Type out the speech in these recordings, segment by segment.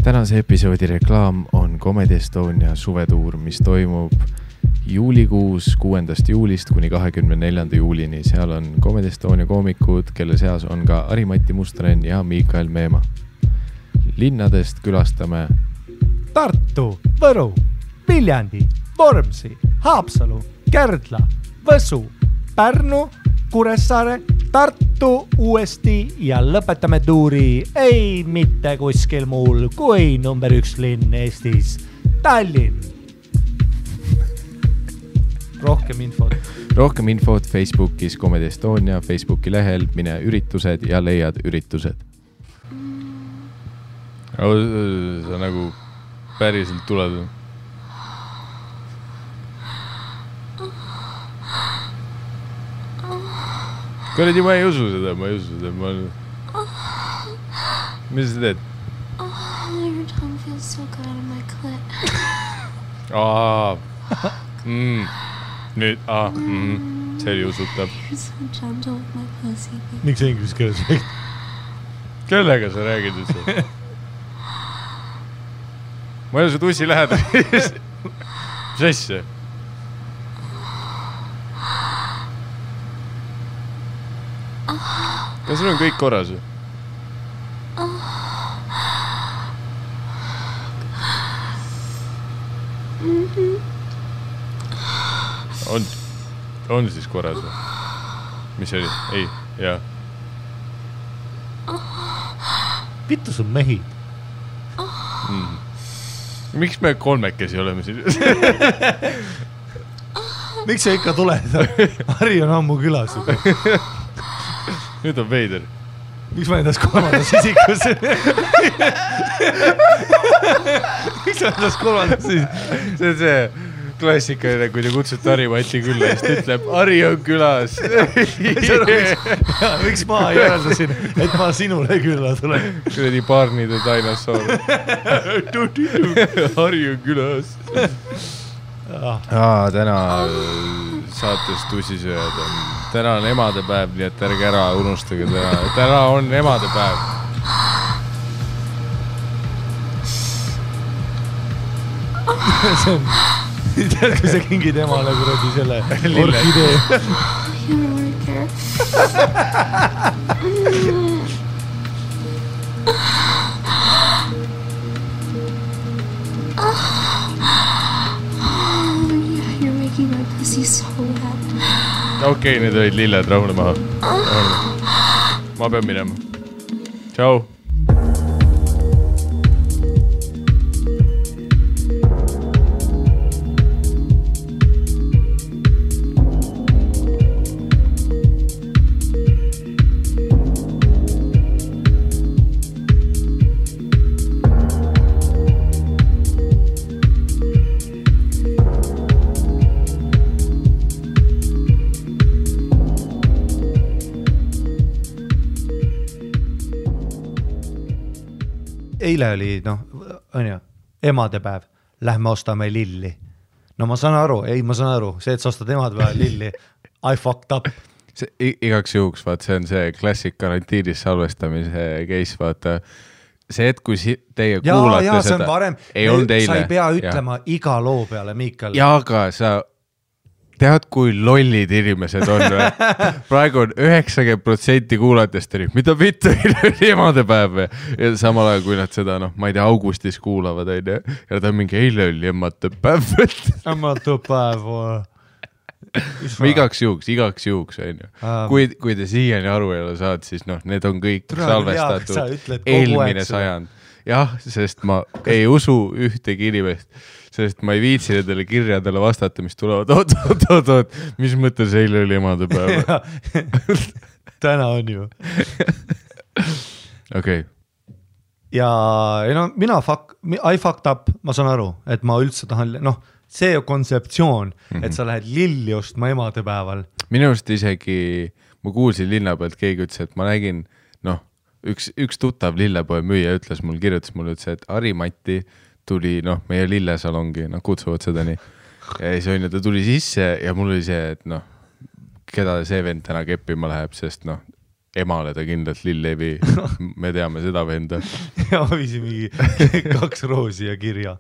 Tänase episoodi reklaam on Comedy Estonia suvetuur, mis toimub juulikuus 6. juulist kuni 24. juulini. Seal on Comedy Estonia koomikud, kelle seas on ka Ari-Matti Mustonen ja Miikael Meemaa. Linnadest külastame Tartu, Võru, Viljandi, Vormsi, Haapsalu, Kärdla, Võsu, Pärnu, Kuressaare, Tartu uuesti ja lõpetame tuuri ei mitte kuskil muul kui number 1 linn Eestis, Tallinn. Rohkem infot Facebookis Comedy Estonia Facebooki lehel, mine üritused ja leiad üritused. Sa nagu päriselt tuled. Kuradi, ma ei usu seda. Mis sa teed? Your tongue feels so good out of my clit. Nüüd, see oli usutav. You're so gentle with my pussy. Miks inglise keeles räägid? Kellega sa räägid üldse? Ma ei ole su tussi lähedal. Mis asja? Kas sul on kõik korras? On siis korras? Mis oli? Ei, jaa. Vittu sun mehi. Miks me kolmekesi oleme siin? Miks sa ikka tuled? Harri on ammu külas. Nüüd on veider. Miks ma endas kolmandas isikus? Miks ma endas kolmandas isikus? See on see klassikaline, kui te kutsute Ari-Matti külla, siis ta ütleb, Ari on külas. Miks ma järeldasin, et ma sinule külla tulen? Kuradi Barney the Dinosaur. Ari on külas. Täna saates tussisööjad on. Täna on emadepäev, nii et ärge ära unustage. Täna on emadepäev. Tead, kui sa kingid emale kuradi selle orkidee. You don't really care. You're making my pussy so wet. Okei, need olid lilled, rahune maha. Ma pean minema. Tšau. Eile oli, on ju, emadepäev. Lähme ostame lilli. No ma saan aru, see, et sa ostad emadepäev lilli, I fucked up. Igaks juhuks, vaat, see on see klassik karantiinis salvestamise case, vaata. See, et kui teie kuulate see seda, on varem. ei olnud eile. Sa ei pea ütlema iga loo peale, Miikael. Ja, aga sa tead, kui lollid inimesed on. Praegu on 90% kuulatest, mida vittu oli emadepäev. Ja samal ajal, kui nad seda, ma ei tea, augustis kuulavad, ja ta on mingi eile oli emadepäev. Emadepäev. Igaks juhuks, on ju. Kui te siiani aru ei ole saad, siis need on kõik salvestatud eelmine sajand. Jah, sest ma ei usu ühtegi inimest. Sest ma ei viitsi nendele kirjadele vastata, mis tulevad. Oot, mis mõttes eile oli emadepäev? Täna on ju. Okei. Ja mina I fucked up, ma saan aru, et ma üldse tahan, see kontseptsioon, et sa lähed lilli ostma emadepäeval. Minu arust isegi, ma kuulsin linna pealt, keegi ütles, et ma nägin, üks tuttav lillepoe müüja kirjutas mulle, et Ari-Matti tuli, meie lillesalongi, kutsuvad seda nii. Ja siis on ju, ta tuli sisse ja mul oli see, et keda see vend täna keppima läheb, sest emale ta kindlalt lill ei vii, me teame seda venda. Ja ma viisin mingi 2 roosi ja kirja.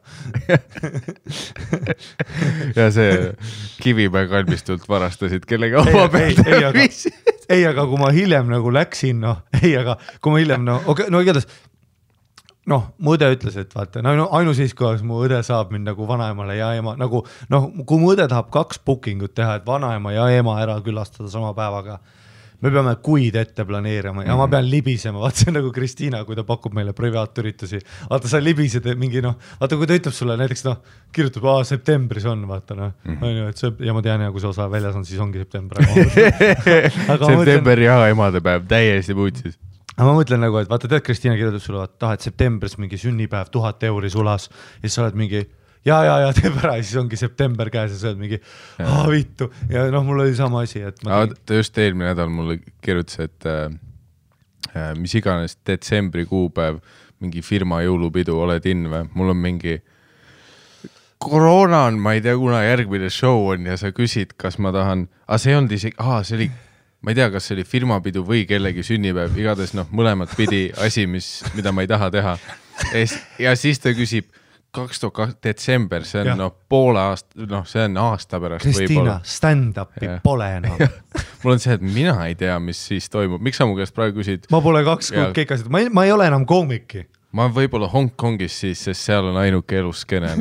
Ja see Kivimäe kalmistult varastasid kellega oma peale viisid. Ei, aga kui ma hiljem nagu läksin, aga kui ma hiljem, igatahes, mu õde ütles, et vaata, ainus siis, kui mu õde saab mind nagu vanaemale ja ema, nagu, kui mu õde tahab 2 bookingut teha, et vanaema ja ema ära külastada sama päevaga, me peame kuid ette planeerima ja ma pean libisema, vaata see on nagu Kristiina, kui ta pakub meile privaatüritusi, vaata sa libised mingi vaata kui ta ütleb sulle näiteks kirjutab, septembris on, vaata ja ma tean ja kui see osa väljas on, siis ongi september. September ja emadepäev täiesti puutsis. Ma mõtlen nagu, et vaata tead, Kristiina kirjutab sulle, et septembris mingi sünnipäev 1000 € sulas ja siis sa oled mingi ja teeb ära ja siis ongi september käes ja sa oled mingi vittu ja mul oli sama asi, et ta just eelmine nädal mulle kirjutas, et mis iganes detsembri kuupäev, mingi firma jõulupidu, oled in või? Mul on mingi koroona on, ma ei tea, kuna järgmine show on ja sa küsid, kas ma tahan, see on isegi, see oli ma ei tea, kas see oli firmapidu või kellegi sünnipäev, igatahes mõlemad pidi asi, mida ma ei taha teha. Ja siis ta küsib 2002 detsember, see on poole aasta, see on aasta pärast. Kristiina, stand-upi pole enam. Mul on see, et mina ei tea, mis siis toimub. Miks sa mu käest praegu küsid? Ma pole 2 kuud keikasid, ma ei ole enam koomiki. Ma võib-olla Hongkongis siis, sest seal on ainuke eluskene.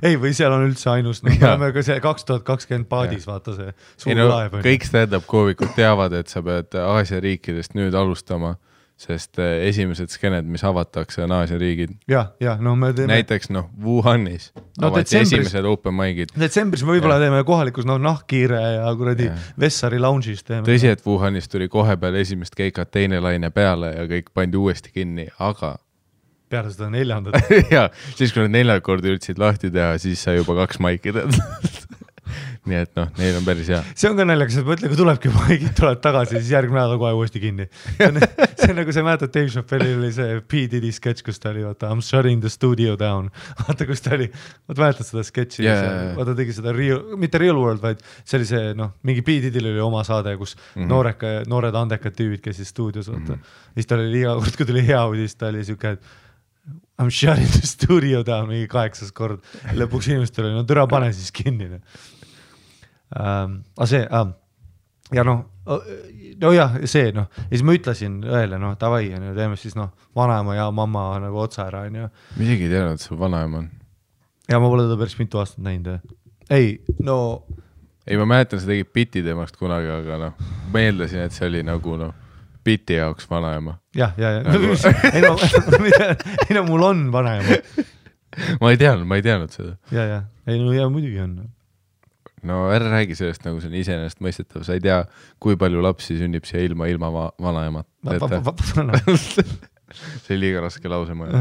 Ei, või seal on üldse ainus, me oleme ka see 2020 paadis, vaata see suur laev. Kõik stand-up koomikud teavad, et sa pead Aasia riikidest nüüd alustama, sest esimesed skened, mis avatakse, on Aasia riigid. Me teeme... Näiteks Wuhanis avati esimesed open mic'id. Detsembris me võib-olla teeme kohalikus nahkkiire ja kuradi Vessari lounge'is teeme. Tõsi, et Wuhanis tuli kohe peale esimest keikat teine laine peale ja kõik pandi uuesti kinni, aga peale seda 4. ja, siis kui nad 4 korda üritasid lahti teha, siis sai juba 2 maiki tead. Nii et neil on päris hea. See on ka naljakas, et mõtle, kui tulebki maigid, tulevad tagasi, siis järgmine nädal kohe uuesti kinni. See on nagu see mäletad, Dave Chappelle'il oli see P. Diddy sketš, kus ta oli, vaata, I'm shutting the studio down. Vaata, kus ta oli, mäletad seda sketši, vaata tegi seda mitte Real World, vaid see oli see, mingi P. Diddy'l oli oma saade, kus noored andekad tüübid käisid stuudios, vaata. Siis ta oli iga kord, kui tuli hea uudis, ta oli siuke, I'm shutting the studio down mingi 8 kord. Lõpuks inimestel oli, türa pane siis kinni. See, ja see, ja siis ma ütlesin õele, davai, teeme siis vanaema ja mamma nagu otsa ära. Ma isegi ei teadnud, et sul vanaema on. Ja ma pole teda päris mitu aastat näinud. Ei, ma mäletan, sa tegid biti temast kunagi, aga meeldasin, et see oli nagu biti jaoks vanaema. Ja. Ei, mul on vanaema. Ma ei teadnud seda. Ja, muidugi on. Ära räägi sellest, nagu see on iseenesest mõistetav. Sa ei tea, kui palju lapsi sünnib siia ilma vanaemat. See oli liiga raske lause mõelda.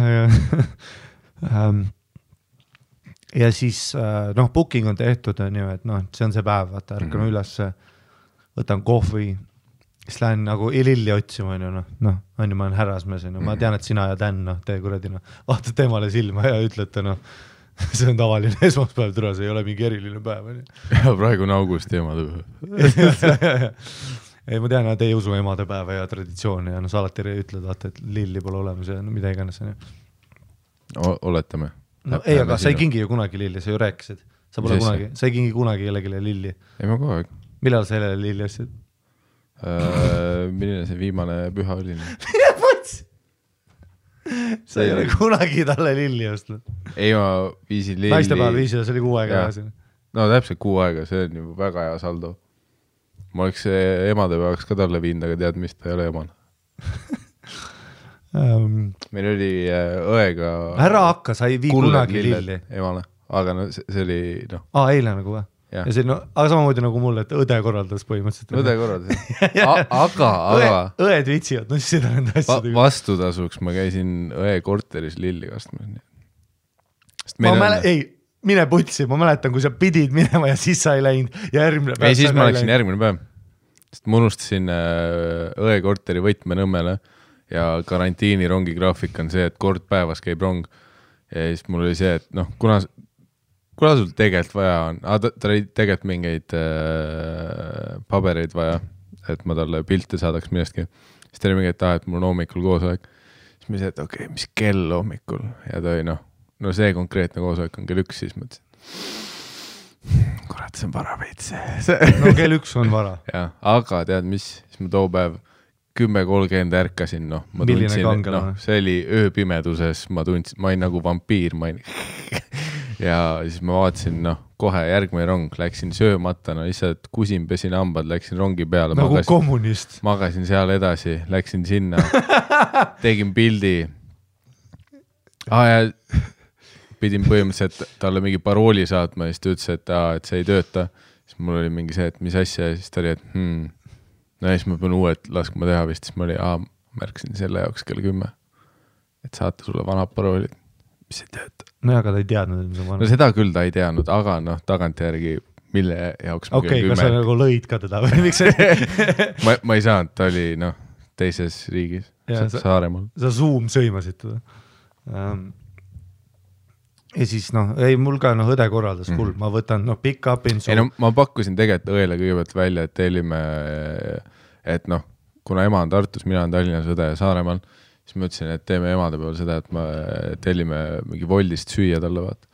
Ja siis, booking on tehtud, et see on see päev, vaata, ärkan üles, võtan kohvi, siis lähen nagu lilli otsima, ma olen härrasmees, ma tean, et sina ja Dan, tee kuradi, vaatad temale silma ja ütlete, see on tavaline esmaspäev, türa, see ei ole mingi eriline päev. Ja praegu on augusti emadepäev. Ei, ma tean, et ei usu emadepäeva ja traditsiooni ja sa alati ütled, vaata, et lilli pole olemas ja mida iganes. Oletame. Ei, aga sa ei kingi ju kunagi lilli, sa ju rääkisid. Sa ei kingi kunagi kellegile lilli. Ei, ma kogu aeg. Millal sa jälle lilli ostsid? Milline see viimane püha oli? Mine võts! Sa ei ole kunagi talle lilli ostnud. Ei, ma viisin lilli. Naistepäev viisin, see oli 6 aega. Täpselt 6 aega, see on juba väga hea saldo. Ma oleks emadepäevaks ka talle viinud, aga tead, mis ta ei ole emana. Meil oli õega... Ära hakka, sa ei vii kunagi lilli. Emale, aga see oli... Eile nagu või? Ja see, aga samamoodi nagu mulle, et õde korraldas põhimõtteliselt. Õde korraldas. Aga... Õed vitsivad, siis seda nende asjadega. Vastutasuks ma käisin õe korteris lilli kastmas. Ei, mine putsi, ma mäletan, kui sa pidid minema ja siis sa ei läinud. Ei, siis ma läksin järgmine päev. Sest ma unustasin õe korteri võtmenõmmele ja karantiini rongi graafik on see, et kord päevas käib rong. Ja siis mul oli see, et kuna sul tegelikult vaja on, ta oli tegelikult mingeid pabereid vaja, et ma talle pilte saadaks millestki. siis ta oli mingi, et mul on hommikul koosolek. Siis ma ütlesin, et okei, mis kell hommikul ja ta oli no see konkreetne koosolek on kell 1, siis mõtlesin, kurat, see on vara veits. No kell 1 on vara. Ja, aga tead mis, siis ma too päev 10:30 ärkasin, ma tundsin, see oli ööpimeduses, ma olin nagu vampiir, ja siis ma vaatasin, kohe järgmine rong, läksin söömata, lihtsalt kusin, pesin hambad, läksin rongi peale. Nagu kommunist. Magasin seal edasi, läksin sinna, tegin pildi. Ja pidin põhimõtteliselt talle mingi parooli saatma ja siis ta ütles, et see ei tööta. Siis mul oli mingi see, et mis asja ja siis ta oli, et ja siis ma pean uued laskma teha vist, siis ma oli, märksin selle jaoks kell 10, et saata sulle vanad paroolid, mis ei tööta. No aga ta ei teadnud, mis on vanad. No seda küll ta ei teadnud, aga tagantjärgi, mille jaoks ma kell 10. Kas sa nagu lõid ka teda või miks ma ei saanud, ta oli teises riigis, Saaremaal. Sa Zoom sõimasid teda. Ja siis ei, mul ka õde korraldas full, ma võtan pick up in ei, ma pakkusin tegelikult õele kõigepealt välja, et tellime, et kuna ema on Tartus, mina on Tallinnas, õde Saaremaal, siis ma ütlesin, et teeme emade peal seda, et ma tellime mingi Woldist süüa talle vaata.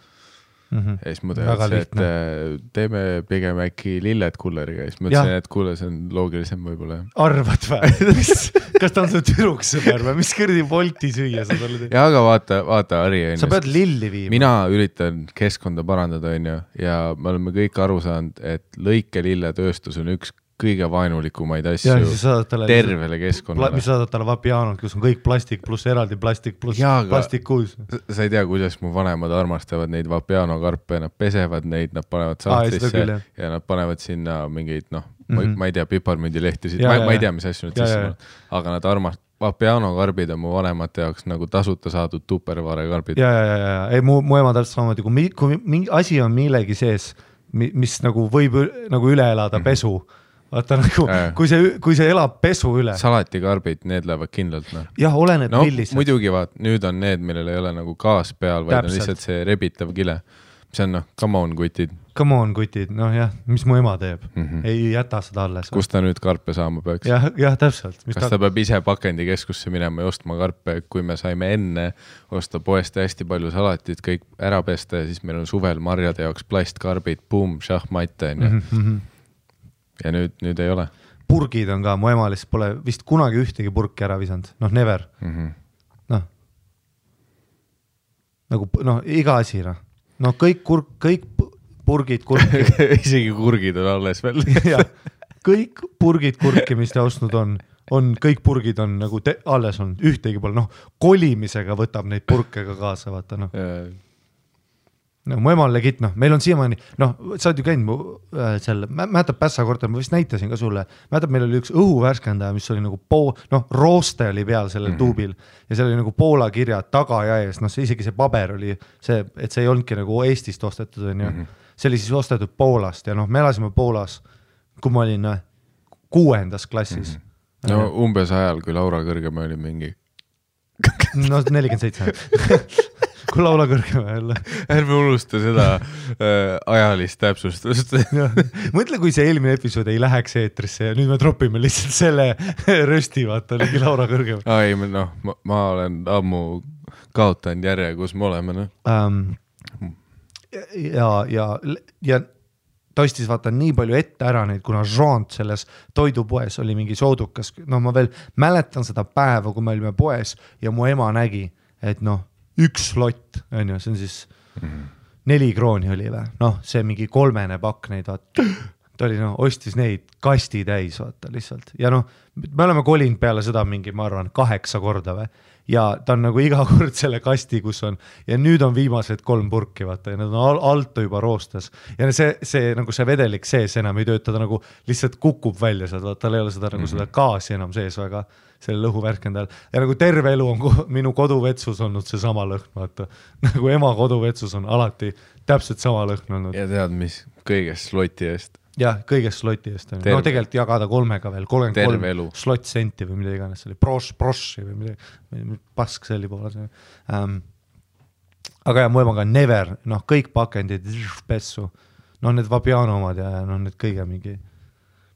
Ja siis ma teadsin, et teeme pigem äkki lilled kulleriga ja siis ma ütlesin, et kuule, see on loogilisem võibolla. Arvad või? Kas ta on su türuks sõber või? Mis kõrdi Wolti süüa sa talle teed? Ja aga vaata Ari. Sa pead lilli viima. Mina üritan keskkonda parandada ja me oleme kõik aru saanud, et lõikelilletööstus on üks kõige vaenulikumaid asju tervele keskkonnale. Mis saadad talle Vapianot, kus on kõik plastik pluss eraldi plastik pluss plastik kuus. Sa ei tea, kuidas mu vanemad armastavad neid Vapiano karpe, nad pesevad neid, nad panevad sahtlisse ja nad panevad sinna mingeid, ma ei tea, piparmündilehtisid, ma ei tea, mis asju nüüd sisse, aga nad Vapiano karbid on mu vanemate jaoks nagu tasuta saadud Tupperware karbid. Ei, mu ema täpselt samamoodi, kui mingi asi on millegi sees, mis nagu võib nagu üle elada pesu, vaata nagu, kui see elab pesu üle. Salatikarbid, need lähevad kindlalt. Jah, olened millised. Muidugi nüüd on need, millel ei ole nagu gaas peal, vaid on lihtsalt see rebitav kile. See on come on kutid. Come on kutid, mis mu ema teeb. Ei jäta seda alles. Kus ta nüüd karpe saama peaks? Jah, täpselt. Kas ta peab ise pakendikeskusse minema ja ostma karpe, kui me saime enne osta poest hästi palju salatit, kõik ära pesta ja siis meil on suvel marjade jaoks plastkarbid, boom, šahmatte. Ja nüüd ei ole. Purgid on ka, mu ema lihtsalt pole vist kunagi ühtegi purki ära visanud. Never. Nagu, iga asi, kõik purgid kurki. Isegi kurgid on alles veel. Kõik purgid kurki, mis ta ostnud on kõik purgid on nagu alles on, ühtegi pole. Kolimisega võtab neid purke ka kaasa, vaata. Mu ema on legit, meil on siiamaani, sa oled ju käinud selle, mäletab Pässa korter, ma vist näitasin ka sulle, mäletab, meil oli üks õhuvärskändaja, mis oli nagu rooste oli peal sellel tuubil ja seal oli nagu Poola kirjad taga ja ees, isegi see paber oli see, et see ei olnudki nagu Eestist ostetud, see oli siis ostetud Poolast ja me elasime Poolas, kui ma olin 6. klassis. Umbes ajal, kui Laura Kõrgema oli mingi 47 kui Laula Kõrgema jälle. Ärme unusta seda ajalist täpsustust. Mõtle, kui see eelmine episood ei läheks eetrisse ja nüüd me tropime lihtsalt selle rösti, vaata, oligi Laura Kõrgema. Ei, ma olen ammu kaotanud järje, kus me oleme. Ja ta ostis vaata nii palju ette ära neid, kuna Jean selles toidupoes oli mingi soodukas. Ma veel mäletan seda päeva, kui me olime poes ja mu ema nägi, et üks slott, see on siis 4 krooni oli või? See mingi 3 pakk neid, vaata. Ta oli, ostis neid kasti täis, vaata, lihtsalt. Ja me oleme kolinud peale seda mingi, ma arvan, 8 korda või? Ja ta on nagu iga kord selle kasti, kus on, ja nüüd on viimased 3 purki, vaata, ja need on alt juba roostes. Ja see nagu see vedelik sees enam ei tööta, ta nagu lihtsalt kukub välja sealt, vaata, tal ei ole seda, nagu seda gaasi enam sees väga selle lõhuvärkendajal. Ja nagu terve elu on minu koduvetsus olnud see sama lõhn, vaata. Nagu ema koduvetsus on alati täpselt sama lõhn olnud. Ja tead, mis kõigest sloti eest? Jah, kõigest sloti eest. Tegelikult jagada 3-ga veel, 33 slot senti või mida iganes, see oli proši või midagi, pask selli poole. Aga mu ema ka never, kõik pakendid, pessu, need Vapiano omad ja need kõige mingi,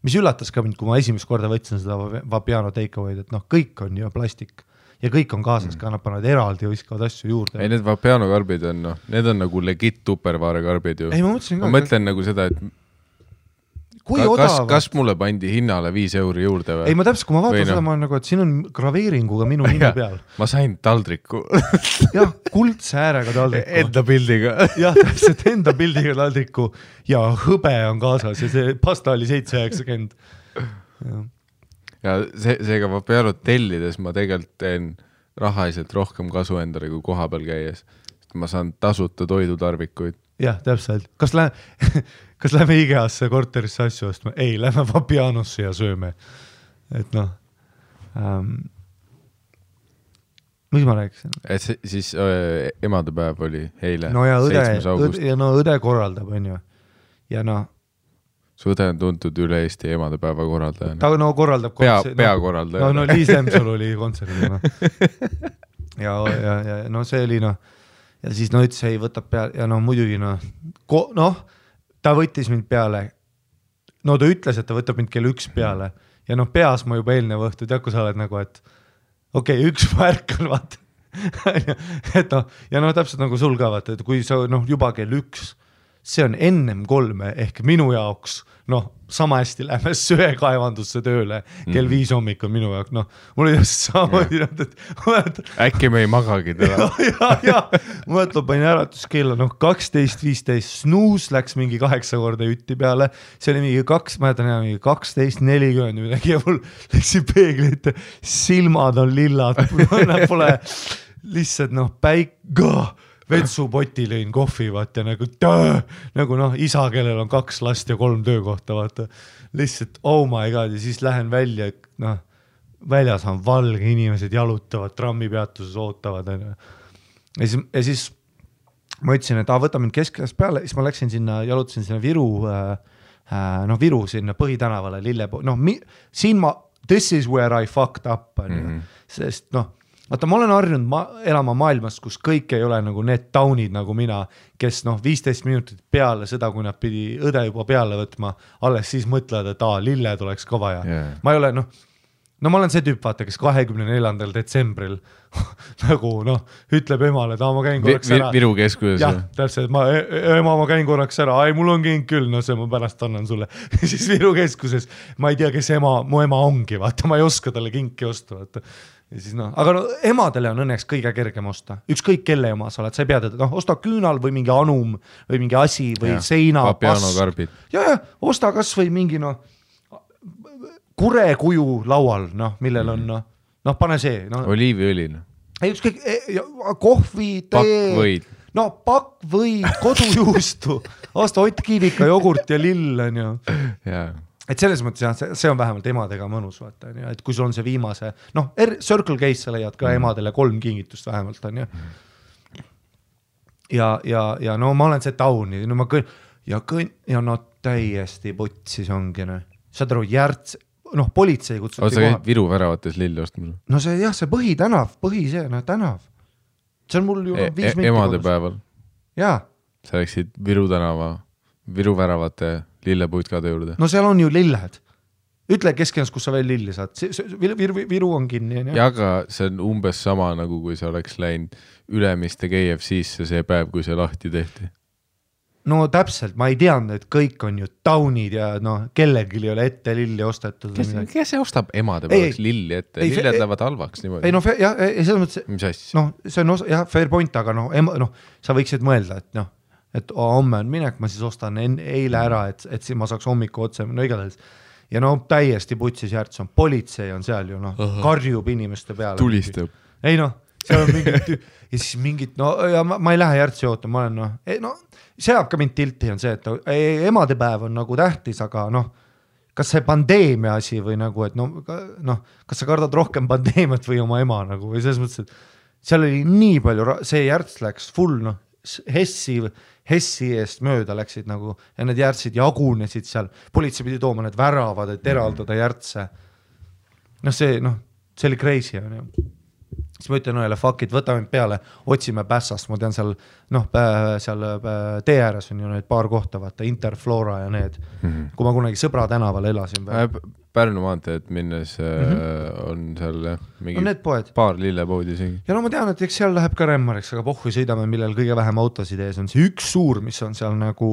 mis üllatas ka mind, kui ma esimest korda võtsin seda Vapiano takeaway'd, et noh, kõik on ju plastik ja kõik on kaasas ka, nad panevad eraldi ja viskavad asju juurde. Ei, need Vapiano karbid on, noh, need on nagu legit tupperware karbid ju. Ei, ma mõtlen nagu seda, et kas mulle pandi hinnale 5 € juurde või? Ei, ma täpselt, kui ma vaatan seda, ma olen nagu, et siin on graveeringuga minu nime peal. Ma sain taldriku. Jah, kuldse äärega taldriku. Enda pildiga. Jah, täpselt enda pildiga taldriku ja hõbe on kaasas ja see pasta oli 7,90. Ja seega Vapiano tellides ma tegelikult teen rahaliselt rohkem kasu endale kui koha peal käies. Ma saan tasuta toidutarvikuid. Jah, täpselt. Kas lähme IGA-sse korterisse asju ostma? Ei, lähme Vapianosse ja sööme. Et noh, mis ma rääkisin? Et siis emadepäev oli eile, no ja 7. august. Ja no õde korraldab, on ju. Ja noh. Su õde on tuntud üle Eesti emadepäeva korraldajana. Ta no korraldab peakorraldaja. No Liis Lemsol oli kontserdil. Ja no see oli noh. Ja siis no ütles, ei võtab peale ja no muidugi ta võttis mind peale. No ta ütles, et ta võtab mind kell 1 peale ja noh, peas ma juba eelnev õhtu, tead, kui sa oled nagu, et okei, 1 ma ärkan, vaata. Et noh, ja noh, täpselt nagu sul ka, vaata, et kui sa noh, juba kell 1, see on ennem 3 ehk minu jaoks, noh, sama hästi lähme söekaevandusse tööle kell 5 hommikul minu jaoks, noh, mul oli just samamoodi, et äkki me ei magagi teda. ja, mõtleb, panin äratuskella, noh, 12:15, snuus läks mingi 8 korda jutti peale, see oli mingi 12:40 midagi ja mul läksin peegli ette, silmad on lillad, pole lihtsalt noh, vetsupoti lõin kohvi, vaata, nagu noh, isa, kellel on 2 last ja 3 töökohta, vaata, lihtsalt, oh my god, ja siis lähen välja, noh, väljas on valge, inimesed jalutavad, trammipeatuses ootavad, ja siis ma ütlesin, et võta mind keskajast peale, siis ma läksin sinna, jalutasin sinna Viru sinna Põhitänavale, siin this is where I fucked up, sest noh, vaata, ma olen harjunud elama maailmas, kus kõik ei ole nagu need taunid nagu mina, kes noh, 15 minutit peale seda, kui nad pidi õde juba peale võtma, alles siis mõtlevad, et lilled oleks ka vaja. Yeah. Ma ei ole, ma olen see tüüp, vaata, kes 24. detsembril nagu noh, ütleb emale, et ma käin korraks ära. Viru keskuses. Jah, täpselt, ma käin korraks ära, mul on king küll, no see ma pärast annan sulle. Siis Viru keskuses, ma ei tea, kes mu ema ongi, vaata, ma ei oska talle kinki osta, vaata. Ja siis aga emadele on õnneks kõige kergem osta. Ükskõik kelle ema sa oled, sa ei pea teda, osta küünal või mingi anum või mingi asi või seina. Vapiano karbid. Ja, osta kas või mingi kurekuju laual, millel on, pane see. Oliiviõli. Ei, ükskõik, kohvi, tee. Pakkvõid, kodujuustu, osta Ott Kiivika jogurt ja lill on ju. Jaa. Et selles mõttes jah, see on vähemalt emadega mõnus, vaata, et kui sul on see viimase, Circle Case sa leiad ka emadele 3 kingitust vähemalt, on ju. Ja no ma olen see tauni, ja täiesti putsis ongi, saad aru, politsei kutsub. Sa käid Viru väravates lilli ostmas? No see jah, see tänav. See on mul ju 5 minti. Emadepäeval? Jaa. Sa läksid Viru tänava, Viru väravate lillepuitkade juurde. No seal on ju lilled. Ütle keskens, kus sa veel lilli saad. Viru on kinni. Ja aga see on umbes sama, nagu kui sa oleks läinud Ülemiste KFC-sse see päev, kui see lahti tehti. No täpselt, ma ei teadnud, et kõik on ju taunid ja kellelgi ei ole ette lilli ostetud. Kes see ostab emadepäevaks lilli ette? Lilled lähevad halvaks niimoodi. Ei selles mõttes, mis asja? See on fair point, aga sa võiksid mõelda, et homme on minek, ma siis ostan eile ära, et siis ma saaks hommiku otse, igatahes. Ja täiesti putsis järts on, politsei on seal ju, karjub inimeste peale. Tulistab. Ei seal on mingid, ja siis mingid, ja ma ei lähe järtsi oota, ma olen see jääb ka mind tilti on see, et emadepäev on nagu tähtis, aga kas see pandeemia asi või nagu, et kas sa kardad rohkem pandeemiat või oma ema nagu, või selles mõttes, et seal oli nii palju, see järts läks full, Hessi eest mööda läksid nagu ja need järtsid jagunesid seal, politsei pidi tooma need väravad, et eraldada järtse. See oli crazy on ju. siis ma ütlen õele, fuck it, võtame peale, otsime Pässast, ma tean seal, noh, seal tee ääres on ju need paar kohta, vaata, Interflora ja need, kui ma kunagi Sõbra tänaval elasin. Pärnu maanteed minnes on seal mingi paar lillepoodi isegi. Ja no ma tean, et eks seal läheb ka Remmariks, aga pohhu sõidame, millel kõige vähem autosid ees on see üks suur, mis on seal nagu,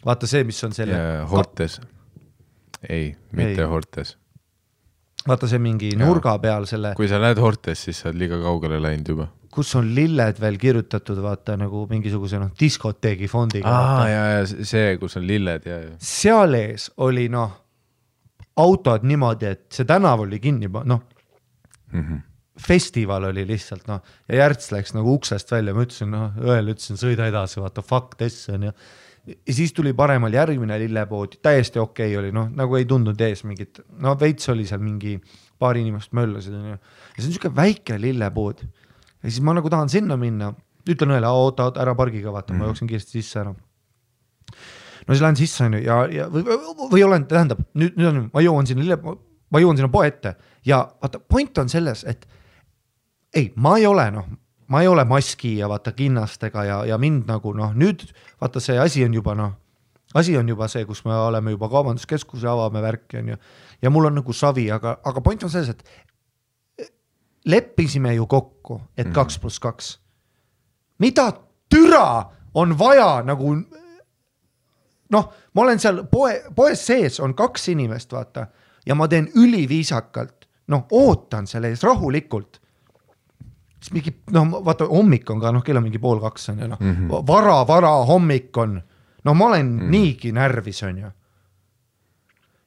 vaata see, mis on selle... Hortes. Ei, mitte Hortes. Vaata see mingi nurga peal selle... Kui sa näed Hortes, siis sa oled liiga kaugele läinud juba. Kus on lilled veel kirjutatud, vaata nagu mingisuguse diskoteegi fondiga. Ja see, kus on lilled. Ja. Seal ees oli autod niimoodi, et see tänav oli kinni, festival oli lihtsalt, ja Järts läks nagu uksest välja, ma ütlesin, õel ütlesin, sõida edasi, vaata, fuck this on ja siis tuli paremal järgmine lillepood, täiesti okei oli, nagu ei tundnud ees mingit, veits oli seal mingi paar inimest möllasid, ja see on niisugune väike lillepood ja siis ma nagu tahan sinna minna, ütlen õele, oota, ära pargiga, vaata, ma jooksin kiiresti sisse ära. No siis lähen sisse või olen, tähendab, nüüd on, ma jõuan sinna poe ette ja vaata, point on selles, et ei, ma ei ole maski ja vaata kinnastega ja mind nagu, nüüd vaata see asi on juba see, kus me oleme juba kaubanduskeskuse avame värki ja mul on nagu savi, aga point on selles, et leppisime ju kokku, et 2+2. Mida türa on vaja nagu... ma olen seal poes sees, on 2 inimest, vaata, ja ma teen üliviisakalt, ootan selle ees rahulikult. Siis mingi, vaata, hommik on ka, kell on mingi 1:30 on vara hommik on, ma olen niigi närvis on ju.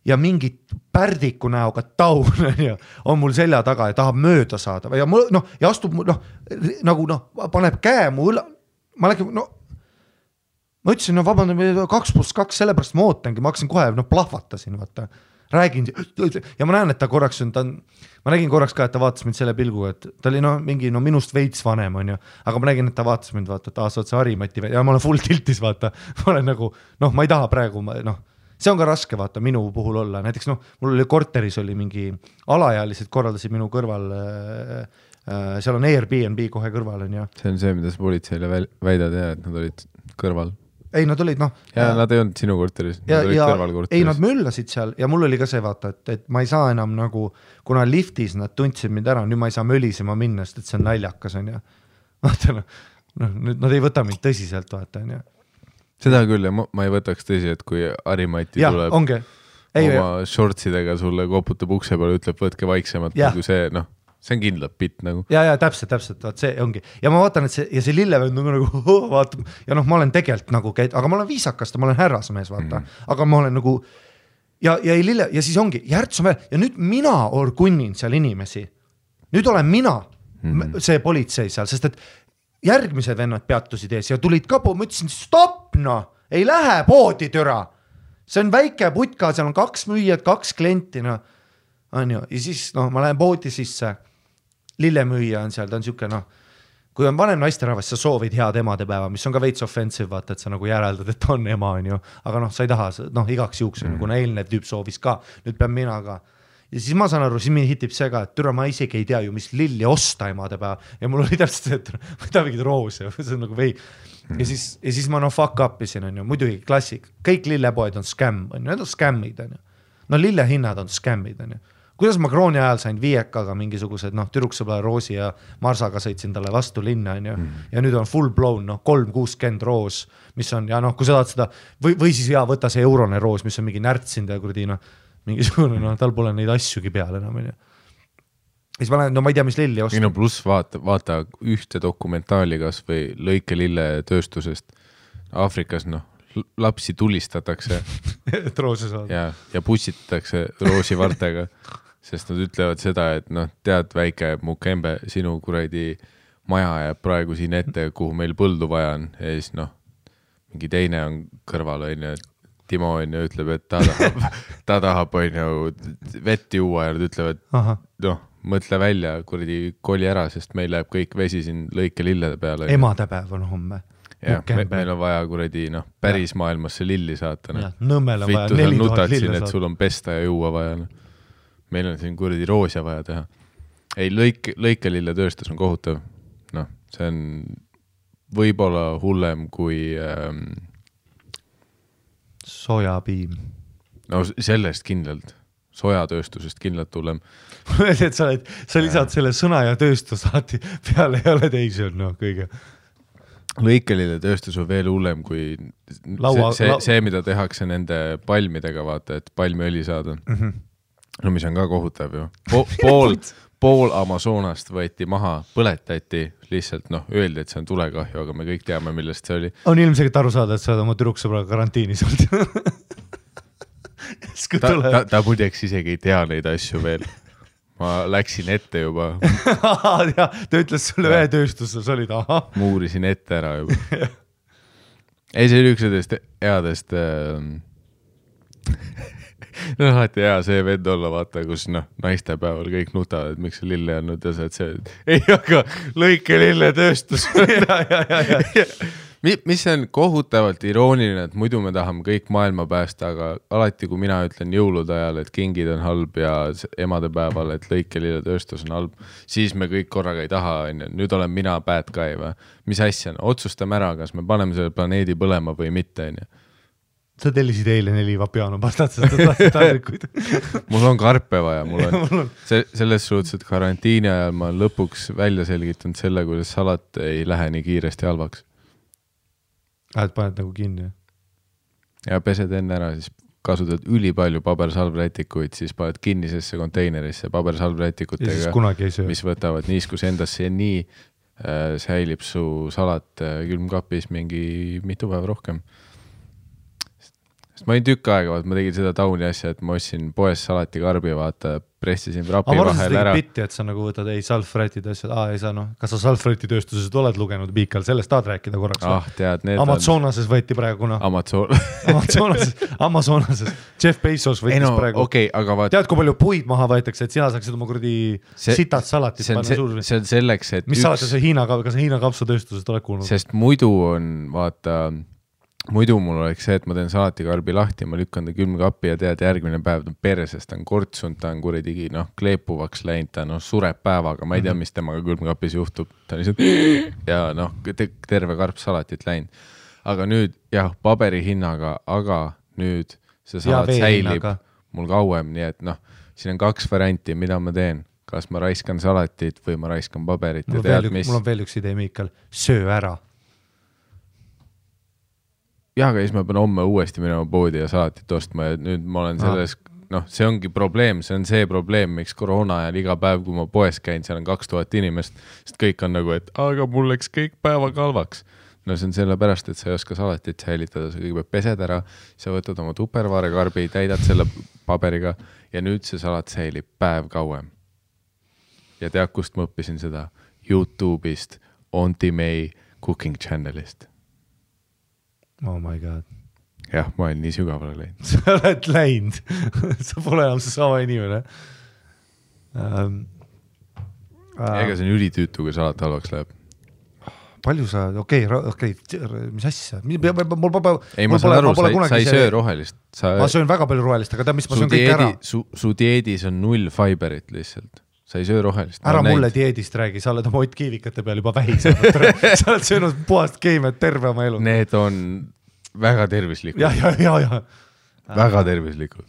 Ja mingi pärdiku näoga taun on mul selja taga ja tahab mööda saada ja mul, ja astub, paneb käe mu õla, ma läksin, ma ütlesin, vabandan, 2+2, sellepärast ma ootangi, ma hakkasin kohe, plahvatasin, vaata, räägin, ja ma näen, et ta korraks on, ma nägin korraks ka, et ta vaatas mind selle pilguga, et ta oli mingi, minust veits vanem on ju, aga ma nägin, et ta vaatas mind, vaata, et sa oled see Harimati, ja ma olen full tiltis, vaata, ma olen nagu, ma ei taha praegu, see on ka raske, vaata, minu puhul olla, näiteks, mul oli korteris oli mingi alaealised korraldasid minu kõrval, seal on Airbnb kohe kõrval on ju. See on see, mida sa politseile väidad ja, et nad olid kõrval. Ei, nad olid, Ja nad ei olnud sinu korteris, nad olid kõrval korteris. Ei, nad möllasid seal ja mul oli ka see, vaata, et ma ei saa enam nagu, kuna liftis nad tundsid mind ära, nüüd ma ei saa mölisema minna, sest et see on naljakas on ju. Vaata, nüüd nad ei võta mind tõsiselt, vaata on ju. Seda küll, ja ma ei võtaks tõsi, et kui Harimati tuleb oma shortsidega sulle koputab ukse peale, ütleb, võtke vaiksemalt, nagu see, see on kindlalt pitt nagu. Ja täpselt, vaat see ongi. Ja ma vaatan, et see lillevend nagu vaatab, ja ma olen tegelikult nagu, aga ma olen viisakast, ma olen härrasmees, vaata, aga ma olen nagu, ja siis ongi, Järts on veel, ja nüüd mina orgunnin seal inimesi. Nüüd olen mina see politsei seal, sest et järgmised vennad peatusid ees ja tulid ka ma ütlesin, stopp, ei lähe poodi türa. See on väike putka, seal on 2 müüjad, 2 klienti, on ju, ja siis, ma lähen poodi sisse, lillemüüja on seal, ta on siuke, kui on vanem naisterahvas, sa soovid head emadepäeva, mis on ka veits offensive, vaata, et sa nagu järeldad, et on ema, on ju, aga sa ei taha, igaks juuks, kuna eelnev tüüp soovis ka, nüüd pean mina ka. Ja siis ma saan aru, siis mind hitib see ka, et türa ma isegi ei tea ju, mis lilli osta emadepäeva ja mul oli täpselt see, et ma ei taha mingid roose, see on nagu vei. Ja siis ma fuck upisin, on ju, muidugi klassik, kõik lillepoed on scam, on ju, need on scammid, on ju. Lillehinnad on scammid, on ju. Kuidas ma krooni ajal sain viiekaga mingisugused, türuksõbla Roosi ja Marsaga sõitsin talle vastu linna, on ju, ja nüüd on full blown, 360 roos, mis on, ja kui sa tahad seda, või siis võta see eurone roos, mis on mingi närtsind ja kurdi, mingisugune, tal pole neid asjugi peal enam, on ju. Siis ma lähen, ma ei tea, mis lilli osta. Pluss vaata ühte dokumentaali kas või lõike lille tööstusest Aafrikas, lapsi tulistatakse et roose saada. Ja pussitatakse roosivartega, sest nad ütlevad seda, et tead väike Mukembe, sinu kuradi maja jääb praegu siin ette, kuhu meil põldu vaja on ja siis mingi teine on kõrval, on ju, Timo on ju ütleb, et ta tahab on ju vett juua ja nad ütlevad, mõtle välja, kuradi koli ära, sest meil läheb kõik vesi siin lõike lillede peale. Emadepäev on homme. Ja, meil on vaja kuradi, päris maailmasse lilli saata. Nõmmel on vaja 4000 lille saata. Et sul on pesta ja juua vaja. Meil on siin kuradi roosia vaja teha. ei, lõikelilletööstus on kohutav. Noh, see on võib-olla hullem kui sojapiim. No sellest kindlalt. Sojatööstusest kindlalt hullem. et sa lisad selle sõna ja tööstus alati peale ei ole teisi on kõige. Lõikelilletööstus on veel hullem kui see, mida tehakse nende palmidega, vaata, et palmiõli saada. No mis on ka kohutav ju. Pool Amazonast võeti maha, põletati lihtsalt, öeldi, et see on tulekahju, aga me kõik teame, millest see oli. On ilmselt aru saada, et sa oled oma tüdruksõbraga karantiinis olnud. Ta muideks isegi ei tea neid asju veel. Ma läksin ette juba. Ja, ta ütles sulle ühe tööstuses olid, aha. Muurisin ette ära juba. Ei, see oli üks headest alati hea see vend olla, vaata, kus naistepäeval kõik nutavad, et miks see lille on ja sa, et see ei, aga lõike lilletööstus. Mis on kohutavalt irooniline, et muidu me tahame kõik maailma päästa, aga alati, kui mina ütlen jõulude ajal, et kingid on halb ja emadepäeval, et lõike lilletööstus on halb, siis me kõik korraga ei taha, nüüd olen mina bad guy või? Mis asja? Otsustame ära, kas me paneme selle planeedi põlema või mitte, Sa tellisid eile 4 vapiano pastat, sest ta tahtsid taldrikuid. Mul on karpe vaja, selles suhtes, et karantiini ajal ma lõpuks välja selgitanud selle, kuidas salat ei lähe nii kiiresti halvaks. Et paned nagu kinni? Ja pesed enne ära, siis kasutad ülipalju pabersalvrätikuid, siis paned kinnisesse konteinerisse pabersalvrätikutega, mis võtavad niiskus endasse ja nii säilib su salat külmkapis mingi mitu päeva rohkem. Sest ma olin tükk aega, ma tegin seda tauni asja, et ma ostsin poes salatikarbi, vaata, pressisin rapi vahel ära. Bitti, et sa nagu võtad salfrätid asjad, ei saa, kas sa salfräti tööstuses oled lugenud Piikal, sellest tahad rääkida korraks? Tead, need Amazonases võeti praegu, Amazonases. Jeff Bezos võttis praegu. Okay, aga tead, kui palju puid maha võetakse, et sina saaksid oma kuradi sitad salatit panna suur. See on selleks, et mis saate see Hiina kapsatööstusest oled kuulnud? Sest muidu on, vaata, muidu mul oleks see, et ma teen salatikarbi lahti, ma lükkan ta külmkappi ja tead järgmine päev ta persest, ta on kortsunud, ta on kuridigi kleepuvaks läinud, ta sureb päevaga, ma ei tea, mis temaga külmkapis juhtub, ta on lihtsalt ja terve karp salatit läinud. Aga nüüd, paberi hinnaga, aga nüüd see salat säilib mul kauem, nii et siin on 2 varianti, mida ma teen. Kas ma raiskan salatit või ma raiskan paberit. Mul on veel üks idee, Miikal, söö ära. Aga siis ma pean homme uuesti minema poodi ja salatit ostma ja nüüd ma olen selles, see ongi probleem, see on see probleem, miks koroona ajal iga päev, kui ma poes käin, seal on 2000 inimest, sest kõik on nagu, et aga mul läks kõik päeva kalvaks. See on selle pärast, et sa ei oska salatit säilitada, sa kõigepealt pesed ära, sa võtad oma tupperware-karbi, täidad selle paberiga ja nüüd see salat säilib päev kauem. Ja tead, kust ma õppisin seda? YouTube'ist, Auntie May Cooking Channelist. Oh my god. Jah, ma olen nii sügavale läinud. Sa oled läinud. Sa pole enam see sama inimene. Ega see on ülitüütu, kui salat halvaks läheb. Palju sa, mis asja? Ei, ma saan aru, sa ei söö rohelist. Ma söön väga palju rohelist, aga mis ma söön kõik ära. Su dieedis on 0 fiberit lihtsalt. Sa ei söö rohelist. Ära mulle dieedist räägi, sa oled oma Ott Kiivikate peal juba vähised. Sa oled söönud puhast keemiat terve oma elu. Need on väga tervislikud. Ja. Väga tervislikud.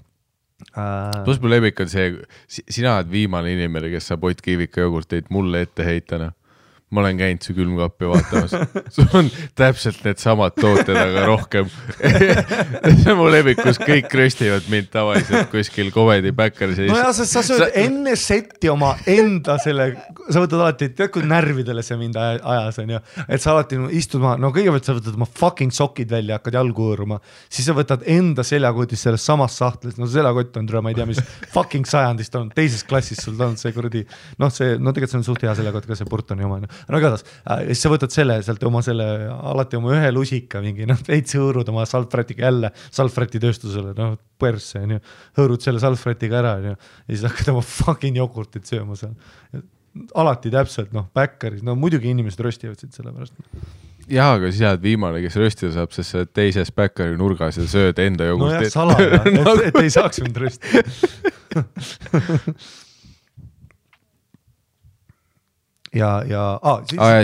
Plus mu lemmik on see, sina oled viimane inimene, kes saab Ott Kiivika jogurteid mulle ette heitana. Ma olen käinud su külmkappi vaatamas. Sul on täpselt need samad tooted, aga rohkem. See on mu lemmik, kus kõik röstivad mind tavaliselt kuskil komedi backeris. No ja, sa sööd enne setti oma enda selle, sa võtad alati, tead kui närvidele see mind ajas on ju, et sa alati istud maha, kõigepealt sa võtad oma fucking sokid välja, hakkad jalgu hõõruma, siis sa võtad enda seljakotis selles samas sahtlis, seljakott on ma ei tea, mis fucking sajandist on, teises klassis sul on see kuradi, tegelikult see on suht hea seljakott, ka see Burtoni oma. No igatahes, siis sa võtad sealt alati oma ühe lusika mingi, veits hõõrud oma salfrätiga jälle salfräti tööstusele, persse, hõõrud selle salfrätiga ära ja siis hakkad oma fucking jogurtit sööma seal. Alati täpselt, backeris, muidugi inimesed röstivad siit selle pärast. Jaa, aga siis oled viimane, kes röstida saab, sest sa teises backeri nurgas ja sööd enda jogurtit. Salaja, et ei saaks mind röstida.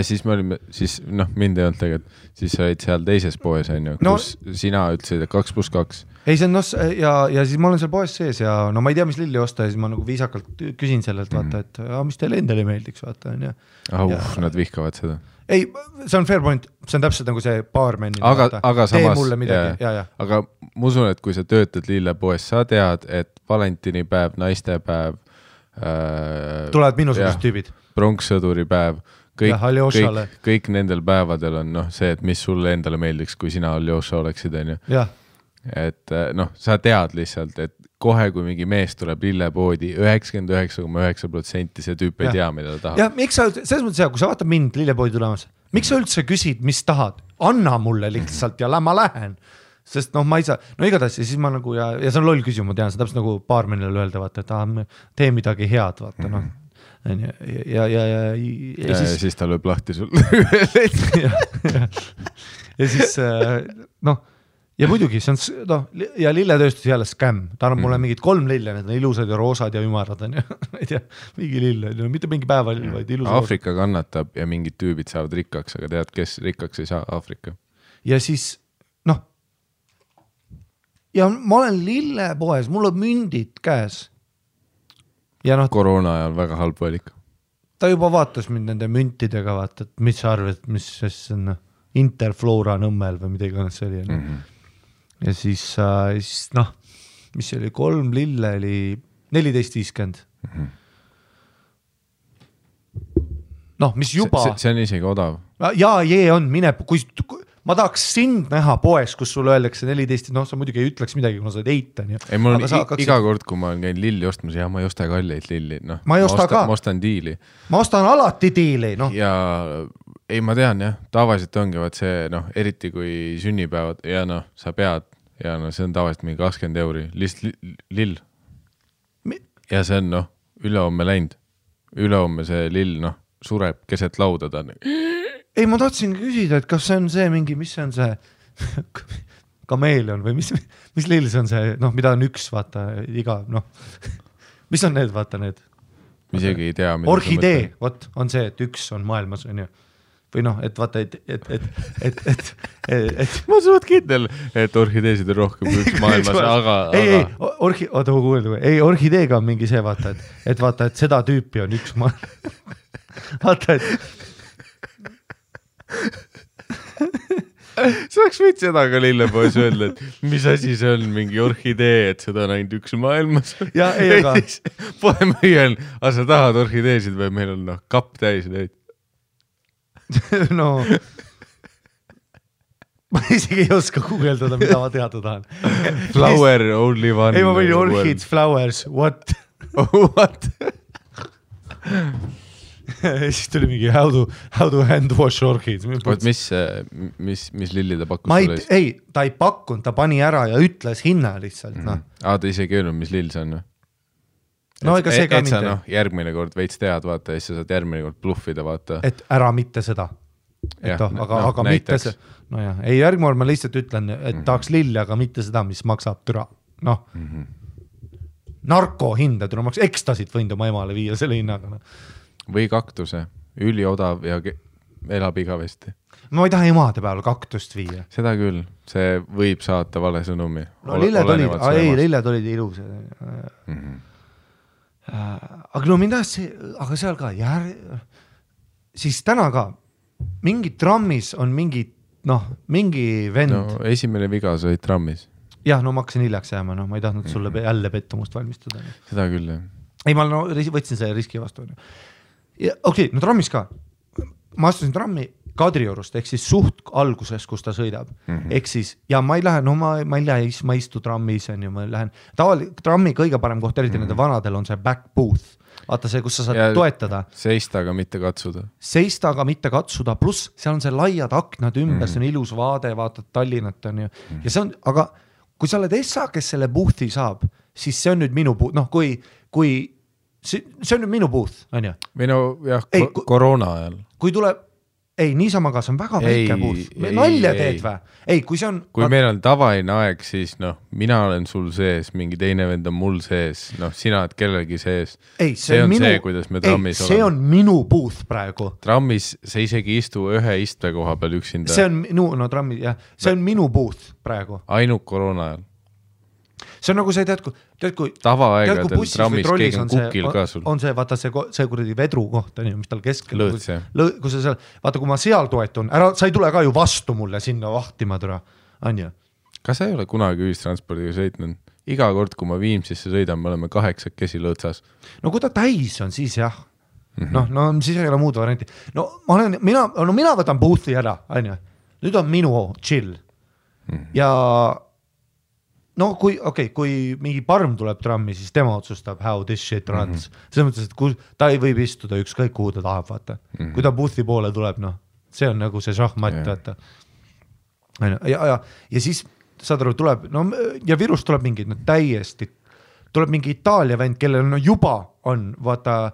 siis me olime, siis mind ei olnud tegelikult, siis sa olid seal teises poes, kus sina ütlesid, et 2+2. Ei, see on ja siis ma olen seal poes sees ja no ma ei tea, mis lilli osta ja siis ma nagu viisakalt küsin sellelt, vaata, et mis teile endale meeldiks, vaata, on ju. Nad vihkavad seda. Ei, see on fair point, see on täpselt nagu see baarmenni. Aga tee mulle midagi, ja. Aga ma usun, et kui sa töötad lillepoes, sa tead, et valentinipäev, naistepäev, tulevad minusugused tüübid. Pronkssõduri päev, kõik nendel päevadel on see, et mis sulle endale meeldiks, kui sina Aljoša oleksid, on ju. Et sa tead lihtsalt, et kohe, kui mingi mees tuleb lillepoodi, 99,9% see tüüp ei tea, mida ta tahab. Ja miks sa, selles mõttes kui sa vaatad mind lillepoodi tulemas, miks sa üldse küsid, mis tahad? Anna mulle lihtsalt ja ma lähen. Sest ma ei saa, igatahes ja siis ma nagu ja see on loll küsimus, ma tean, see täpselt nagu baarmenile öelda, vaata, et tee midagi head, vaata, ja siis ta lööb lahti sul. ja siis ja muidugi see on ja lilletööstus jälle skämm, ta annab mulle mingid 3 lille, need on ilusad ja roosad ja ümarad on ja ei tea, mingi lille, mitte mingi päevalill, vaid ilusad. Aafrika kannatab ja mingid tüübid saavad rikkaks, aga tead, kes rikkaks ei saa? Aafrika. Ja siis ja ma olen lillepoes, mul on mündid käes. Ja koroona ajal väga halb valik. Ta juba vaatas mind nende müntidega, vaata, et mis sa arvad, mis on Interflora Nõmmel või midagi on see oli. Ja siis mis oli 3 lille oli 14.50. Mis juba... See on isegi odav. Ja on, mine, kui ma tahaks sind näha poes, kus sulle öeldakse 14, sa muidugi ei ütleks midagi, kuna sa oled eitan. Ei, mul on iga kord, kui ma olen käinud lilli ostmas, ma ei osta kalleid lilli. Ma ei osta ka. Ma ostan diili. Ma ostan alati diili. Ja ei, ma tean jah, tavaliselt ongi vaat see, eriti kui sünnipäevad ja sa pead ja see on tavaliselt mingi 20 euri, lihtsalt lill. Ja see on ülehomme läinud. Ülehomme see lill, sureb keset lauda ta. Ei, ma tahtsin küsida, et kas see on see mingi, mis see on see kameelion või mis lill see on see, mida on üks, vaata, iga, mis on need, vaata need? Isegi ei tea. Orhidee, vot, on see, et üks on maailmas, on ju. Või et vaata, et ma suht kindel, et orhideesid on rohkem kui üks maailmas, aga... Ei, orhideega on mingi see, vaata, et vaata, et seda tüüpi on üks maailmas. Vaata, et sa oleks võid seda ka lillepoes öelda, et mis asi see on, mingi orhidee, et seda on ainult üks maailmas. Ja, ei, aga... Poe müüjal, aga sa tahad orhideesid või meil on kapp täis neid? Ma isegi ei oska guugeldada, mida ma teada tahan. Flower only one. Ei, ma võin orchids, flowers, what? What? Siis tuli mingi how to hand wash orchids. Mis lilli ta pakkus sulle? Ei, ta ei pakkunud, ta pani ära ja ütles hinna lihtsalt. Ta isegi öelnud, mis lill see on? Ega see ka et sa järgmine kord veits tead, vaata, ja siis sa saad järgmine kord bluffida, vaata. Et ära mitte seda. Aga mitte see. Ei, järgmine kord ma lihtsalt ütlen, et tahaks lilli, aga mitte seda, mis maksab türa. Narkohinda türa maks, ekstasid võinud oma emale viia selle hinnaga. Või kaktuse, üliodav ja elab igavesti. Ma ei taha emade peale kaktust viia. Seda küll, see võib saata vale sõnumi. Lilled olid ilus. Aga mind tahas see, aga seal ka siis täna ka mingi trammis on mingi vend. Esimene viga sa olid trammis. Jah, ma hakkasin hiljaks jääma, ma ei tahtnud sulle jälle pettumust valmistada. Seda küll, jah. Ei, ma võtsin selle riski vastu. Okei, trammis ka. Ma astusin trammi Kadriorust, ehk siis suht alguses, kus ta sõidab. Ehk siis, ja ma ei lähe, ma istu trammis, ma lähen. Trammi kõige parem koht, eriti nende vanadel on see back booth. Vaata see, kus sa saad toetada. Seista, aga mitte katsuda. Seista, aga mitte katsuda, pluss seal on see laiad aknad ümber, see on ilus vaade, vaatad Tallinnat on ju. Ja see on, aga kui sa oled essa, kes selle boothi saab, siis see on nüüd minu booth, see on nüüd minu booth, on ju? Või jah, koroona ajal. Kui tuleb, ei, niisama ka, see on väga väike buuth. Nalja teed või? Ei, kui see on... Kui meil on tavaine aeg, siis mina olen sul sees, mingi teine vend on mul sees, sina oled kellelgi sees. Ei, see on see, kuidas me trammis oleme. See on minu buuth praegu. Trammis sa isegi istu ühe istme koha peal üksinda. See on trammis, jah. See on minu buuth praegu. Ainult koroona ajal. See on nagu see, tead kui tavaaegadel trammis keegi on kukil ka sul. On see, vaata see kuradi vedru koht, mis tal keskel. Lõõts, jah. Kui sa seal, vaata, kui ma seal toetun, sa ei tule ka ju vastu mulle sinna vahtima türa, on ju? Kas sa ei ole kunagi ühistranspordiga sõitnud? Iga kord, kui ma Viimsisse sõidan, me oleme 8 lõõtsas. No kui ta täis on, siis jah. Siis ei ole muud varianti. Mina võtan boothi ära, on ju? Nüüd on minu chill. Ja kui mingi parm tuleb trammi, siis tema otsustab how this shit runs. Selles mõttes, et ta ei võib istuda ükskõik kuhu ta tahab, vaata. Kui ta boothi poole tuleb, see on nagu see šahmat, vaata. Ja siis saad aru, tuleb, ja Virust tuleb mingi, täiesti, tuleb mingi Itaalia vend, kellel juba on, vaata,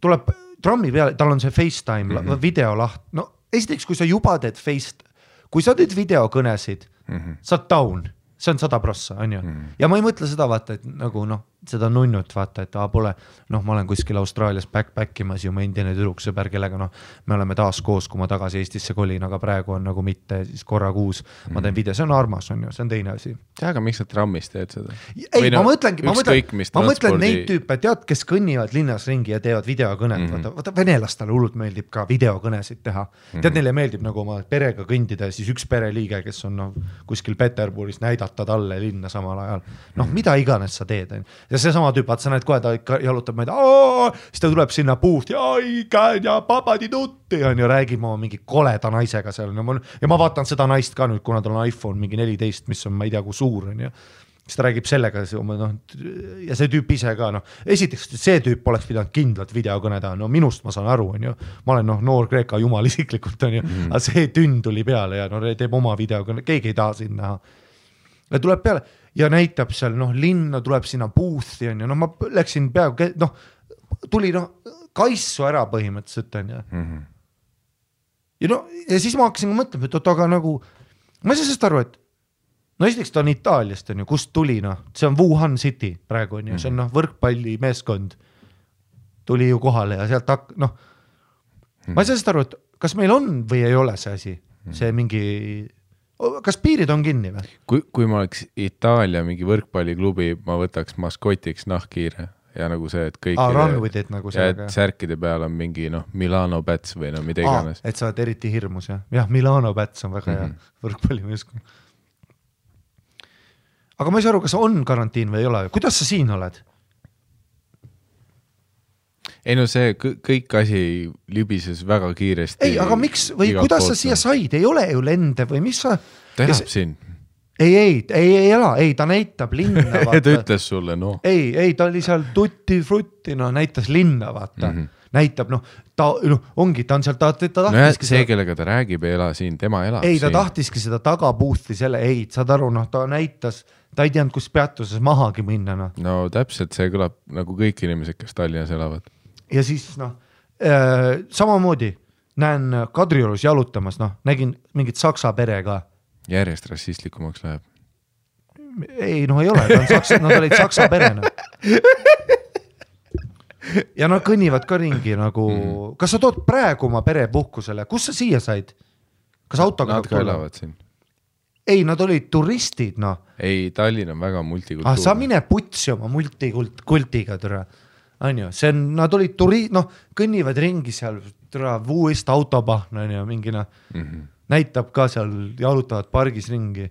tuleb trammi peale, tal on see FaceTime, videolaht. Esiteks, kui sa juba teed kui sa teed videokõnesid, sa oled down, see on 100%, on ju. Ja ma ei mõtle seda, vaata, et nagu seda nunnut, vaata, et pole, ma olen kuskil Austraalias backpackimas ju ma endine tüdruksõber, kellega me oleme taas koos, kui ma tagasi Eestisse kolin, aga praegu on nagu mitte siis korra kuus, ma teen video, see on armas, on ju, see on teine asi. Aga miks sa trammis teed seda? Ei, ma mõtlen neid tüüpe, tead, kes kõnnivad linnas ringi ja teevad videokõnet, vaata venelastele hullult meeldib ka videokõnesid teha. Tead, neile meeldib nagu oma perega kõndida ja siis üks pereliige, kes on kuskil Peterburis näidata talle linna samal ajal. Mida iganes sa teed, ja see sama tüüp, vaat sa näed kohe, ta ikka jalutab meid, siis ta tuleb sinna puht ja papadi tutti, on ju, räägime oma mingi koleda naisega seal. Ja ma vaatan seda naist ka nüüd, kuna tal on iPhone mingi 14, mis on, ma ei tea, kui suur on ju. Siis ta räägib sellega, ja see tüüp ise ka, esiteks see tüüp oleks pidanud kindlalt videokõneda, minust ma saan aru, on ju, ma olen noor Kreeka jumal isiklikult, on ju, aga see tünn tuli peale ja teeb oma videokõne, keegi ei taha siin näha. Ja tuleb peale ja näitab seal, linna tuleb sinna boothi, on ju, ma läksin peaaegu, tuli kaissu ära põhimõtteliselt, on ju. Ja siis ma hakkasin mõtlema, et aga nagu, ma ei saa sest aru, et esiteks ta on Itaaliast, on ju, kust tuli, see on Wuhan City praegu, on ju, see on võrkpalli meeskond, tuli ju kohale ja sealt ma ei saa sest aru, et kas meil on või ei ole see asi, see mingi... Kas piirid on kinni või? Kui ma oleks Itaalia mingi võrkpalliklubi, ma võtaks maskotiks nahkhiire ja nagu see, et kõik run with it nagu sellega. Ja särkide peal on mingi Milano Bats või mida iganes. Et sa oled eriti hirmus, jah? Jah, Milano Bats on väga hea võrkpallimeeskond. Aga ma ei saa aru, kas on karantiin või ei ole? Kuidas sa siin oled? Ei see kõik asi libises väga kiiresti. Ei, aga miks või kuidas sa siia said? Ei ole ju lende või mis sa... Ta elab siin. Ei ela, ta näitab linna, vaata. Ta ütles sulle, Ei, ta oli seal tutti-frutti, näitas linna, vaata. Näitab, ongi, ta on seal, ta tahtiski... See, kellega ta räägib, ei ela siin, tema elab siin. Ei, ta tahtiski seda tagapuuthi selle, saad aru, ta näitas, ta ei teadnud, kus peatuses mahagi minna. No täpselt, see kõlab nagu kõik inimesed, kes Tallinnas elavad. Ja siis samamoodi näen Kadriorus jalutamas, nägin mingit saksa pere ka. Järjest rassistlikumaks läheb. Ei, ei ole, nad olid saksa perena. Ja nad kõnnivad ka ringi nagu, kas sa tood praegu oma pere puhkusele, kus sa siia said? Kas autoga? Nad ka elavad siin. Ei, nad olid turistid, Ei, Tallinn on väga multikultuurne. Sa mine putsi oma multikultiga, türa. On ju, nad olid kõnnivad ringi seal, vuust autopahna, mingina, näitab ka seal, jalutavad pargis ringi.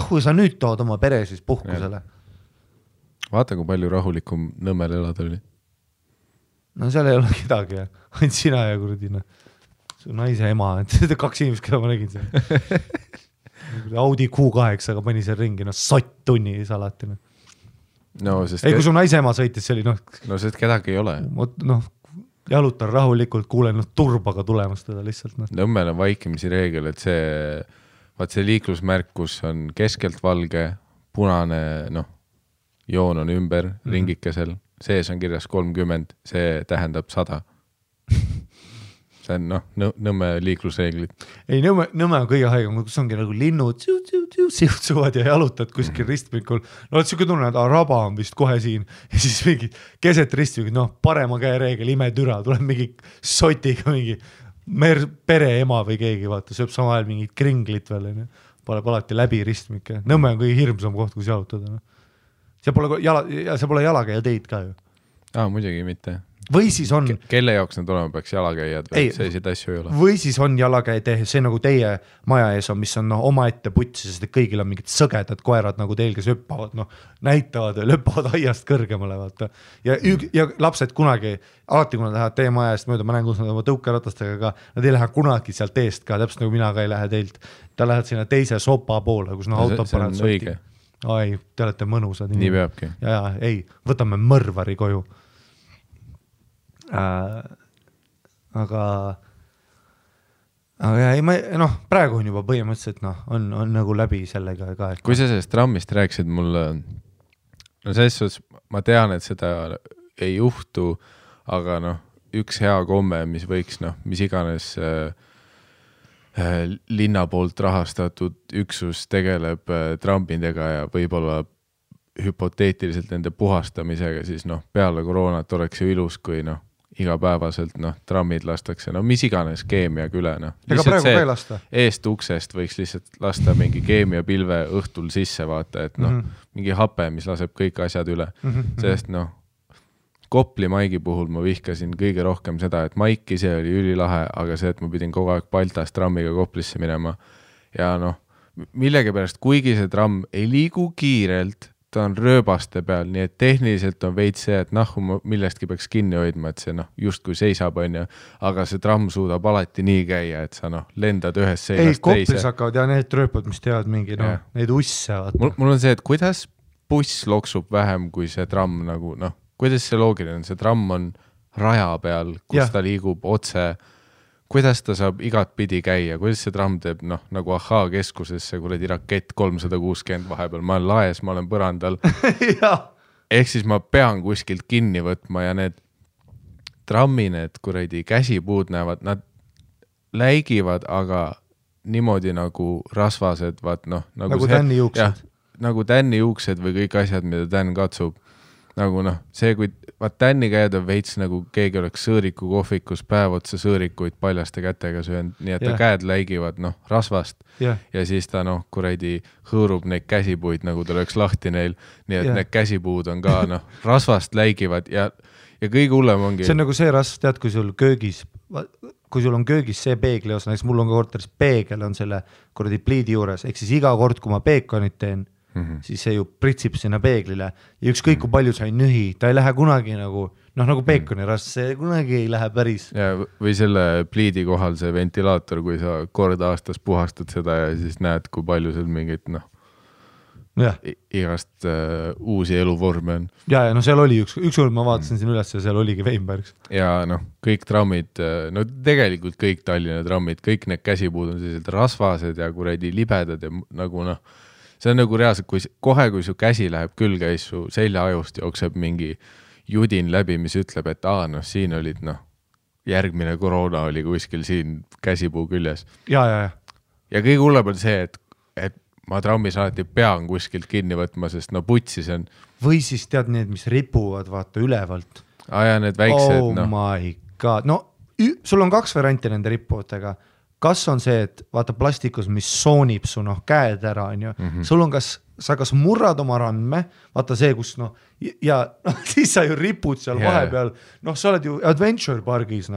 Kui sa nüüd tood oma pere siis puhkusele? Vaata, kui palju rahulikum Nõmmel elada oli. Seal ei ole kedagi, ainult sina ja kuradi, su naise ema, et 2 inimest, keda ma nägin seal. Audi Q8, aga pani seal ringi, sott tunni alati. Ei, kui su naise ema sõitis, see oli sest kedagi ei ole. Jalutan rahulikult, kuulen turbaga tulemas teda lihtsalt. Nõmmel on vaikimisi reegel, et see liiklusmärk, kus on keskelt valge, punane, joon on ümber ringikesel, sees on kirjas 30, see tähendab 100. mõtlen, noh, Nõmme liiklusreeglid. Ei, Nõmme on kõige haigem, kus ongi nagu linnud siutsuvad ja jalutad kuskil ristmikul. No siuke tunne, et raba on vist kohe siin ja siis mingi keset ristmikul, noh, parema käe reegel, imetüra, tuleb mingi sotiga mingi pereema või keegi, vaata, sööb sama ajal mingit kringlit veel, paneb alati läbi ristmikke. Nõmme on kõige hirmsam koht, kus jalutada. See pole jalakäija teid ka ju. Muidugi mitte. Või siis on... Kelle jaoks need olema peaks jalakäijad või selliseid asju ei ole? Või siis on jalakäija tee, see nagu teie maja ees on, mis on oma ette putsi, sest kõigil on mingid sõgedad koerad nagu teil, kes hüppavad, näitavad ja löppavad aiast kõrgemale, vaata. Ja lapsed kunagi, alati kui nad lähevad teie maja eest mööda, ma näen, kus nad oma tõukeratastega ka, nad ei lähe kunagi sealt eest ka, täpselt nagu mina ka ei lähe teilt. Ta lähed sinna teise sopa poole, kus autod paned sotti. Ai, te olete mõnusad. Nii peabki. Ja, ei, võtame mõrvari koju. Aga ei, praegu on juba põhimõtteliselt on nagu läbi sellega ka. Kui sa sellest trammist rääkisid mulle, selles suhtes ma tean, et seda ei juhtu, aga üks hea komme, mis võiks, mis iganes linna poolt rahastatud üksus tegeleb trammidega ja võib-olla hüpoteetiliselt nende puhastamisega, siis peale koroonat oleks ju ilus, kui igapäevaselt trammid lastakse, mis iganes keemiaga üle. Ega praegu ka ei lasta? Eest uksest võiks lihtsalt lasta mingi keemiapilve õhtul sisse, vaata, et mingi hape, mis laseb kõik asjad üle. Sest Kopli Maigi puhul ma vihkasin kõige rohkem seda, et Maik ise oli ülilahe, aga see, et ma pidin kogu aeg Baltast trammiga Koplisse minema. Ja millegi pärast, kuigi see tramm ei liigu kiirelt, ta on rööbaste peal, nii et tehniliselt on veits see, et millestki peaks kinni hoidma, et see just kui seisab, aga see tramm suudab alati nii käia, et sa lendad ühest seinast teise. Koplis hakkavad ja need rööpad, mis teavad mingi, neid usse. Mul on see, et kuidas buss loksub vähem kui see tramm, kuidas see loogiline on, see tramm on raja peal, kus ta liigub otse, kuidas ta saab igat pidi käia, kuidas see tramm teeb, nagu Ahhaa keskusesse, kuradi rakett 360 vahepeal, ma olen laes, ma olen põrandal. Ehk siis ma pean kuskilt kinni võtma ja need trammi, need kuradi käsipuud näevad, nad läigivad, aga niimoodi nagu rasvased, vaat nagu tänni juuksed. Nagu tänni juuksed või kõik asjad, mida tänn katsub. Nagu see, kui tänni käed on veits nagu keegi oleks sõõriku kohvikus päev otsa sõõrikuid paljaste kätega söönud, nii et ta käed läigivad rasvast ja siis ta kuradi hõõrub neid käsipuid, nagu ta oleks lahti neil, nii et need käsipuud on ka rasvast läigivad ja kõige hullem ongi. See on nagu see rasv, tead, kui sul on köögis see peegli osa, näiteks mul on ka korteris peegel on selle kuradi pliidi juures, ehk siis iga kord, kui ma peekonit teen, siis see ju pritsib sinna peeglile ja ükskõik kui palju sa ei nühi, ta ei lähe kunagi nagu peekoni rast, see kunagi ei lähe päris. Ja, või selle pliidi kohal see ventilaator, kui sa kord aastas puhastad seda ja siis näed, kui palju seal mingit igast uusi eluvorme on. Ja seal oli ükskord ma vaatasin siin üles ja seal oligi Weinbergs. Ja kõik trammid, tegelikult kõik Tallinna trammid, kõik need käsipuud on sellised rasvased ja kuradi libedad ja nagu see on nagu reaalselt, kui su käsi läheb külge ja su seljaajust jookseb mingi judin läbi, mis ütleb, et siin olid järgmine koroona oli kuskil siin käsipuu küljes. Ja kõige hullem on see, et ma trammis alati pean kuskilt kinni võtma, sest putsis on. Või siis tead need, mis ripuvad vaata ülevalt. Ja need väiksed. Oh my god. Sul on 2 varianti nende rippudega. Kas on see, et vaata plastikus, mis soonib su käed ära, on ju. Sul on sa kas murrad oma randme, vaata see, kus ja siis sa ju ripud seal vahepeal, sa oled ju Adventure Pargis,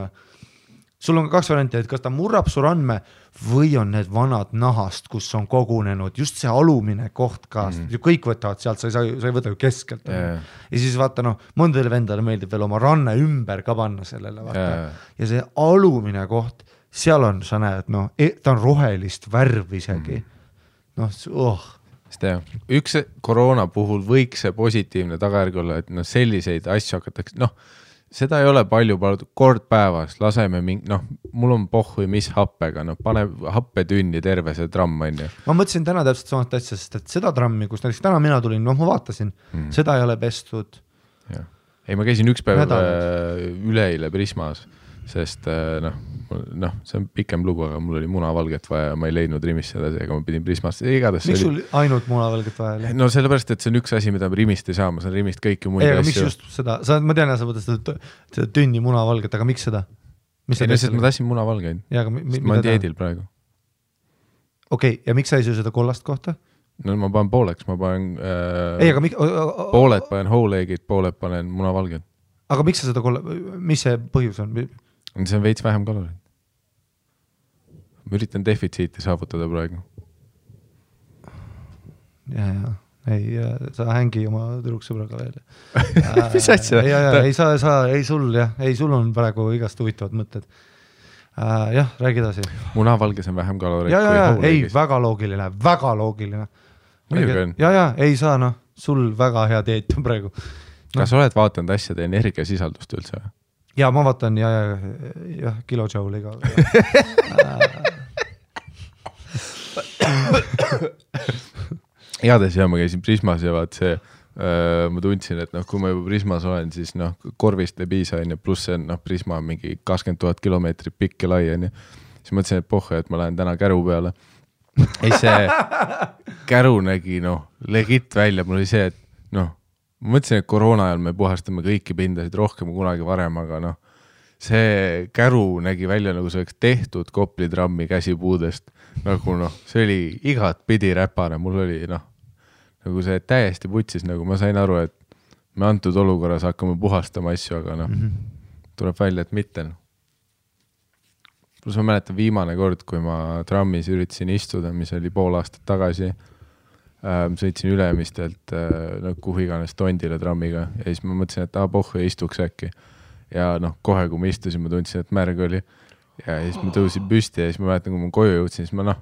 Sul on 2 varianti, et kas ta murrab su randme või on need vanad nahast, kus on kogunenud just see alumine koht ka, kõik võtavad sealt, sa ei võta ju keskelt. Ja siis vaata, mõndadele vendale meeldib veel oma ranne ümber ka panna sellele, vaata. Ja see alumine koht, seal on, sa näed, ta on rohelist värv isegi. Üks koroona puhul võiks see positiivne tagajärg olla, et selliseid asju hakatakse, seda ei ole palju kord päevas, laseme mul on pohhui mis happega, pane happetünni terve see tramm, on ju. Ma mõtlesin täna täpselt samast asja, sest et seda trammi, kus näiteks täna mina tulin, ma vaatasin, seda ei ole pestud. Ei, ma käisin üks päev üleile Prismas, sest see on pikem lugu, aga mul oli munavalget vaja ja ma ei leidnud Rimist seda, aga ma pidin Prismast. Miks sul ainult munavalget vaja oli? No sellepärast, et see on üks asi, mida ma Rimist ei saa, ma saan Rimist kõiki muid asju. Miks just seda? Ma tean, sa võtad seda tünni munavalget, aga miks seda? Ei, ma tahtsin munavalgeid, ma olen dieedil praegu. Okei, ja miks sa ei söö seda kollast kohta? No ma panen pooleks, ma panen pooled panen whole-eggid, pooled panen munavalged. Aga miks sa seda mis see põhjus on? See on veits vähem kaloreid. Ma üritan defitsiiti saavutada praegu. Ei, sa hängi oma tüdruksõbraga veel. Mis asja? Ei sul on praegu igast huvitavad mõtted. Jah, räägi edasi. Munavalges on vähem kaloreid kui whole-eggis. Ei, väga loogiline. Muidugi on. Ei saa, sul väga hea dieet on praegu. Kas oled vaatanud asjade energiasisaldust üldse? Ja ma vaatan, jah, kilojouliga. Heades ma käisin Prismas ja vaat see, ma tundsin, et kui ma juba Prismas olen, siis korvist ei piisa, pluss see Prisma on mingi 20 000 kilomeetrit pikk ja lai, siis mõtlesin, et pohhe, et ma lähen täna käru peale. Ei, see käru nägi legit välja, mul oli see, et ma mõtlesin, et koroona ajal me puhastame kõiki pindasid rohkem kunagi varem, aga see käru nägi välja nagu see oleks tehtud Kopli trammi käsipuudest, see oli igat pidi räpane, mul oli nagu see täiesti putsis, nagu ma sain aru, et me antud olukorras hakkame puhastama asju, aga tuleb välja, et mitte. Plus ma mäletan viimane kord, kui ma trammis üritasin istuda, mis oli pool aastat tagasi, sõitsin Ülemistelt kuhu iganes Tondile trammiga ja siis ma mõtlesin, et pohhu istuks äkki. Ja kohe, kui ma istusin, ma tundsin, et märg oli ja siis ma tõusin püsti ja siis ma mäletan, kui ma koju jõudsin, siis ma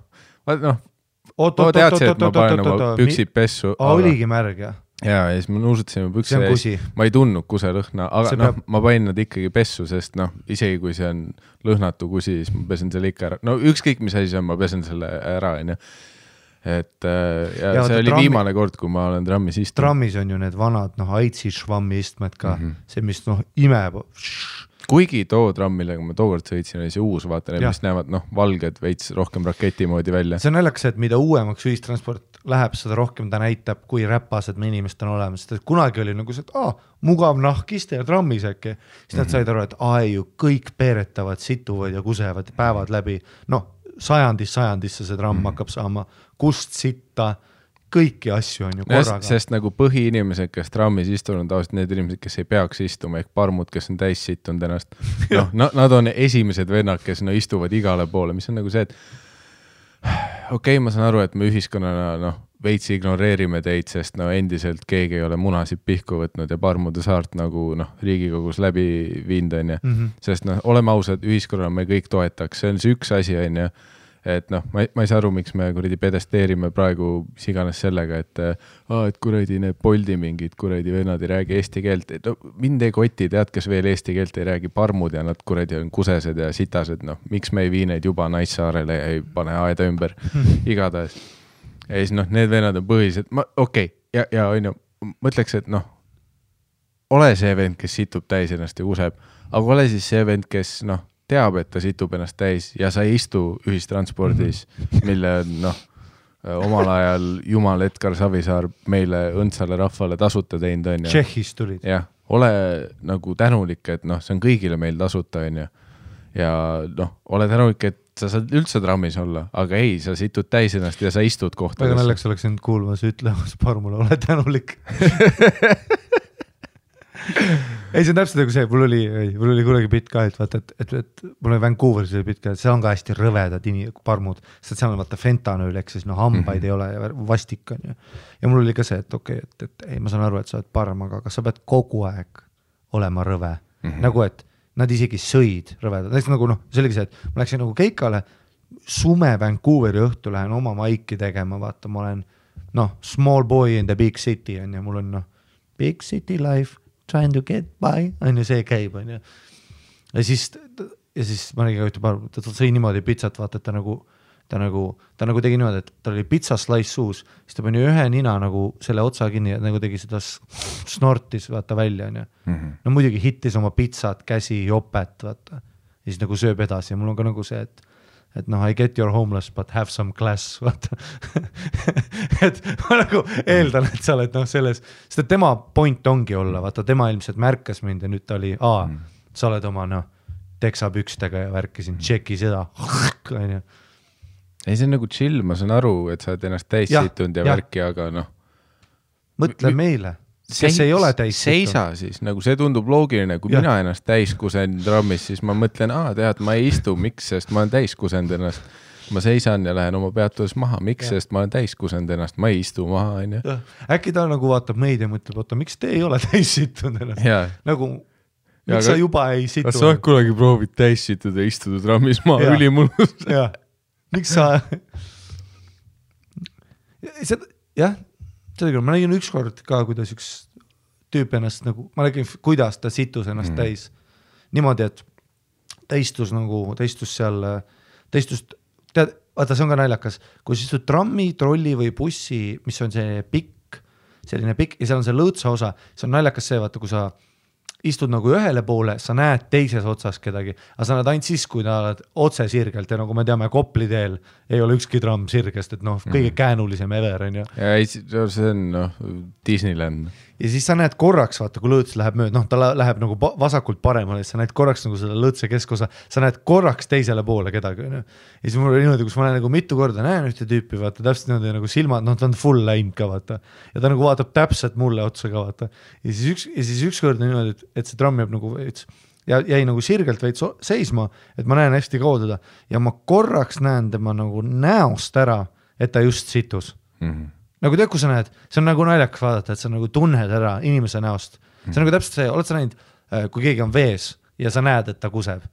teadsin, et ma panen oma püksid pessu. Oligi märg, jah? Ja siis ma nuusutasin oma pükse ja ma ei tundnud kuselõhna, aga ma panin nad ikkagi pessu, sest isegi kui see on lõhnatu kusi, siis ma pesen selle ikka ära. Ükskõik mis asi on, ma pesen selle ära, et see oli viimane kord, kui ma olen trammis istunud. Trammis on ju need vanad aitsi švammi istmed ka, see mis imeb. Kuigi too tramm, millega ma tookord sõitsin, oli see uus, vaata, mis näevad valged veits rohkem raketi moodi välja. See on naljakas, et mida uuemaks ühistransport läheb, seda rohkem ta näitab, kui räpased me inimesed on olemas. Kunagi oli nagu see, et mugav nahkiste ja trammis äkki. Siis nad said aru, et ju kõik peeretavad, situvad ja kusevad päevad läbi. Sajandisse see tramm hakkab saama kust sitta, kõiki asju on ju korraga. Sest nagu põhiinimesed, kes trammis istunud, tavaliselt need inimesed, kes ei peaks istuma, ehk parmud, kes on täis situnud ennast. Nad on esimesed vennad, kes istuvad igale poole, mis on nagu see, et okei, ma saan aru, et me ühiskonnana veits ignoreerime teid, sest endiselt keegi ei ole munasid pihku võtnud ja parmude saart nagu Riigikogus läbi viinud, sest oleme ausad, ühiskonnana me kõik toetaks, see on see üks asi, et ma ei saa aru, miks me kuradi pedesteerime praegu siganes sellega, et kuradi need Boldi mingid kuradi vennad ei räägi eesti keelt, mind ei koti, tead, kes veel eesti keelt ei räägi, parmud ja nad kuradi on kusesed ja sitased, miks me ei vii neid juba Naissaarele ja ei pane aeda ümber, igatahes. Ja siis need vennad on põhilised, ja mõtleks, et ole see vend, kes situb täis ennast ja kuseb, aga ole siis see vend, kes teab, et ta situb ennast täis ja sa ei istu ühistranspordis, mille omal ajal Jumal Edgar Savisaar meile õndsale rahvale tasuta teinud on. Tšehhis tulid. Jah, ole nagu tänulik, et see on kõigile meil tasuta on ja ole tänulik, et sa saad üldse trammis olla, aga ei, sa situd täis ennast ja sa istud kohtades. Väga naljakas oleks end kuulmas ütlemas parmule, ole tänulik. Ei, see on täpselt nagu see, mul oli kunagi pitt ka, et vaata, et mul oli Vancouveris pitt ka, see on ka hästi rõvedad parmud, sest seal on vaata fentanööl, eks siis hambaid ei ole ja vastik on ja mul oli ka see, et ei, ma saan aru, et sa oled parm, aga kas sa pead kogu aeg olema rõve, nagu et nad isegi sõid rõvedad, näiteks nagu see oligi see, et ma läksin nagu keikale, sume Vancouveri õhtu lähen oma maiki tegema, vaata, ma olen small boy in the big city on ja mul on big city life, trying to get by, on ju see käib, on ju. Ja siis ma nägin ka ta sõi niimoodi pitsat, vaata, et ta nagu tegi niimoodi, et ta oli pitsa slice suus, siis ta pani ühe nina nagu selle otsa kinni ja nagu tegi seda snortis, vaata välja, on ju. No muidugi hittis oma pitsat, käsi, jopet, vaata. ja siis nagu sööb edasi ja mul on ka nagu see, et noh, I get your homeless, but have some class, vaata et ma nagu eeldan, et sa oled noh selles, sest et tema point ongi olla, vaata tema ilmselt märkas mind ja nüüd ta oli, sa oled oma noh, teksapükstega ja värkisin, tšeki seda, on ju. Ei, see on nagu chill, ma saan aru, et sa oled ennast täis situnud ja värki, aga noh. Mõtle meile, kes ei ole täis seisa siis, nagu see tundub loogiline, kui mina ennast täis kusen trammis, siis ma mõtlen, tead, ma ei istu, miks, sest ma olen täis kusend ennast. Ma seisan ja lähen oma peatuses maha, miks, sest ma olen täis kusend ennast, ma ei istu maha, on ju. Äkki ta nagu vaatab meid ja mõtleb, oota, miks te ei ole täis situnud ennast? Nagu, miks sa juba ei situnud? Kas sa kunagi proovid täis situda ja istuda trammis maha ülimulus? Jah. Miks sa jah, seda küll, ma nägin ükskord ka, kuidas üks tüüp ennast nagu, ma nägin, kuidas ta situs ennast täis niimoodi, et ta istus seal, tead, vaata, see on ka naljakas, kui sa istud trammi, trolli või bussi, mis on see pikk, selline pikk ja seal on see lõõtsa osa, see on naljakas see, vaata, kui sa istud nagu ühele poole, sa näed teises otsas kedagi, aga sa näed ainult siis, kui ta oled otse sirgelt ja nagu me teame, Kopli teel ei ole ükski tramm sirgest, et noh, kõige käänulisem ever on ju. Ja see on Disneyland. Ja siis sa näed korraks, vaata, kui lõõts läheb mööda, ta läheb nagu vasakult paremale, sa näed korraks nagu seda lõõtse keskosa, sa näed korraks teisele poole kedagi. Ja siis mul oli niimoodi, kus ma nagu mitu korda näen ühte tüüpi, vaata, täpselt niimoodi nagu silmad, ta on full läinud ka, vaata. Ja ta nagu vaatab täpselt mulle otsa ka, vaata. Ja siis üks kord niimoodi, et see tramm jääb nagu veits, ja jäi nagu sirgelt veits seisma, et ma näen hästi kaua teda. Ja ma korraks näen tema nagu näost ära, et ta just situs. Nagu tead, kui sa näed, see on nagu naljakas vaadata, et sa nagu tunned ära inimese näost. See on nagu täpselt see, oled sa näinud, kui keegi on vees ja sa näed, et ta kuseb.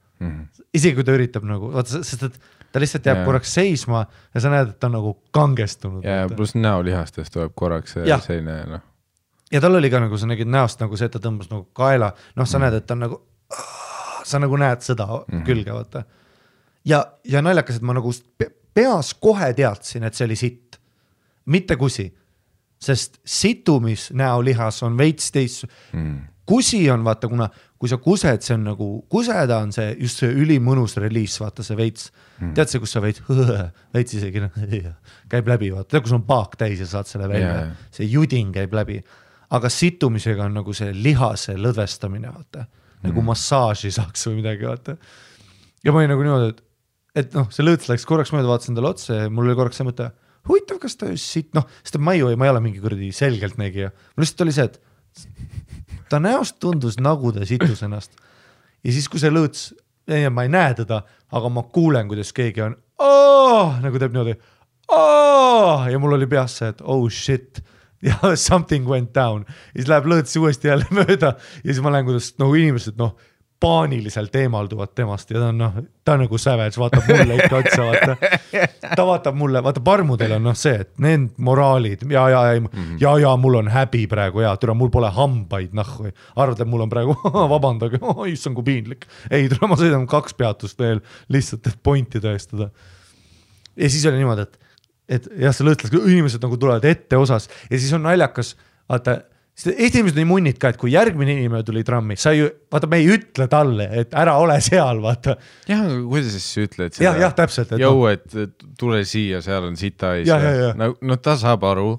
Isegi kui ta üritab nagu, vaata, sest et ta lihtsalt jääb korraks seisma ja sa näed, et ta on nagu kangestunud. Ja pluss näolihastest tuleb korraks selline, noh. Ja tal oli ka nagu, sa nägid näost nagu see, et ta tõmbas nagu kaela, noh, sa näed, et ta on nagu, sa nagu näed seda külge, vaata. Ja naljakas, et ma nagu peas kohe teadsin, et see oli sitt. Mitte kusi, sest situmis näolihas on veits teist. Kusi on, vaata, kuna kui sa kused, see on nagu, kuseda on see just see ülimõnus reliis, vaata see veits. Tead see, kus sa veits isegi käib läbi, vaata, tead, kus on paak täis ja saad selle välja. See juding käib läbi. Aga situmisega on nagu see lihase lõdvestamine, vaata. Nagu massaaži saaks või midagi, vaata. Ja ma olin nagu niimoodi, et noh, see lõõts läks korraks mööda, vaatasin talle otsa ja mul oli korraks see mõte, huvitav, kas ta just siit, noh, sest ma ei ole mingi kuradi selgelt nägija. Mul lihtsalt oli see, et ta näost tundus nagu ta situs ennast. Ja siis, kui see lõõts, ma ei näe teda, aga ma kuulen, kuidas keegi on, nagu teeb niimoodi, ja mul oli peas see, et oh shit, ja something went down. Ja siis läheb lõõts uuesti jälle mööda ja siis ma lähen, kuidas nagu inimesed, noh, paaniliselt eemalduvad temast ja ta on nagu savage, vaatab mulle ikka otsa, vaata. Ta vaatab mulle, vaata parmudel on see, et need moraalid, ja mul on häbi praegu, türa, mul pole hambaid, nahhu. Arvad, et mul on praegu, vabandage, issand kui piinlik. Ei, türa, ma sõidan 2 peatust veel lihtsalt, et pointi tõestada. Ja siis oli niimoodi, et jah, see lõõtlas, inimesed nagu tulevad ette osas ja siis on naljakas, vaata, Eesti inimesed on nii munnid ka, et kui järgmine inimene tuli trammi, sa ju, vaata, me ei ütle talle, et ära ole seal, vaata. Jah, kuidas siis ütled seda? Jah, täpselt. Jõu, et tule siia, seal on sita ees. No ta saab aru.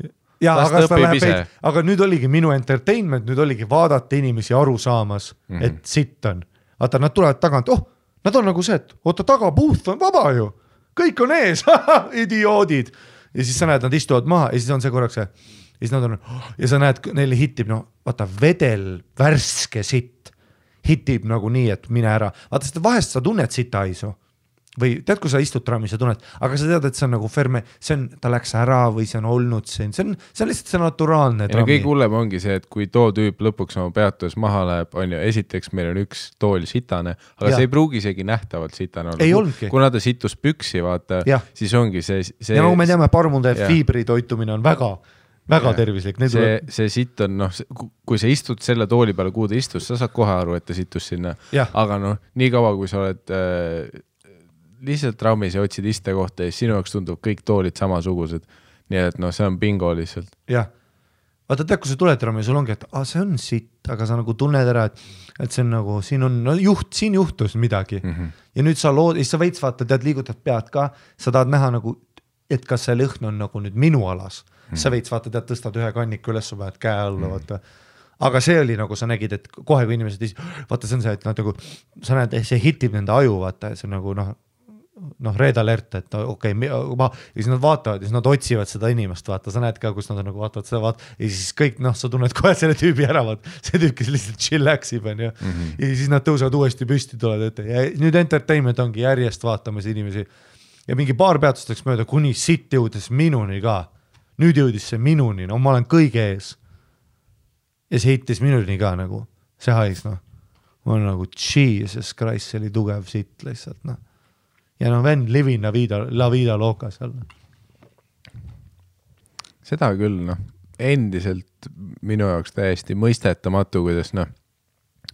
Aga nüüd oligi minu entertainment, nüüd oligi vaadata inimesi aru saamas, et sitt on. Vaata, nad tulevad tagant, nad on nagu see, et oota, tagapuuth on vaba ju. Kõik on ees, idioodid. Ja siis sa näed, nad istuvad maha ja siis on see korraks see. Ja siis nad on, ja sa näed, neile hitib, vaata, vedel värske sitt hitib nagu nii, et mine ära. Vaata, sest vahest sa tunned sita aisu. Või tead, kui sa istud trammis ja tunned, aga sa tead, et see on nagu ferme, ta läks ära või see on olnud see on lihtsalt see naturaalne trammi. Ja kõik hullem ongi see, et kui too tüüp lõpuks oma peatus maha läheb, on ju, esiteks meil on üks tool sitane, aga see ei pruugi isegi nähtavalt sitane olla. Ei olnudki. Kuna ta situs püksi, vaata, siis ongi see... Ja nagu me teame, parmude fiibri toitumine on väga tervislik. See sitt on, kui sa istud selle tooli peale, kuhu ta istus, sa saad kohe aru, et ta situs sinna. Aga nii kaua, kui sa oled lihtsalt trammis ja otsid iste kohta ja sinu jaoks tundub kõik toolid samasugused. Nii et see on bingo lihtsalt. Jah. vaata tead, kui sa tuled ära, sul ongi, et see on sitt, aga sa nagu tunned ära, et see on nagu, siin on siin juhtus midagi ja nüüd sa sa veits vaata, tead, liigutad pead ka, sa tahad näha nagu, et kas see lõhn on nagu nüüd minu alas, sa veits vaata, tead, tõstad ühe kanniku üles, sa paned käe alla, vaata, aga see oli nagu sa nägid, et kohe kui inimesed, vaata see on see, et nad nagu, sa näed, see hitib nende aju, vaata, see on nagu red alert, et okei, ja siis nad vaatavad ja siis nad otsivad seda inimest, vaata, sa näed ka, kus nad on nagu vaatavad seda, ja siis kõik, sa tunned kohe selle tüübi ära, vaat, see tüüp, kes lihtsalt chillaxib, ja siis nad tõusevad uuesti püsti, tulevad ette ja nüüd entertainment ongi järjest vaatamas inimesi ja mingi paar peatusteks mööda, kuni sitt jõudes minuni ka, nüüd jõudis see minuni, no ma olen kõige ees ja see hittis minuni ka nagu, see hais, ma olen nagu, Jesus Christ, see oli tugev sitt lihtsalt, ja vend living la vida loca seal. Seda küll, endiselt minu jaoks täiesti mõistetamatu, kuidas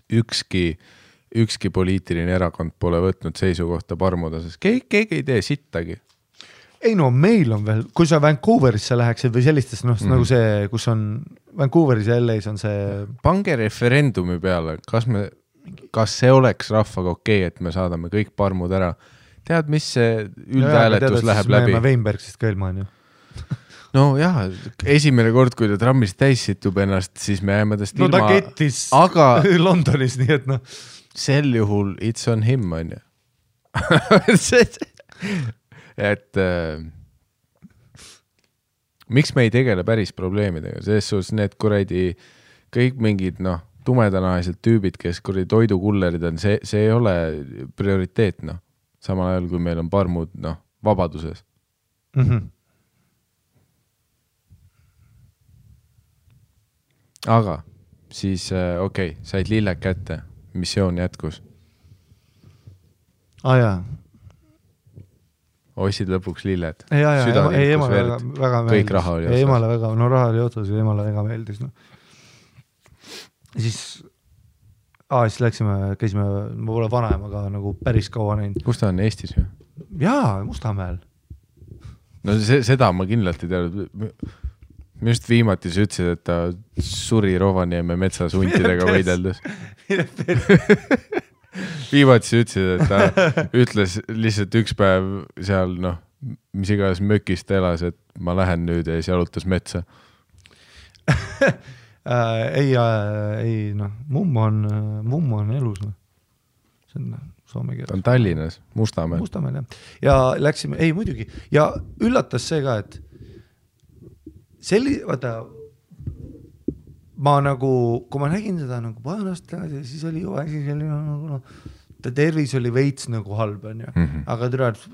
ükski poliitiline erakond pole võtnud seisukohta parmuda, sest keegi ei tee sittagi. Ei meil on veel, kui sa Vancouverisse läheksid või sellistes, nagu see, kus on Vancouveris ja LA's on see... Pange referendumi peale, kas see oleks rahvaga okei, et me saadame kõik parmud ära. Tead, mis see üldhääletus läheb läbi? Me Weinbergsist ka ilma on ju. No jah, esimene kord, kui ta trammis täis situb ennast, siis me jääme tast ilma. No ta kettis aga Londonis, nii et sel juhul it's on him, on ju. et miks me ei tegele päris probleemidega? Selles suhtes need kuradi kõik mingid, tumedanahalised tüübid, kes kuradi toidukullerid on, see ei ole prioriteet, samal ajal, kui meil on parmud, vabaduses. Aga siis, said lilled kätte, missioon jätkus. Jaa. Ostsid lõpuks lilled. Ei, emale väga meeldis. Kõik raha oli otsas. Emale väga, raha oli otsas ja emale väga meeldis. Siis käisime, ma pole vanaemaga nagu päris kaua näinud. Kus ta on, Eestis või? Jaa, Mustamäel. No seda ma kindlalt ei teadnud. Ma just viimati sa ütlesid, et ta suri Rovaniemi metsas huntidega võideldes. Viimati sa ütlesid, et ta ütles lihtsalt üks päev seal, mis iganes mökist elas, et ma lähen nüüd ja siis jalutas metsa. Ei, mummo on elus. See on soome keeles. Ta on Tallinnas, Mustamäel. Mustamäel, jah. Ja läksime, ei muidugi, ja üllatas see ka, et vaata, ma nagu, kui ma nägin seda nagu paanast, siis oli ju asi selline, ta tervis oli veits nagu halb, on ju. Aga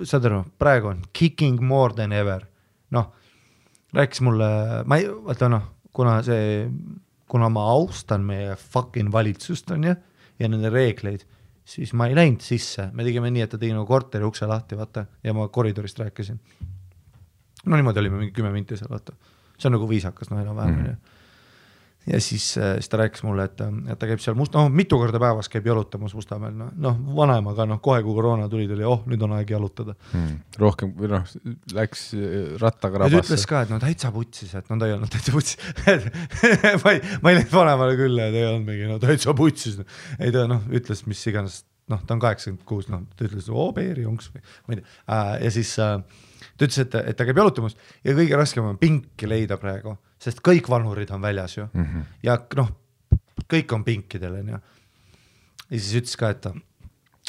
saad aru, praegu on kicking more than ever. Rääkis mulle, kuna ma austan meie fucking valitsust, on ju, ja nende reegleid, siis ma ei läinud sisse. Me tegime nii, et ta tegi nagu korteri ukse lahti, vaata, ja ma koridorist rääkisin. Niimoodi olime mingi 10 minti seal, vaata. See on nagu viisakas, enam-vähem. Ja siis ta rääkis mulle, et ta käib seal mitu korda päevas käib jalutamas Mustamäel. Vanaemaga, kohe kui koroona tuli, nüüd on aeg jalutada. Rohkem, läks rattaga rabasse. Ja ta ütles ka, et täitsa putsis, et ta ei olnud täitsa putsis. ma ei läinud vanaemale küll, et ei olnud mingi, täitsa putsis. Ei ta, ütles, mis iganes, ta on 86, ta ütles, beeri jonks või, ma ei tea. Ja siis ta ütles, et ta käib jalutamas ja kõige raskem on pinki leida praegu, sest kõik vanurid on väljas ju. Ja kõik on pinkidel. Ja siis ütles ka,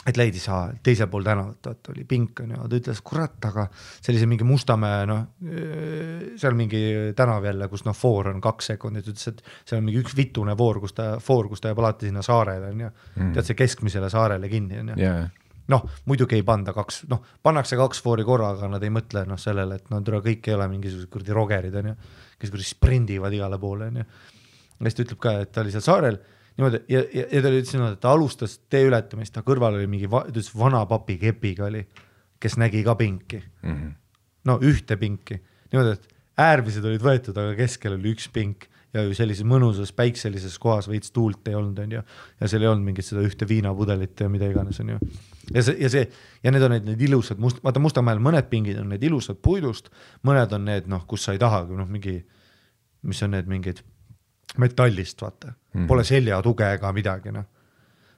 et leidis teisel pool tänavat, et oli pink. Ja ta ütles, kurat, aga sellise mingi Mustamäe, seal mingi tänav jälle, kus foor on 2 sekundit, ütles, et seal on mingi üks vitune foor, kus ta jääb alati sinna saarele. Tead see keskmisele saarele kinni. Muidugi ei panda 2, pannakse 2 foori korraga, nad ei mõtle sellele, et kõik ei ole mingisugused kurdi rogerid, kes kurdi sprindivad igale poole. Ja siis ta ütleb ka, et ta oli seal saarel niimoodi, ja ta ütles, et ta alustas tee ületamist, ta kõrval oli mingi vana papi kepiga oli, kes nägi ka pinki. Ühte pinki. Niimoodi, et äärmised olid võetud, aga keskel oli üks pink. Ja ju sellises mõnusas päikselises kohas veits tuult ei olnud, ja seal ei olnud mingit seda ühte viinapudelit ja mida iganes on ju. Ja need on need ilusad, vaata Mustamäel mõned pingid on need ilusad puidust, mõned on need, kus sa ei tahagi, mis on need mingid metallist, vaata. Pole selja tuge ega midagi, noh.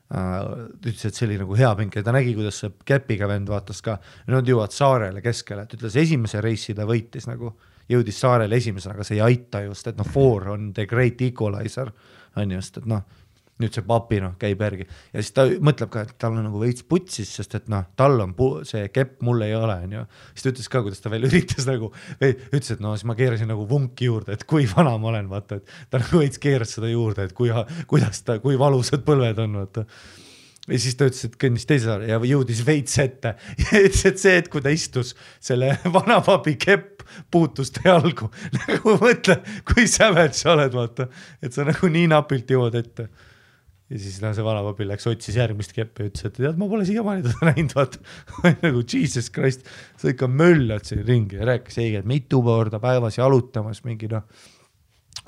Ütles, et see oli nagu hea pink ja ta nägi, kuidas see käpiga vend vaatas ka, nad jõuavad saarele keskele, et ütles esimese reisi ta võitis nagu, jõudis saarele esimesena, aga see ei aita just, et noh, 4 on the great equalizer, on just, et noh, nüüd see papi noh, käib järgi ja siis ta mõtleb ka, et tal on nagu veits putsis, sest et noh, tal on see kepp, mul ei ole, on ju. Siis ta ütles ka, kuidas ta veel üritas nagu, ütles, et no siis ma keerasin nagu vunki juurde, et kui vana ma olen, vaata, et ta nagu veits keeras seda juurde, et kui valusad põlved on, vaata. Ja siis ta ütles, et kõnnis teise saare ja jõudis veits ette ja ütles, et see, et kui ta istus selle vana papi kepp puutus ta jalgu, nagu mõtle, kui säved sa oled, vaata, et sa nagu nii napilt jõuad ette. Ja siis see vanapapi läks, otsis järgmist keppi ja ütles, et tead, ma pole siiamaani teda näinud, vaata. Nagu Jesus Christ, sa ikka möllad siin ringi ja rääkis eegi, et mitu korda päevas jalutamas mingi noh,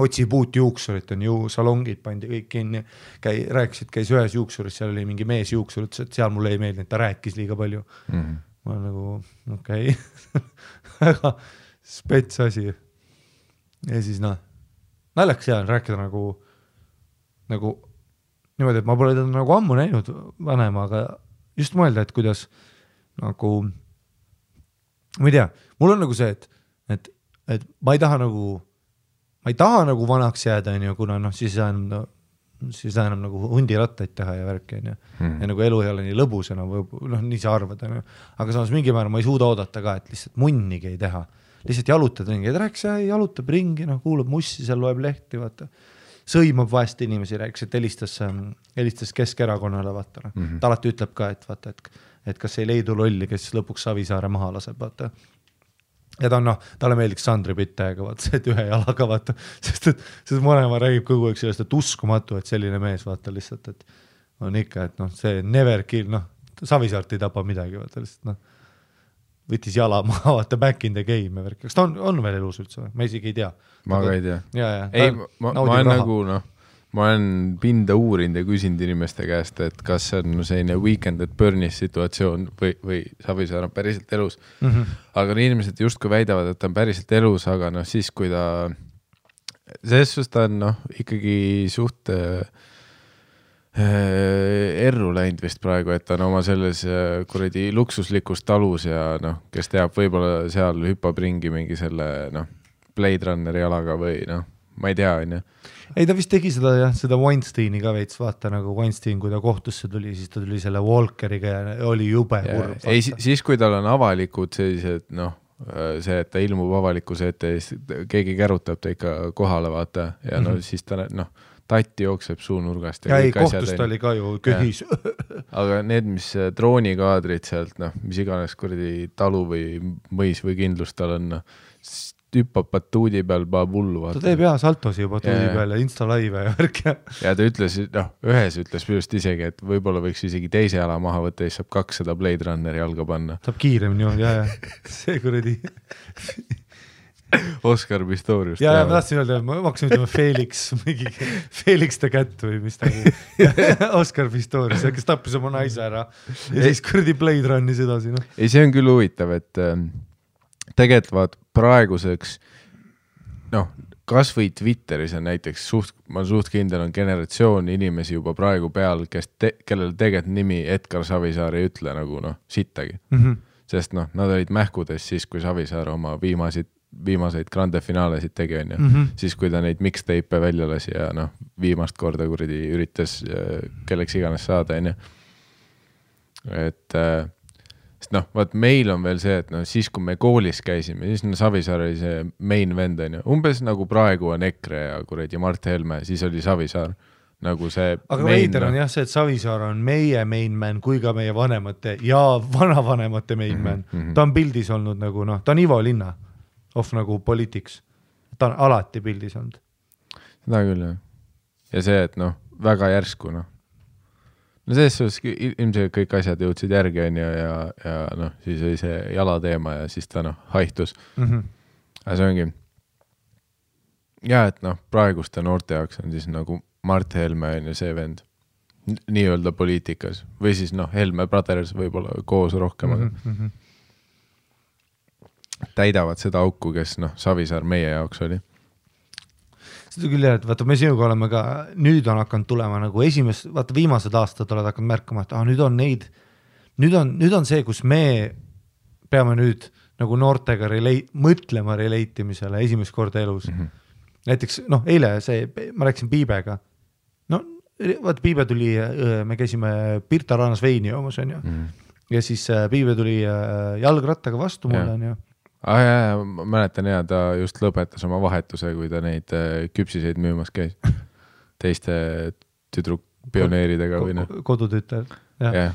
otsi puut juuksurit, on ju salongid pandi kõik kinni, rääkisid, käis ühes juuksuris, seal oli mingi mees juuksur, ütles, et seal mulle ei meeldi, ta rääkis liiga palju. Ma nagu, okei. Väga spets asi. Ja siis noh, naljakas jään rääkida nagu niimoodi, et ma pole teda nagu ammu näinud vanema, aga just mõelda, et kuidas nagu, ma ei tea, mul on nagu see, et ma ei taha nagu vanaks jääda, kuna noh, siis enam nagu hundirattaid teha ja värki, ja nagu elu ei ole nii lõbus enam, noh, nii sa arvad, aga samas mingi määra ma ei suuda oodata ka, et lihtsalt munnigi ei teha, lihtsalt jalutad ringi, et rääks, jalutab ringi, noh, kuulab mussi, seal loeb lehti, vaata. Sõimab vahest inimesi, rääkis, et helistas Keskerakonnale, vaata. Ta alati ütleb ka, et vaata, et kas ei leidu lolli, kes lõpuks Savisaare maha laseb, vaata. Ja ta on noh, talle meeldiks Sandri Pittega, vaata, et ühe jalaga, vaata, sest mõlema räägib kogu aeg sellest, et uskumatu, et selline mees, vaata lihtsalt, et on ikka, et noh, see never kill, noh, Savisaart ei tapa midagi, vaata lihtsalt, noh. Võttis jala maha, vaata back in the game. Kas ta on veel elus üldse? Ma isegi ei tea. Ma ka ei tea. Ei, ma olen nagu, noh, ma olen pinda uurinud ja küsinud inimeste käest, et kas see on selline Weekend at Burnis situatsioon või Savisaar on päriselt elus. Aga inimesed justkui väidavad, et ta on päriselt elus, aga noh, siis kui ta selles ta on, noh, ikkagi suht erru läinud vist praegu, et ta on oma selles kuradi luksuslikus talus ja noh, kes teab, võib-olla seal hüppab ringi mingi selle noh, Blade Runneri jalaga või noh, ma ei tea, on ju. Ei, ta vist tegi seda Weinsteini ka veits, vaata nagu Weinstein, kui ta kohtusse tuli, siis ta tuli selle Walkeriga ja oli jube kurb. Ei, siis kui tal on avalikud sellised, noh, see, et ta ilmub avalikkuse ette ja keegi kärutab ta ikka kohale, vaata, ja no siis ta, noh, tatti jookseb suunurgast. Ja ei, kohtust oli ka ju köhis. Aga need, mis droonikaadrid sealt, noh, mis iganes kuradi talu või mõis või kindlus tal on, hüppab batuudi peal, paab hullu. Ta teeb saltosi juba batuudi peal ja Insta-live ja värk. Ja ta ütles, noh, ühes ütles just isegi, et võib-olla võiks isegi teise jala maha võtta ja siis saab 200 Blade Runneri jalga panna. Saab kiiremini, ja. See kuradi... Oscar Pistorius. Ja ma tahtsin öelda, ma hakkasin ütlema Felix the Cat või mis ta Oscar Pistorius, kes tappis oma naise ära ja siis kuradi Blade Runnis edasi. No. Ei, see on küll huvitav, et tegelikult praeguseks, noh, kas või Twitteris on näiteks, ma suht kindel on generatsioon inimesi juba praegu peal, kellel tegelikult nimi Edgar Savisaar ei ütle nagu, noh, sittagi. Sest, noh, nad olid mähkudes siis, kui Savisaar oma viimaseid grande finaalesid tegi, on ju. Siis, kui ta neid mixtape välja lasi ja noh, viimast korda kuradi üritas kelleks iganes saada, on ju. Et sest noh, vaat meil on veel see, et noh, siis kui me koolis käisime, siis Savisaar oli see main vend, on ju. Umbes nagu praegu on EKRE ja kuradi Mart Helme, siis oli Savisaar. Nagu see aga veider on jah see, et Savisaar on meie main man kui ka meie vanemate ja vanavanemate main man. Ta on pildis olnud nagu, noh, ta on Ivo Linna of nagu politics. Ta on alati pildis olnud. Seda küll, jah. Ja see, et noh, väga järsku, noh. No selles ilmselt kõik asjad jõudsid järgi, on ju, ja noh, siis oli see jalateema ja siis ta, noh, haihtus. Aga see ongi. Ja, et noh, praeguste noorte jaoks on siis nagu Mart Helme on ju see vend nii-öelda poliitikas või siis noh, Helme Brothers võib-olla koos rohkem täidavad seda auku, kes noh, Savisaar meie jaoks oli. seda küll jah, et vaata, me sinuga oleme ka, nüüd on hakanud tulema nagu vaata viimased aastad oled hakanud märkama, et nüüd on neid, nüüd on see, kus me peame nüüd nagu noortega mõtlema relatimisele esimest korda elus. Näiteks, eile ma rääkisin Piibega. Vaata, Piibe tuli, me käisime Pirta raanas veini joomas, on ju. Ja siis Piibe tuli jalgrattaga vastu mulle, on ju. Ma mäletan ja ta just lõpetas oma vahetuse, kui ta neid küpsiseid müümas käis. Teiste tüdruk-pioneeridega või noh. Kodutütar. Ja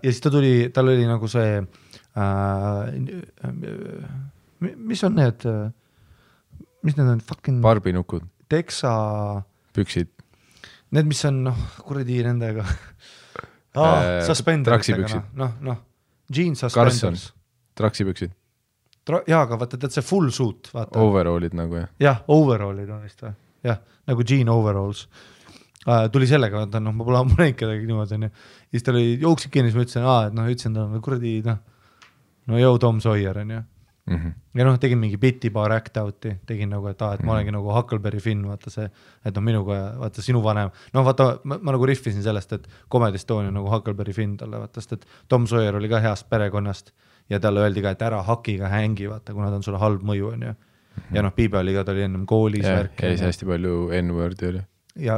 siis ta tuli, tal oli nagu see mis on need fucking barbinukud, teksa püksid, need mis on kuradi nendega traksipüksid, jeans suspenders, traksipüksid aga vaata, tead see full suit, vaata. Overallid nagu jah, overallid on vist või? Jah, nagu jean overalls. Tuli sellega, vaata, ma pole ammu näinud kedagi niimoodi, on ju. Siis ta oli jooksik kinni, siis ma ütlesin, ütlesin ta kuradi, jõu Tom Sawyer, on ju. Ja tegin mingi biti paar act-out'i, tegin nagu, et ma olengi nagu Huckleberry Finn, vaata see, et minuga, vaata sinu vanem, vaata, ma nagu riffisin sellest, et Comedy Estonia nagu Huckleberry Finn talle, vaata, sest et Tom Sawyer oli ka heast perekonnast ja talle öeldi ka, et ära hakiga hängi, vaata, kuna ta on sulle halb mõju, on ju. Ja Piibe oli ka, ta oli ennem koolis värk. Ja siis hästi palju N-wordi oli. Ja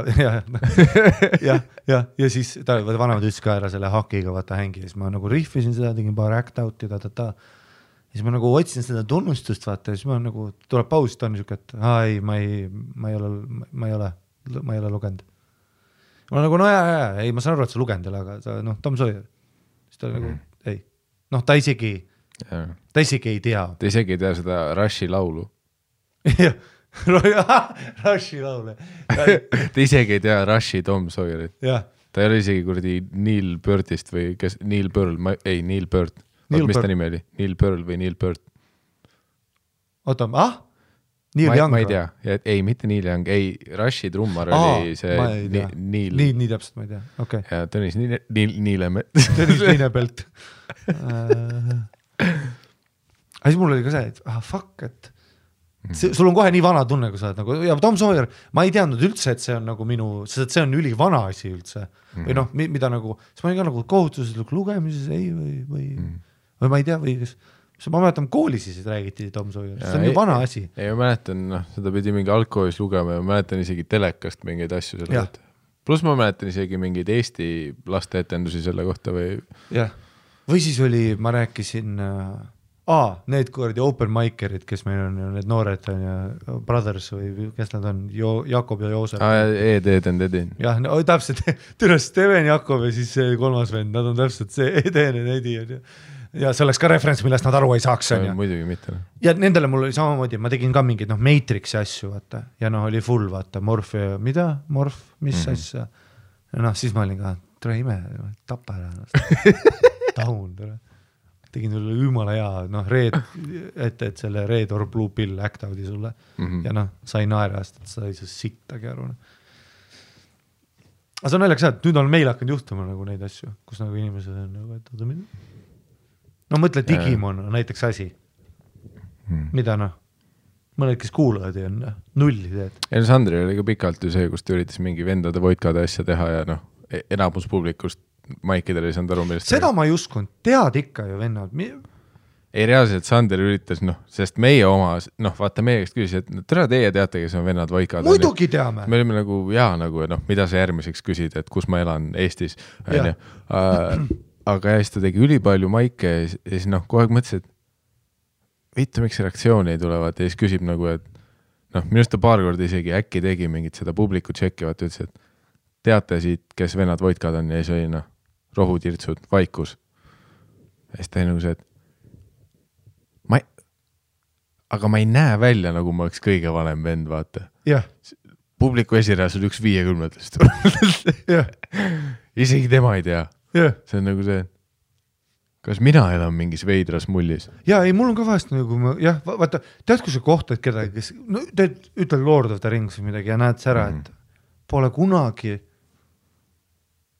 siis ta vanemad ütles ka ära selle hakiga, vaata hängi, siis ma nagu riffisin seda, tegin paar act-out'i, siis ma nagu otsin seda tunnustust, vaata, siis ma nagu tuleb paus, ta on niisugune, et ma ei ole lugenud. Ma nagu, ei, ma saan aru, et sa lugenud, aga Tom Sawyer. Siis ta nagu, ei. Ta isegi ei tea. Ta isegi ei tea seda Rushi laulu. Rushi laule. Ta isegi ei tea Rushi Tom Sawyerit. Ta ei ole isegi kuradi Neil Birdist või kes, Neil Pearl, Neil Bird. Mis ta nimi oli? Neil Pearl või Neil Bird? Oota, Neil Young? Ma ei tea. Ei, mitte Neil Young. Ei, Rushi trummar oli see Neil. Nii täpselt, ma ei tea. Okay. Ja Tõnis Niilemelt. Tõnis Niilepelt. Aga siis mul oli ka see, et fuck, et sul on kohe nii vana tunne, kui sa oled nagu, ja Tom Sawyer, ma ei teadnud üldse, et see on nagu sest see on üli vana asi üldse. Või mida nagu, siis ma olin ka nagu kohustuslik lugemises, ei, või ma ei tea, või ma mäletan, koolis siis räägiti Tom Sawyer, see on ju vana asi. Ei, ma mäletan, seda pidi mingi algkoolis lugema ja ma mäletan isegi telekast mingeid asju selle kohta. Plus ma mäletan isegi mingeid Eesti laste etendusi selle kohta või... Jah, või siis oli, ma rääkisin... need kuradi open mikerid, kes meil on need noored on ja brothers või kes nad on, Jakob ja Joosep. Eden. Jah, täpselt, türes Steven Jakob ja siis see kolmas vend, nad on täpselt see Eden ja Edi ja see oleks ka referents, millest nad aru ei saaks. Muidugi mitte. Ja nendele mul oli samamoodi, ma tegin ka mingid Matrixi asju, vaata, ja oli full, vaata, Morph ja mida? Morph, mis asja? Ja siis ma olin ka, tere ime, tapa ära. Taun, tere. Tegin sulle jumala hea, et selle Red or Blue Pill act-out'i sulle ja sai naerast, et sa ei saa sittagi aru. Aga see on naljakas, et nüüd on meil hakanud juhtuma nagu neid asju, kus nagu inimesed on nagu, et mõtle Digimon on näiteks asi, mida mõned, kes kuulavad ja on nulli teed. Sandri oli ka pikalt ju see, kus ta üritas mingi vendade voidkade asja teha ja enamus publikust Maikidel ei saanud aru, millest seda ma ei uskunud, tead ikka ju vennad. Ei reaalselt Sander üritas, sest meie oma, vaata meie käest küsis, et tere teie teate, kes on vennad voikad. Muidugi teame. Me olime nagu, mida sa järgmiseks küsid, et kus ma elan Eestis. Aga siis ta tegi ülipalju maike ja siis kogu aeg mõtles, et vittu, miks reaktsiooni ei tulevad ja siis küsib nagu, et minust ta paar korda isegi äkki tegi mingit seda publiku tšekki, vaata ütles, et teate siit, kes vennad voidkad on ja siis oli rohutirtsud, vaikus. Ja siis ta nagu see, et aga ma ei näe välja, nagu ma oleks kõige vanem vend, vaata. Jah. Publiku esirääs on üks 50-test. Isegi tema ei tea. See on nagu see, kas mina elan mingis veidras mullis? Ja ei, mul on ka vahest nagu, vaata, tead, kui sa kohtad kedagi, kes, ütled Lord of the Rings või midagi ja näed sära, et pole kunagi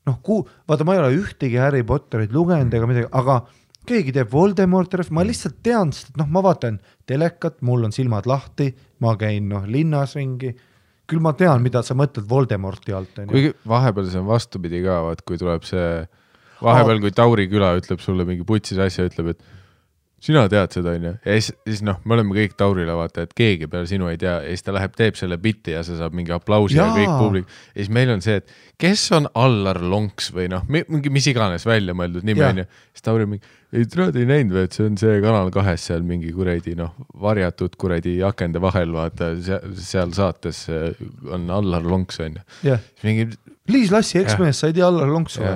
vaata, ma ei ole ühtegi Harry Potterit lugenud ega midagi, aga keegi teeb Voldemort, ma lihtsalt tean, et ma vaatan telekat, mul on silmad lahti, ma käin linnas ringi, küll ma tean, mida sa mõtled Voldemorti alt. Kuigi vahepeal see on vastupidi ka, vaat kui tuleb see, vahepeal kui Tauri küla ütleb sulle mingi putsis asja, ütleb, et sina tead seda, on ju. Ja siis noh, me oleme kõik Taurile vaata, et keegi peale sinu ei tea, ja siis ta läheb, teeb selle bitti ja see saab mingi aplausi ja kõik publik. Ja siis meil on see, et kes on Allar Lonks või noh, mingi mis iganes välja mõeldud nimi, on ju. Siis Tauri mingi, ei trööd ei näinud või, et see on see Kanal 2 seal mingi kuredi, noh, varjatud kuredi akende vahel, vaata, seal saates on Allar Lonks, on ju. Mingi... Liis Lassi eksmees, sa ei tea Allar Lonks või?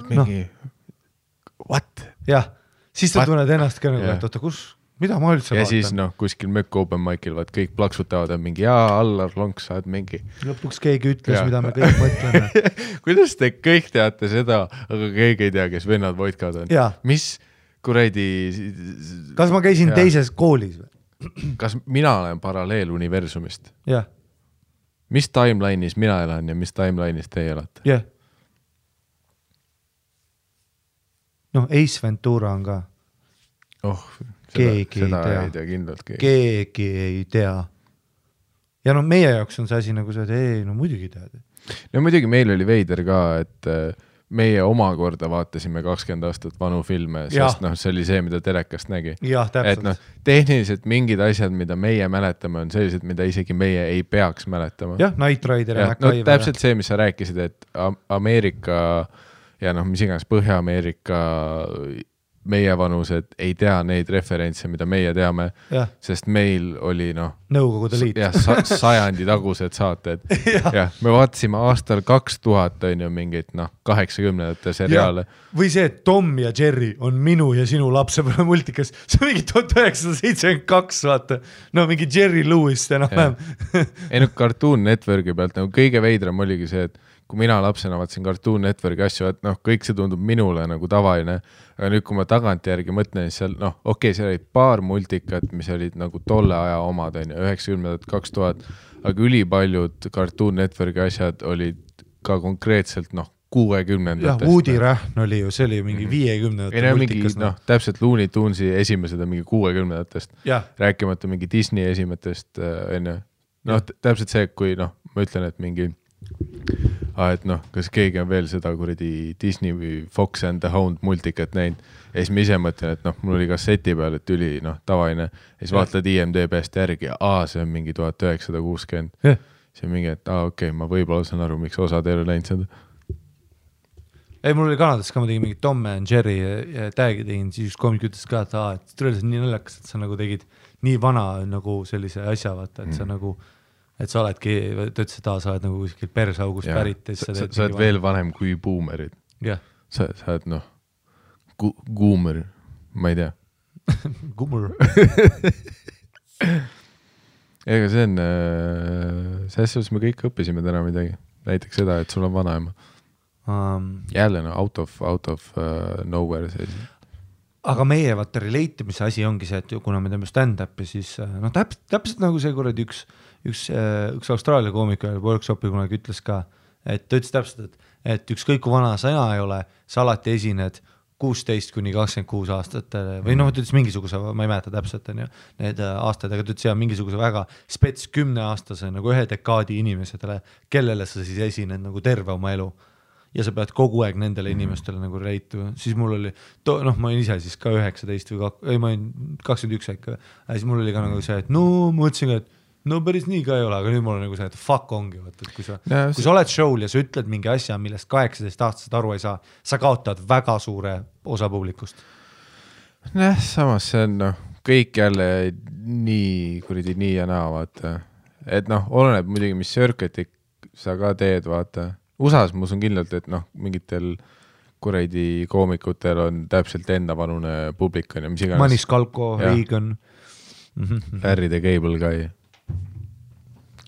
Mingi, what? Jah. Siis ta tunned ennast ka nagu, et oota, mida ma üldse ja vaatan? Ja siis noh, kuskil mökk open mic'il, vaat kõik plaksutavad, on mingi, Allar Lonks, saad mingi. Lõpuks keegi ütles, mida me kõik mõtleme. Kuidas te kõik teate seda, aga keegi ei tea, kes vennad Voitkad on? Mis kuradi... Kas ma käisin teises koolis või? Kas mina olen paralleeluniversumist? Jah. Mis timeline'is mina elan ja mis timeline'is teie elate? Jah. Noh, Ace Ventura on ka. Keegi seda ei tea kindlalt keegi ei tea. Ja no meie jaoks on see asi nagu see, et ei, no muidugi tead. No muidugi meil oli veider ka, et meie omakorda vaatasime 20 aastat vanu filme, sest noh, see oli see, mida telekast nägi. Jah, täpselt. Et noh, tehniliselt mingid asjad, mida meie mäletame, on sellised, mida isegi meie ei peaks mäletama. Jah, Knight Rider ja MacGyver. No täpselt see, mis sa rääkisid, et Ameerika ja noh, mis iganes Põhja-Ameerika meie vanused ei tea neid referentse, mida meie teame, sest meil oli noh Nõukogude Liit. Sajandi tagused saated. Me vaatasime aastal 2000 on ju mingit 80-ndate seriaale. Või see, et Tom ja Jerry on minu ja sinu lapsepõlve multikas. See on mingi 1972, vaata. No mingi Jerry Lewis enam-vähem. Ei no Cartoon Networki pealt nagu kõige veidram oligi see, et kui mina lapsena vaatasin Cartoon Networki asju, et noh, kõik see tundub minule nagu tavaline, aga nüüd, kui ma tagantjärgi mõtlen, siis seal, noh, okei, seal olid paar multikat, mis olid nagu tolle aja omad, 90-ndad, 2000, aga ülipaljud Cartoon Networki asjad olid ka konkreetselt, noh, 60-ndatest. Jah, Woody Rahn oli ju, see oli mingi 50-ndate multikas. Noh, täpselt Looney Tunesi esimesed on mingi 60-ndatest. Rääkimata mingi Disney esimestest, noh, täpselt see, kui noh, ma ütlen, et mingi et noh, kas keegi on veel seda kuradi Disney või Fox and the Hound multikat näinud ja siis ma ise mõtlen, et noh, mul oli kasseti peal, et üli noh, tavaline ja siis vaatad IMDb-st järgi ja see on mingi 1960 see on mingi, et okei, ma võib-olla saan aru, miks osad ei ole näinud seda. Ei, mul oli Kanadas ka, ma tegin mingi Tom and Jerry ja tag'i tegin, siis üks komik ütles ka, et tõeliselt nii naljakas, et sa nagu tegid nii vana nagu sellise asja, vaata, et sa nagu et sa oledki, ta ütles, et sa oled nagu kuskil persaugust pärit. Sa oled veel vanem kui boomerid. Sa oled noh, goomer, ma ei tea. Goomer. Ega see on, selles me kõik õppisime täna midagi. Näiteks seda, et sul on vanaema. Jälle out of nowhere selline. Aga meie vaata relatimise asi ongi see, et kuna me teeme stand-upi, siis noh, täpselt nagu see kuradi üks Austraalia koomik workshopi kunagi ütles ka, et ta ütles täpselt, et ükskõik kui vana sa ei ole, sa alati esined 16-26 aastat või noh, ta ütles mingisuguse, ma ei mäleta täpselt need aastad, aga ta ütles mingisuguse väga spets 10-aastase nagu 1 dekaadi inimesetele, kellele sa siis esined nagu terve oma elu. Ja sa pead kogu aeg nendele inimestele nagu reitu. Siis mul oli, noh, ma olin ise siis ka 19 või ma olin 21 äkki. Siis mul oli ka nagu see, et no mõtlesin ka, et no päris nii ka ei ole, aga nüüd mul on nagu see, et fuck ongi. Võt, et kui sa oled show'l ja sa ütled mingi asja, millest 18-aastased aru ei saa, sa kaotad väga suure osa publikust. Samas see on noh, kõik jälle nii kuridi nii ja naa, vaata. Et noh, oleneb muidugi, mis circuit'i sa ka teed, vaata. USA-s ma usun kindlalt, et noh, mingitel kuradi koomikutel on täpselt enda vanune publik on ja mis iganes. Manis Kalko, Reagan. Larry the Cable Guy.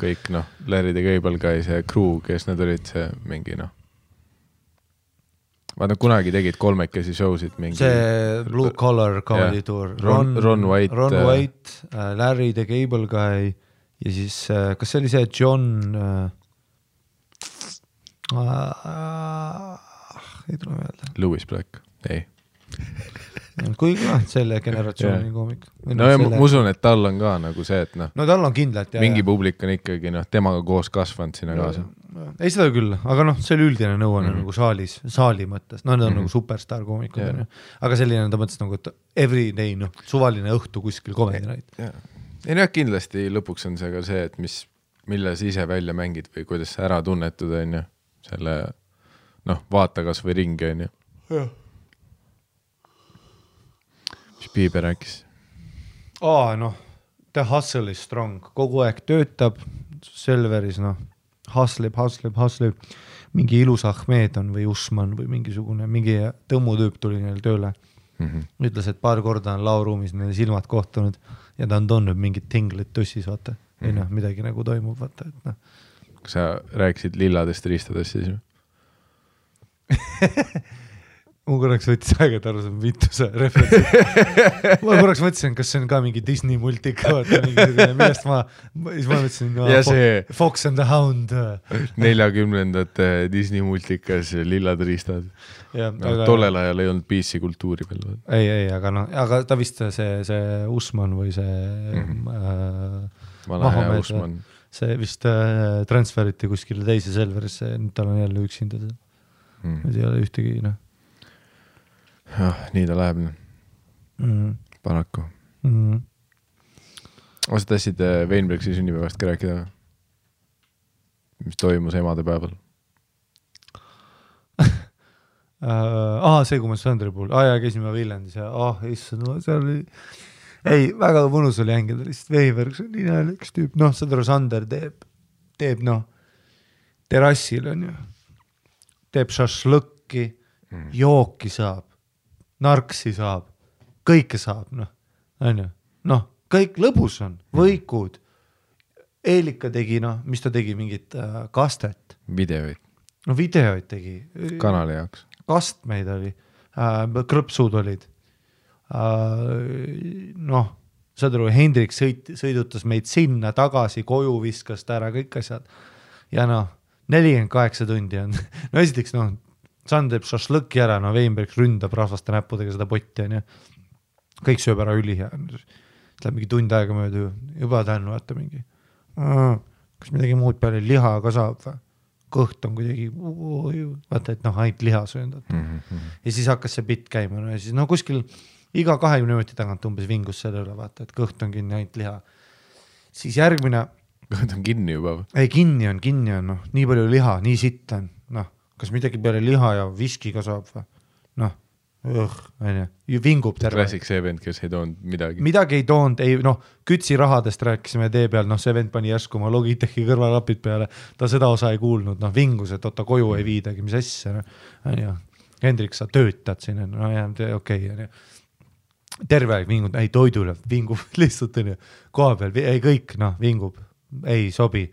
Kõik noh, Larry the Cable Guy, see crew, kes need olid, see mingi noh. Vaata, kunagi tegid kolmekesi showsid mingi. See Blue Collar Comedy Tour. Ron White. Larry the Cable Guy ja siis, kas see oli see John... ei tule meelde. Louis Black, ei. kuigi selle generatsiooni koomik. No ja ma usun, et tal on ka nagu see, et no tal on kindlalt. Mingi publik on ikkagi temaga koos kasvanud sinna kaasa. Ei seda küll, aga see oli üldine nõuanne nagu saali mõttes. Need on nagu superstar koomikud. Aga selline ta mõttes nagu, et everyday, suvaline õhtu kuskil comedy night. Ei jah, kindlasti lõpuks on see ka see, et mille sa ise välja mängid või kuidas sa ära tunnetud, on ju. Selle, vaata kas või ringi, on ju. Jah. Piibe rääkis? The hustle is strong, kogu aeg töötab Selveris, hustleb, mingi ilus Ahmed on või Usman või mingi tõmmutüüp tuli neil tööle. Ütles, et paar korda on lauruumis neil silmad kohtunud ja ta on toonud mingid tinglit tussis, vaata. Ei midagi nagu toimub, vaata. Et, Kas sa rääkisid lilladest riistadest siis? Ma korraks võttis aega, et aru see vituse referentsi. Ma korraks mõtlesin, kas see on ka mingi Disney multika, millest ma mõtlesin Fox and the Hound. 40ndate Disney multikas lillad riistad. Tollel ajal ei olnud PC kultuuri veel. Ei, aga ta vist see Usman või see Vana Usman. See vist transferiti kuskile teise Selverisse, nüüd tal on jälle üksinda. Nüüd ei ole ühtegi, nii ta läheb. Paraku. Sa tahtsid Weinbergsi sünnipäevast ka rääkida? Mis toimus emade päeval? See kui ma Sandri puhul. Käisime Viljandis ja seal oli väga mõnus oli hängida lihtsalt Weinbergs on nii üks tüüp. Sadru Sander teeb terrassil on ju. Teeb šašlõkki, jooki saab. Narksi saab, kõike saab, kõik lõbus on, võikud. Eelika tegi, mis ta tegi, mingit kastet. Videoid. Videoid tegi. Kanali jaoks. Kastmeid oli, krõpsud olid. Saad aru, Hendrik sõidutas meid sinna tagasi, koju viskas ta ära, kõik asjad. Ja 48 tundi on. Esiteks, Sand teeb šašlõki ära, Weinberg ründab rahvaste näppudega seda potti, on ju. Kõik sööb ära üli ja läheb mingi tund aega mööda, juba tännu vaata mingi. Kas midagi muud peale liha ka saab või? Kõht on kuidagi, vaata, et ainult liha söönud. Ja siis hakkas see bitt käima, ja siis kuskil iga 20 minuti tagant umbes vingus selle üle, vaata, et kõht on kinni, ainult liha. Siis järgmine... Kõht on kinni juba või? Ei, kinni on, nii palju liha, nii sitt on, kas midagi peale liha ja viski ka saab või? Vingub terve. Klassik see vend, kes ei toonud midagi. Midagi ei toonud, kütsi rahadest rääkisime tee peal, see vend pani järsku oma Logitechi kõrvalapid peale, ta seda osa ei kuulnud, vingus, et koju ei viidagi, mis asja. Hendrik, sa töötad siin, okei. Terve aeg vingub, ei toidule, vingub lihtsalt, koha peal, ei kõik, vingub, ei sobi.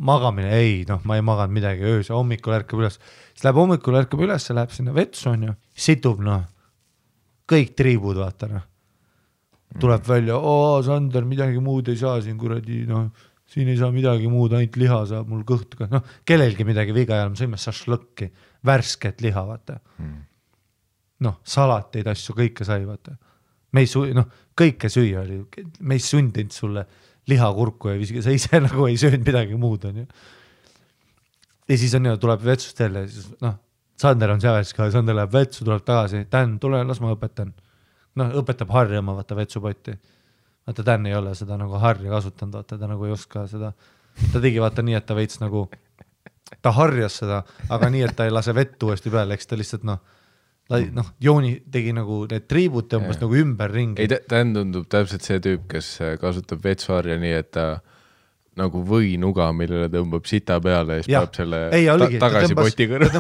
Magamine, ei, ma ei maganud midagi öös, hommikul ärkab üles. Siis läheb hommikul ärkab üles, läheb sinna vetsu, on ju, situb, kõik triibud, vaata, tuleb välja, Sander, midagi muud ei saa siin, kuradi, siin ei saa midagi muud, ainult liha saab, mul kõht ka, kellelgi midagi viga ei ole, me sõime šašlõkki, värsket liha, vaata. Salateid asju, kõike sai, vaata. Kõike süüa oli, me ei sundinud sulle lihakurku ja viski, sa ise nagu ei söönud midagi muud, on ju. Ja siis on ju, tuleb vetsust jälle, siis Sander on seal, Sander läheb vetsu, tuleb tagasi, Dan, tule, las ma õpetan. Õpetab harjama, vaata vetsupotti. Vaata, Dan ei ole seda nagu harja kasutanud, vaata, ta nagu ei oska seda. Ta tegi vaata nii, et ta veits nagu, ta harjas seda, aga nii, et ta ei lase vettu uuesti peale, eks ta lihtsalt Jooni tegi nagu need triibud tõmbas nagu ümber ringi. Ei, ta tundub täpselt see tüüp, kes kasutab vetsuharja nii, et ta nagu võinuga, millele tõmbab sita peale ja siis peab selle tagasi poti kõrva.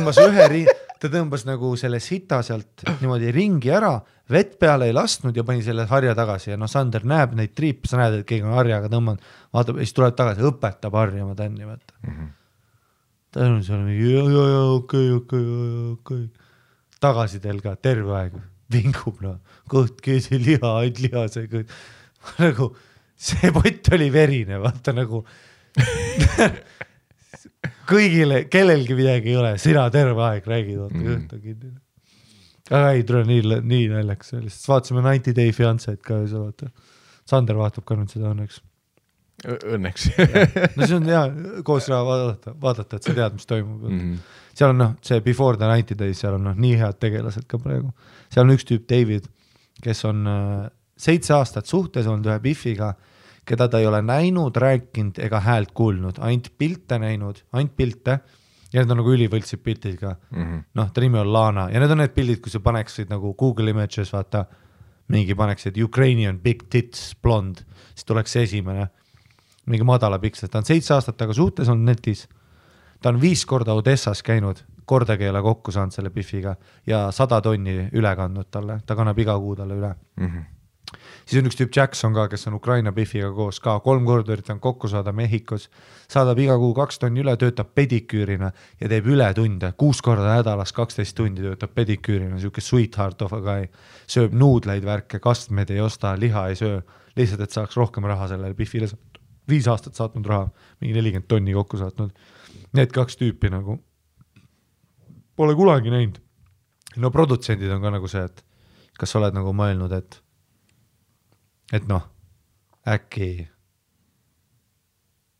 Ta tõmbas nagu selle sita sealt niimoodi ringi ära, vett peale ei lastnud ja pani selle harja tagasi ja Sander näeb neid triipe, sa näed, et keegi on harjaga tõmbanud, vaatab ja siis tuleb tagasi, õpetab harjama tänni, vaata. Ta on seal mingi, okei. Tagasi teil ka terve aeg vingub, kõht, keesi, liha, ainult liha, see kõht. Nagu, see pott oli verine, vaata nagu kõigile, kellelgi midagi ei ole, sina terve aeg räägid, vaata kõht on kinni. Aga ei, tule nii naljakas, lihtsalt vaatasime 90 Day Fiancé't ka ja sa vaata. Sander vaatab ka nüüd seda õnneks. Õnneks. No see on hea koos vaadata, et sa tead, mis toimub. Seal on see Before the 90 Days, seal on nii head tegelased ka praegu. Seal on üks tüüp David, kes on 7 aastat suhtes olnud ühe Biffiga, keda ta ei ole näinud, rääkinud ega häält kuulnud, ainult pilte näinud, ainult pilte, ja need on nagu ülivõltsid pildid ka. Noh, ta nimi on Lana, ja need on need pildid, kui sa paneksid nagu Google Images, vaata, mingi paneksid Ukrainian big tits blond, siis tuleks see esimene, mingi madala piksel, ta on 7 aastat taga suhtes on netis, ta on 5 korda Odessas käinud, kordagi ei ole kokku saanud selle Biffiga ja 100 tonni üle kandnud talle, ta kannab iga kuu talle üle. Siis on üks tüüp Jackson ka, kes on Ukraina Biffiga koos ka, 3 korda üritan kokku saada Mehhikos, saadab iga kuu 2 tonni üle, töötab pediküürina ja teeb üle tunde, 6 korda nädalas 12 tundi töötab pediküürina, siuke sweetheart of a guy, sööb nuudleid värke, kastmed ei osta, liha ei söö, lihtsalt, et saaks rohkem raha sellele Biffile, 5 aastat saatnud raha, mingi 40 tonni kokku saatnud. Need 2 tüüpi nagu pole kunagi näinud. No produtsendid on ka nagu see, et kas sa oled nagu mõelnud, et noh, äkki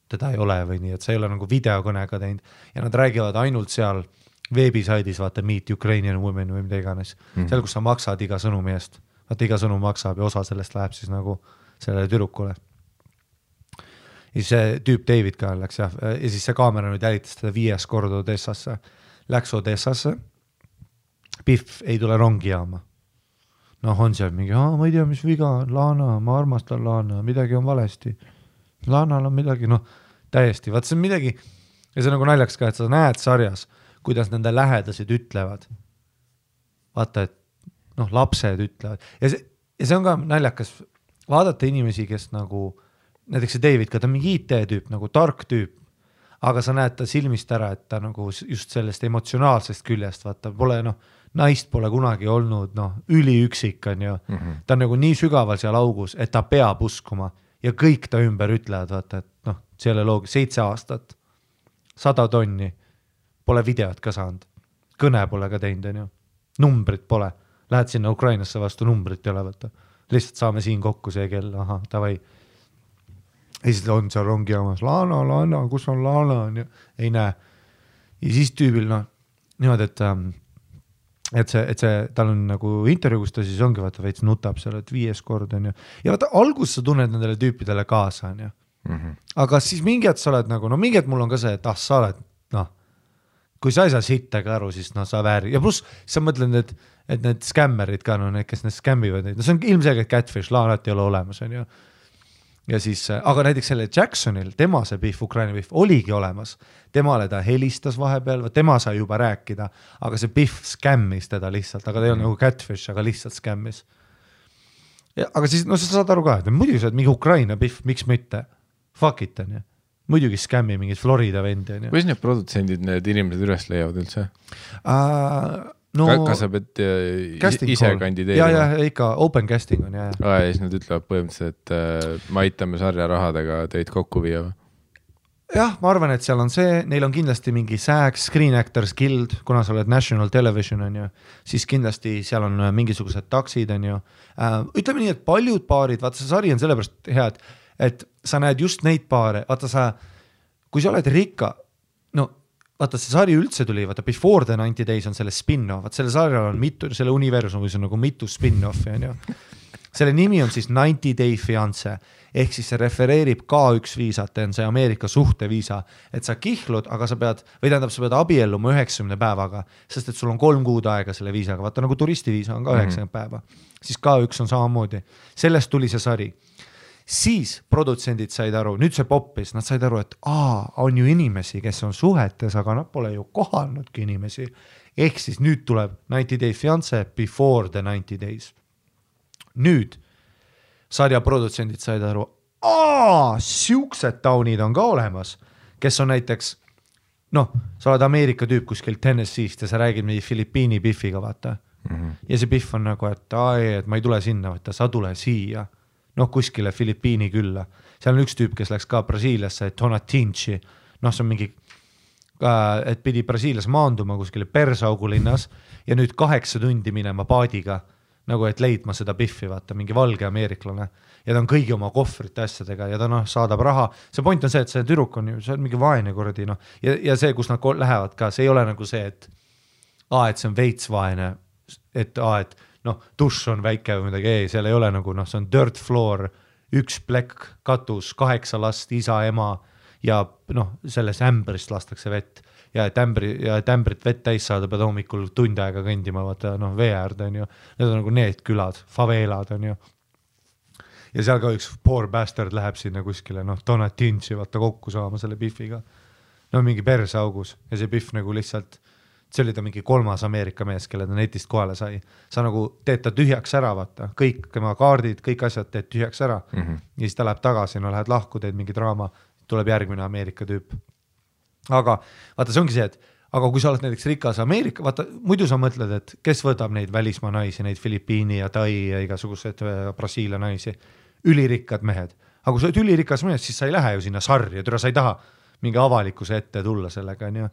teda ei ole või nii, et sa ei ole nagu videokõnega teinud ja nad räägivad ainult seal veebisaidis, vaata Meet Ukrainian Women või mida iganes, seal, kus sa maksad iga sõnumi eest, vaata iga sõnum maksab ja osa sellest läheb siis nagu sellele tüdrukule. Ja see tüüp David ka läks ja siis see kaamera nüüd jälitas teda 5 korda Odessasse, läks Odessasse, Biff ei tule rongi jaama. Noh, on seal mingi, ma ei tea, mis viga on, Lana, ma armastan Lana, midagi on valesti. Lanal on midagi, noh, täiesti, vaat see on midagi, ja see on nagu naljaks ka, et sa näed sarjas, kuidas nende lähedased ütlevad. Vaata, et noh, lapsed ütlevad. Ja see on ka naljakas vaadata inimesi, kes nagu, näiteks see David ka, ta on mingi IT-tüüp, nagu tark tüüp, aga sa näed ta silmist ära, et ta nagu just sellest emotsionaalsest küljest, vaata, pole noh, naist pole kunagi olnud, noh, üliüksik on ju, ta on nagu nii sügaval seal augus, et ta peab uskuma ja kõik ta ümber ütlevad, vaata, et noh, selle loogi 7 aastat, 100 tonni, pole videot ka saanud, kõne pole ka teinud, on ju, numbrit pole, lähed sinna Ukrainasse vastu, numbrit ei ole, vaata, lihtsalt saame siin kokku see kell, aha, tavai, ja siis on seal rongi jaamas, Lana, kus on Lana, on ju, ei näe, ja siis tüübil, noh, niimoodi, et see, tal on nagu intervjuu, kus ta siis ongi, vaata, veits nutab seal, et 5 kord on ju. Ja vaata, algus sa tunned nendele tüüpidele kaasa, on ju. Aga siis mingi hetk sa oled nagu, no mingi hetk mul on ka see, et sa oled, noh, kui sa ei saa sittega aru, siis noh, sa vääri. Ja pluss sa mõtled, et need skämmerid ka, no need, kes need skämmivad neid, no see on ilmselgelt catfish, Laanat ei ole olemas, on ju. Ja siis, aga näiteks selle Jacksonil, tema see Biff, Ukraina Biff, oligi olemas. Temale ta helistas vahepeal, tema sai juba rääkida, aga see Biff skämmis teda lihtsalt, aga ta ei ole nagu catfish, aga lihtsalt skämmis. Aga siis, no sa saad aru ka, et muidugi sa oled mingi Ukraina Biff, miks mitte? Fuck it, on ju. Muidugi skämmi mingid Florida vendi, on ju. Kuidas need produtsendid, need inimesed üles leiavad üldse? No, kas sa pead ise kandideerima? Ja, ikka open casting on, ja siis nad ütlevad põhimõtteliselt, et me aitame sarja rahadega teid kokku viia või? Jah, ma arvan, et seal on see, neil on kindlasti mingi SAG, Screen Actors Guild, kuna sa oled National Television, on ju, siis kindlasti seal on mingisugused taksid, on ju. Ütleme nii, et paljud paarid, vaata see sari on sellepärast hea, et sa näed just neid paare, vaata kui sa oled rikka, no vaata, see sari üldse tuli, vaata Before the 90 Days on selle spin-off, vaata selle sarjal on mitu, selle universumis on nagu mitu spin-offi, on ju. Selle nimi on siis 90 Day Fiancé, ehk siis see refereerib K1 viisat, on see Ameerika suhteviisa, et sa kihlud, aga sa pead, või tähendab, sa pead abielluma 90 päevaga, sest et sul on 3 kuud aega selle viisaga, vaata nagu turistiviisa on ka 90 päeva, siis K1 on samamoodi, sellest tuli see sari. Siis produtsendid said aru, nüüd see poppis, nad said aru, et on ju inimesi, kes on suhetes, aga nad pole ju kohanudki inimesi. Ehk siis nüüd tuleb 90 Day Fiancé Before the 90 Days. Nüüd sarja produtsendid said aru, siuksed taunid on ka olemas, kes on näiteks, noh, sa oled Ameerika tüüp kuskil Tennessee'st ja sa räägid mingi Filipiini Biffiga, vaata. Ja see Biff on nagu, et ma ei tule sinna, vaata, sa tule siia. Noh, kuskile Filipiini külla. Seal on üks tüüp, kes läks ka Brasiiliasse, Tonatinci. Noh, see on mingi et pidi Brasiilias maanduma kuskile Persaugu linnas ja nüüd 8 tundi minema paadiga, nagu et leidma seda Biffi, vaata, mingi valge ameeriklane ja ta on kõigi oma kohvrite asjadega ja ta saadab raha. See point on see, et see tüdruk on ju, see on mingi vaene kordi, ja see, kus nad lähevad ka, see ei ole nagu see, et see on veits vaene, et dušš on väike või midagi, seal ei ole nagu, see on dirt floor, 1 plekk, katus, 8 last, isa, ema ja selles ämbrist lastakse vett ja et ämbrit vett täis saada, pead hommikul tund aega kõndima, vaata, vee äärde on ju, need on nagu need külad, faveelad on ju. Ja seal ka üks poor bastard läheb sinna kuskile, Donatinci vaata kokku saama selle Biffiga. Mingi persaugus ja see Biff nagu lihtsalt, see oli ta mingi 3. Ameerika mees, kelle ta netist kohale sai. Sa nagu teed ta tühjaks ära, vaata, kõik tema kaardid, kõik asjad teed tühjaks ära ja siis ta läheb tagasi, lähed lahku, teed mingi draama, tuleb järgmine Ameerika tüüp. Aga vaata, see ongi see, et aga kui sa oled näiteks rikas Ameerika, vaata, muidu sa mõtled, et kes võtab neid välismaa naisi, neid Filipiini ja Tai ja igasugused Brasiilia naisi, ülirikkad mehed. Aga kui sa oled ülirikas mehed, siis sa ei lähe ju sinna sarja, sa ei taha mingi avalikkuse ette tulla sellega, on ju.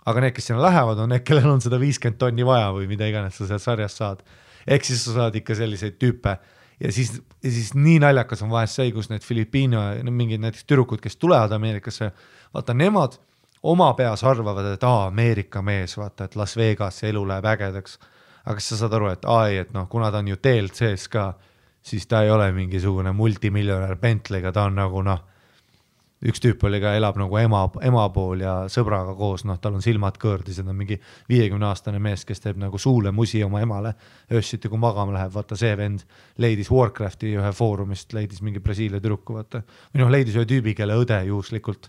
Aga need, kes sinna lähevad, on need, kellel on seda 50 tonni vaja või mida iganes sa sealt sarjast saad. Ehk siis sa saad ikka selliseid tüüpe. Ja siis nii naljakas on vahest see, kus need Filipiino, mingid näiteks türukud, kes tulevad Ameerikasse, vaata, nemad oma peas arvavad, et Ameerika mees, vaata, et Las Vegas elu läheb ägedaks. Aga kas sa saad aru, et kuna ta on ju TLC-s ka, siis ta ei ole mingisugune multimiljonär Bentley'ga, ta on nagu üks tüüp oli ka, elab nagu ema pool ja sõbraga koos, tal on silmad kõõrdis, et on mingi 50-aastane mees, kes teeb nagu suule musi oma emale, öössiti kui magama läheb, vaata see vend leidis Warcrafti ühe foorumist, leidis mingi Brasiilia türuku, vaata, või leidis ühe tüübi, kelle õde juhuslikult,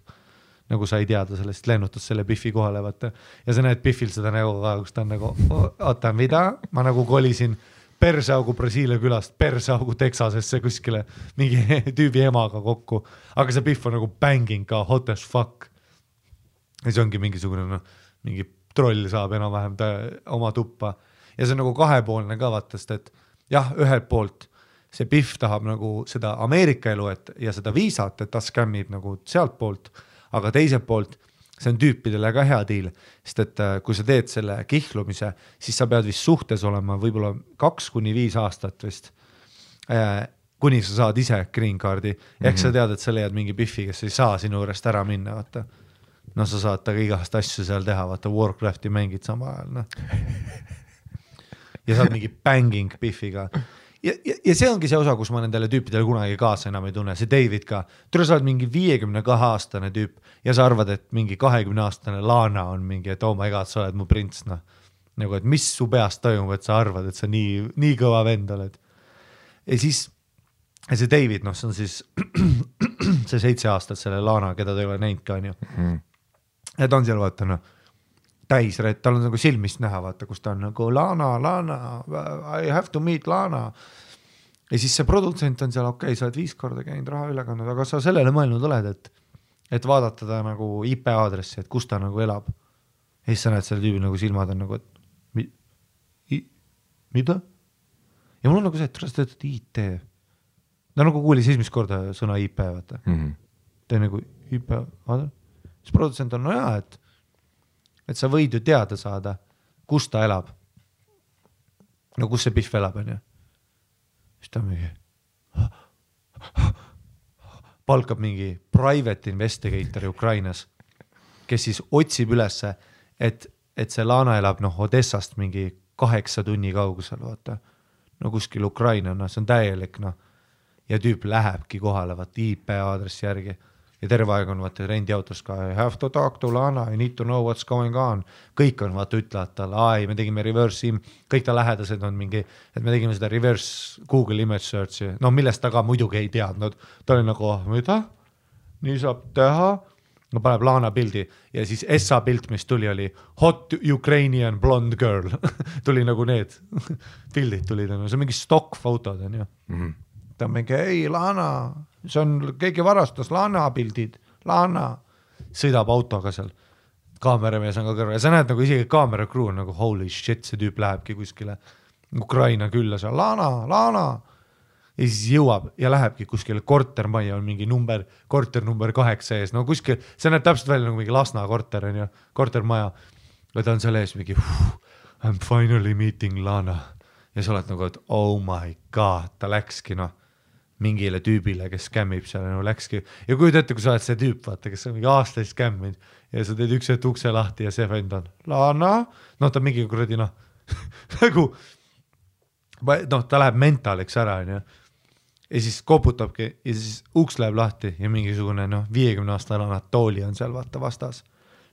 nagu sa ei teada sellest, lennutas selle Biffi kohale, vaata, ja sa näed Biffil seda nägu ka, kus ta on nagu, oota, mida, ma nagu kolisin Persaugu Brasiilia külast, Persaugu Texasesse kuskile mingi tüübi emaga kokku, aga see Biff on nagu banging ka, hot as fuck. Ja see ongi mingisugune, mingi troll saab enam-vähem oma tuppa. Ja see on nagu kahepoolne ka vaatast, et jah, ühelt poolt see Biff tahab nagu seda Ameerika elu ja seda viisat, et ta skämmib nagu sealt poolt, aga teiselt poolt see on tüüpidele ka hea diil, sest et kui sa teed selle kihlumise, siis sa pead vist suhtes olema võib-olla 2-5 aastat vist, kuni sa saad ise green card'i. Ehk sa tead, et sa leiad mingi Biffi, kes ei saa sinu juurest ära minna, vaata. Sa saad taga igast asju seal teha, vaata, Warcrafti mängid sama ajal. Ja saad mingi banging Biffiga. Ja see ongi see osa, kus ma nendele tüüpidele kunagi kaasa enam ei tunne, see David ka. Tule sa oled mingi 52-aastane tüüp ja sa arvad, et mingi 20-aastane Lana on mingi, et oh my god, sa oled mu prints, Nagu, et mis su peast toimub, et sa arvad, et sa nii kõva vend oled. Ja siis see David, see on siis see 7 aastat selle Lana, keda ta ei ole näinud ka, on ju. Ja ta on seal, vaata, täis, tal on nagu silmist näha, vaata, kus ta on nagu Lana, I have to meet Lana. Ja siis see produtsent on seal, okei, sa oled 5 korda käinud raha üle kandnud, aga sa sellele mõelnud oled, et vaadata ta nagu IP aadressi, et kus ta nagu elab. Ja siis sa näed selle tüübi nagu silmad on nagu, et mida? Ja mul on nagu see, et sa töötad IT. Ta nagu kuulis esimest korda sõna IP, vaata. Ta on nagu IP aadres. Siis produtsent on, et sa võid ju teada saada, kus ta elab. No kus see Biff elab, on ju. Siis ta mingi palkab mingi private investigator Ukrainas, kes siis otsib ülesse, et see Lana elab Odessast mingi 8 tunni kaugusel, vaata. No kuskil Ukraina, see on täielik, ja tüüp lähebki kohale, vaata, IP aadressi järgi. Ja terve aeg on vaata rendiautos ka, I have to talk to Lana, I need to know what's going on. Kõik on vaata ütlevad talle, me tegime reverse kõik ta lähedased on mingi, et me tegime seda reverse Google image search'i, millest ta ka muidugi ei teadnud. Ta oli nagu, mida? Nii saab teha? Paneb Lana pildi ja siis SA pilt, mis tuli, oli hot Ukrainian blonde girl. Tuli nagu need pildid tulid, see on mingi stock fotod, on ju. Ta on mingi, ei Lana, see on, keegi varastas Lana pildid, Lana, sõidab autoga seal, kaameramees on ka kõrval ja sa näed nagu isegi kaamera crew on nagu holy shit, see tüüp lähebki kuskile Ukraina külla seal, Lana, ja siis jõuab ja lähebki kuskile kortermajja on mingi korter number 8 ees, no kuskil, see näeb täpselt välja nagu mingi Lasna korter on ju, kortermaja. Ja ta on seal ees mingi, I'm finally meeting Lana. Ja sa oled nagu, et oh my god, ta läkski mingile tüübile, kes skämmib seal, läkski. Ja kui ette, kui sa oled see tüüp, vaata, kes on mingi aastaid skämminud ja sa teed üks ukse lahti ja see vend on Lana, ta mingi kuradi nagu, ta läheb mentaliks ära, on ju. Ja siis koputabki ja siis uks läheb lahti ja mingisugune 50-aastane Anatoli on seal vaata vastas.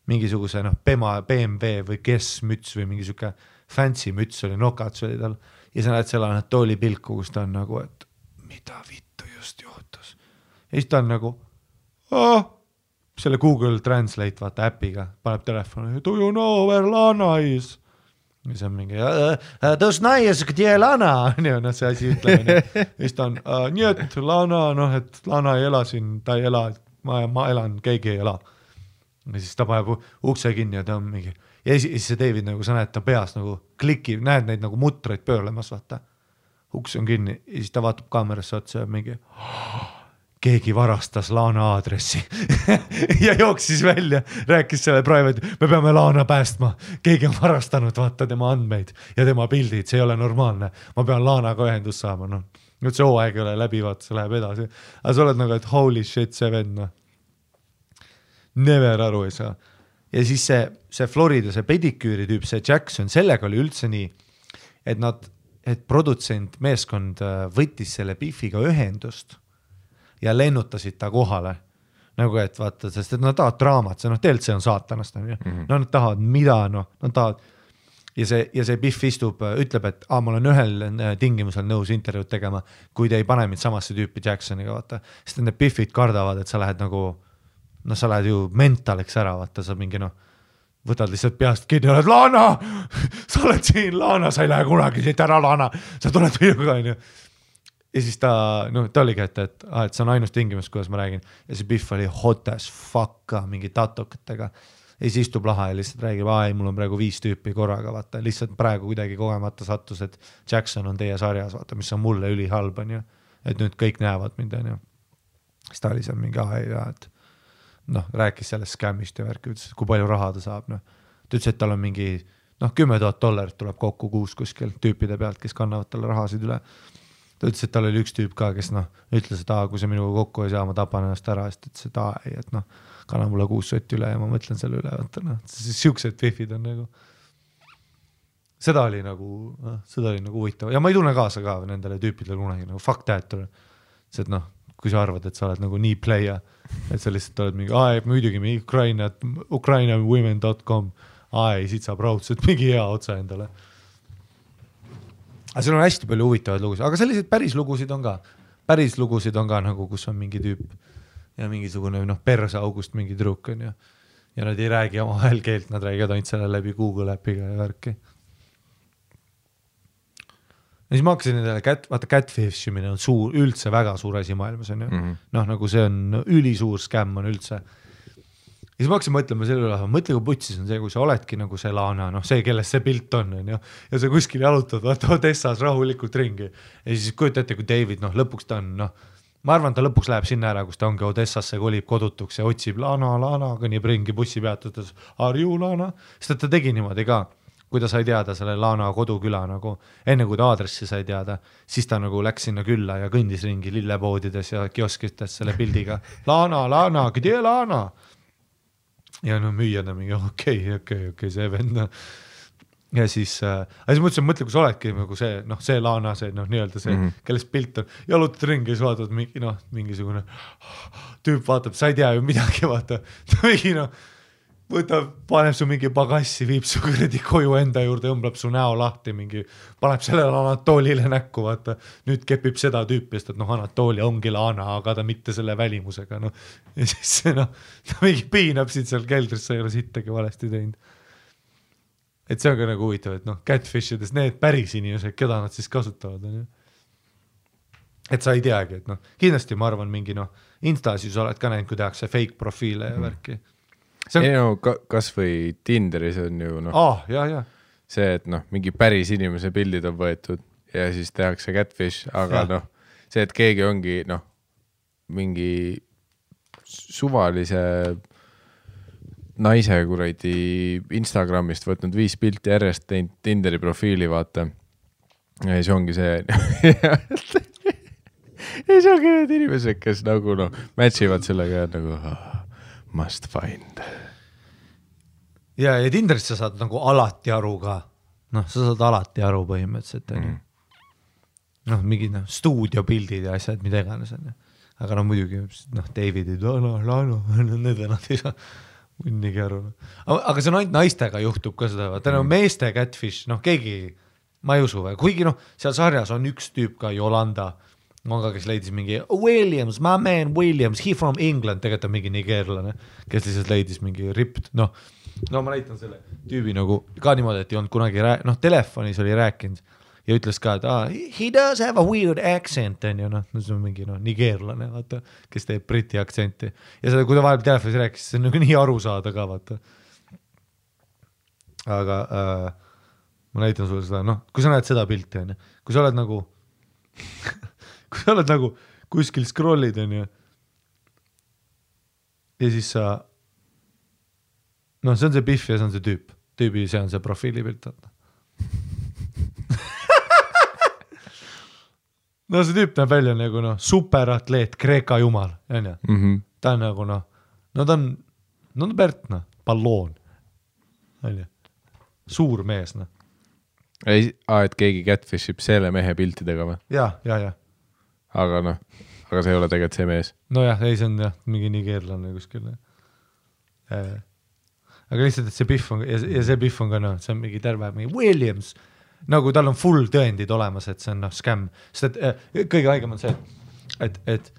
Mingisuguse BMW või kes müts või mingi siuke fancy müts oli, nokats oli tal. Ja sa näed selle Anatoli pilku, kus ta on nagu, et mida vittu just juhtus. Ja siis ta on nagu, selle Google Translate vaata äpiga, paneb telefoni, do you know where Lana is? Ja see on mingi, tõus naies, kde Lana, see asi ütleme. Ja siis ta on, nii et Lana, et Lana ei ela siin, ta ei ela, ma elan, keegi ei ela. Ja siis ta paneb ukse kinni ja ta on mingi, ja siis see David, nagu sa näed, ta peas nagu klikib, näed neid nagu mutreid pöörlemas, vaata. Uks on kinni ja siis ta vaatab kaamerasse otsa ja mingi, keegi varastas Lana aadressi ja jooksis välja, rääkis selle private, me peame Lana päästma, keegi on varastanud vaata tema andmeid ja tema pildid, see ei ole normaalne, ma pean Lanaga ühendust saama, nüüd see hooaeg ei ole läbi, vaata, see läheb edasi, aga sa oled nagu, et holy shit, see vend, never aru ei saa. Ja siis see Florida, see pediküüri tüüp, see Jackson, sellega oli üldse nii, et produtsent meeskond võttis selle Biffiga ühendust ja lennutasid ta kohale. Nagu et vaata, sest et nad tahavad draamat, see tegelikult see on saatanast. Nad tahavad mida, nad tahavad. Ja see Biff istub, ütleb, et ma olen ühel tingimusel nõus intervjuud tegema, kui te ei pane mind samasse tüüpi Jacksoniga, vaata. Sest need Biffid kardavad, et sa lähed nagu, sa lähed ju mentaliks ära, vaata, sa mingi võtad lihtsalt peast kinni, oled Lana, sa oled siin Lana, sa ei lähe kunagi siit ära Lana, sa tuled minuga, on ju. Ja siis ta oligi, et see on ainus tingimus, kuidas ma räägin. Ja see Biff oli hot as fuck mingi tatokatega. Ja siis istub laha ja lihtsalt räägib, mul on praegu 5 tüüpi korraga, vaata. Lihtsalt praegu kuidagi kogemata sattus, et Jackson on teie sarjas, vaata, mis on mulle ülihalb, on ju. Et nüüd kõik näevad mind, on ju. Siis ta oli seal mingi et rääkis sellest skämmist ja värki, ütles, kui palju raha ta saab. Ta ütles, et tal on mingi $10,000 tuleb kokku kuus kuskil tüüpide pealt, kes kannavad talle rahasid üle. Ta ütles, et tal oli üks tüüp ka, kes ütles, et kui see minuga kokku ei saa, ma tapan ennast ära, sest ütles, et kanna mulle 6 sotti üle ja ma mõtlen selle üle, siuksed Biffid on nagu. Seda oli nagu huvitav ja ma ei tunne kaasa ka nendele tüüpidele kunagi, nagu fuck that, see, et kui sa arvad, et sa oled nagu nii playa, et sa lihtsalt oled mingi, muidugi ukrainawomen.com, siit saab raudselt mingi hea otsa endale. Aga seal on hästi palju huvitavaid lugusid, aga sellised päris lugusid on ka nagu, kus on mingi tüüp ja mingisugune persaugust mingi truk on ja nad ei räägi oma vahel keelt, nad räägivad ainult selle läbi Google äpiga ja värki. Ja siis ma hakkasin nendele catfishimine on üldse väga suur asi maailmas on ju. Nagu see on ülisuur skämm on üldse. Ja siis ma hakkasin mõtlema selle üle, mõtle kui putsis on see, kui sa oledki nagu see Lana, see, kellest see pilt on ja sa kuskil jalutad, vaata Odessas rahulikult ringi. Ja siis kujutate, kui David, lõpuks ta on, ma arvan, ta lõpuks läheb sinna ära, kus ta ongi Odessasse, kolib kodutuks ja otsib Lana, kõnnib ringi bussi peatudes, are you Lana? Sest ta tegi niimoodi ka, kui ta sai teada selle Lana koduküla, nagu enne kui ta aadressi sai teada, siis ta nagu läks sinna külla ja kõndis ringi lillepoodides ja kioskites selle pildiga. Lana, kde Lana? Ja müüjad on mingi, okei, see vend. Ja siis mõtlesin, kui sa oledki nagu see Lana, see nii-öelda see, kellest pilt on, jalutad ringi ja vaatad mingisugune tüüp vaatab, sa ei tea ju midagi, vaata. Ta mingi võtab, paneb su mingi pagassi, viib su kuradi koju enda juurde, õmblab su näo lahti, paneb sellele Anatolile näkku, vaata. Nüüd kepib seda tüüpi, sest et Anatoli ongi Lana, aga ta mitte selle välimusega. Ja siis ta mingi piinab siit seal keldrisse, ei ole sittagi valesti teinud. Et see on ka nagu huvitav, et catfishides need päris inimesed, keda nad siis kasutavad. Et sa ei teagi, et kindlasti ma arvan mingi Instasis oled ka näinud, kui tehakse fake profiile ja värki. Kas või Tinderis on ju see, et mingi päris inimese pildid on võetud ja siis tehakse catfish, aga see, et keegi ongi mingi suvalise naise kuradi Instagramist võtnud 5 pilti järjest teinud Tinderi profiili, vaata. Ja siis ongi see ja siis ongi need inimesed, kes nagu matchivad sellega nagu must find. Ja Tinderist sa saad nagu alati aru ka. Sa saad alati aru põhimõtteliselt. Mingi stuudiopildid ja asjad, mida iganes on. Aga muidugi Davidid, need nad ei saa munnigi aru. Aga see on ainult naistega juhtub ka seda. Meeste catfish, keegi, ma ei usu. Kuigi seal sarjas on üks tüüp ka, Yolanda, kes leidis mingi Williams, my man Williams, he from England, tegelikult on mingi nigeerlane, kes lihtsalt leidis mingi ripped. No ma näitan selle tüübi nagu ka niimoodi, et ei olnud kunagi telefonis oli rääkinud ja ütles ka, et he does have a weird accent, on ju, see on mingi nigeerlane, vaata, kes teeb briti aktsenti. Ja seda, kui ta vahepeal telefonis rääkis, see on nagu nii aru saada ka, vaata. Aga ma näitan sulle seda, kui sa näed seda pilti, on ju, kui sa oled nagu kuskil scrollid, on ju, ja siis sa see on see Biff ja see on see tüübi, see on see profiilipilt, vaata. See tüüp näeb välja nagu superatleet, Kreeka jumal, on ju. Ta on nagu ta on Bert, palloon, on ju. Suur mees, et keegi catfishib selle mehe piltidega või? Ja. Aga see ei ole tegelikult see mees. Nojah, ei, see on mingi nigeerlane kuskil. Aga lihtsalt, et see Biff on, ja see Biff on ka, see on mingi terve, mingi Williams, nagu tal on full tõendid olemas, et see on scam. Sest et kõige haigem on see, et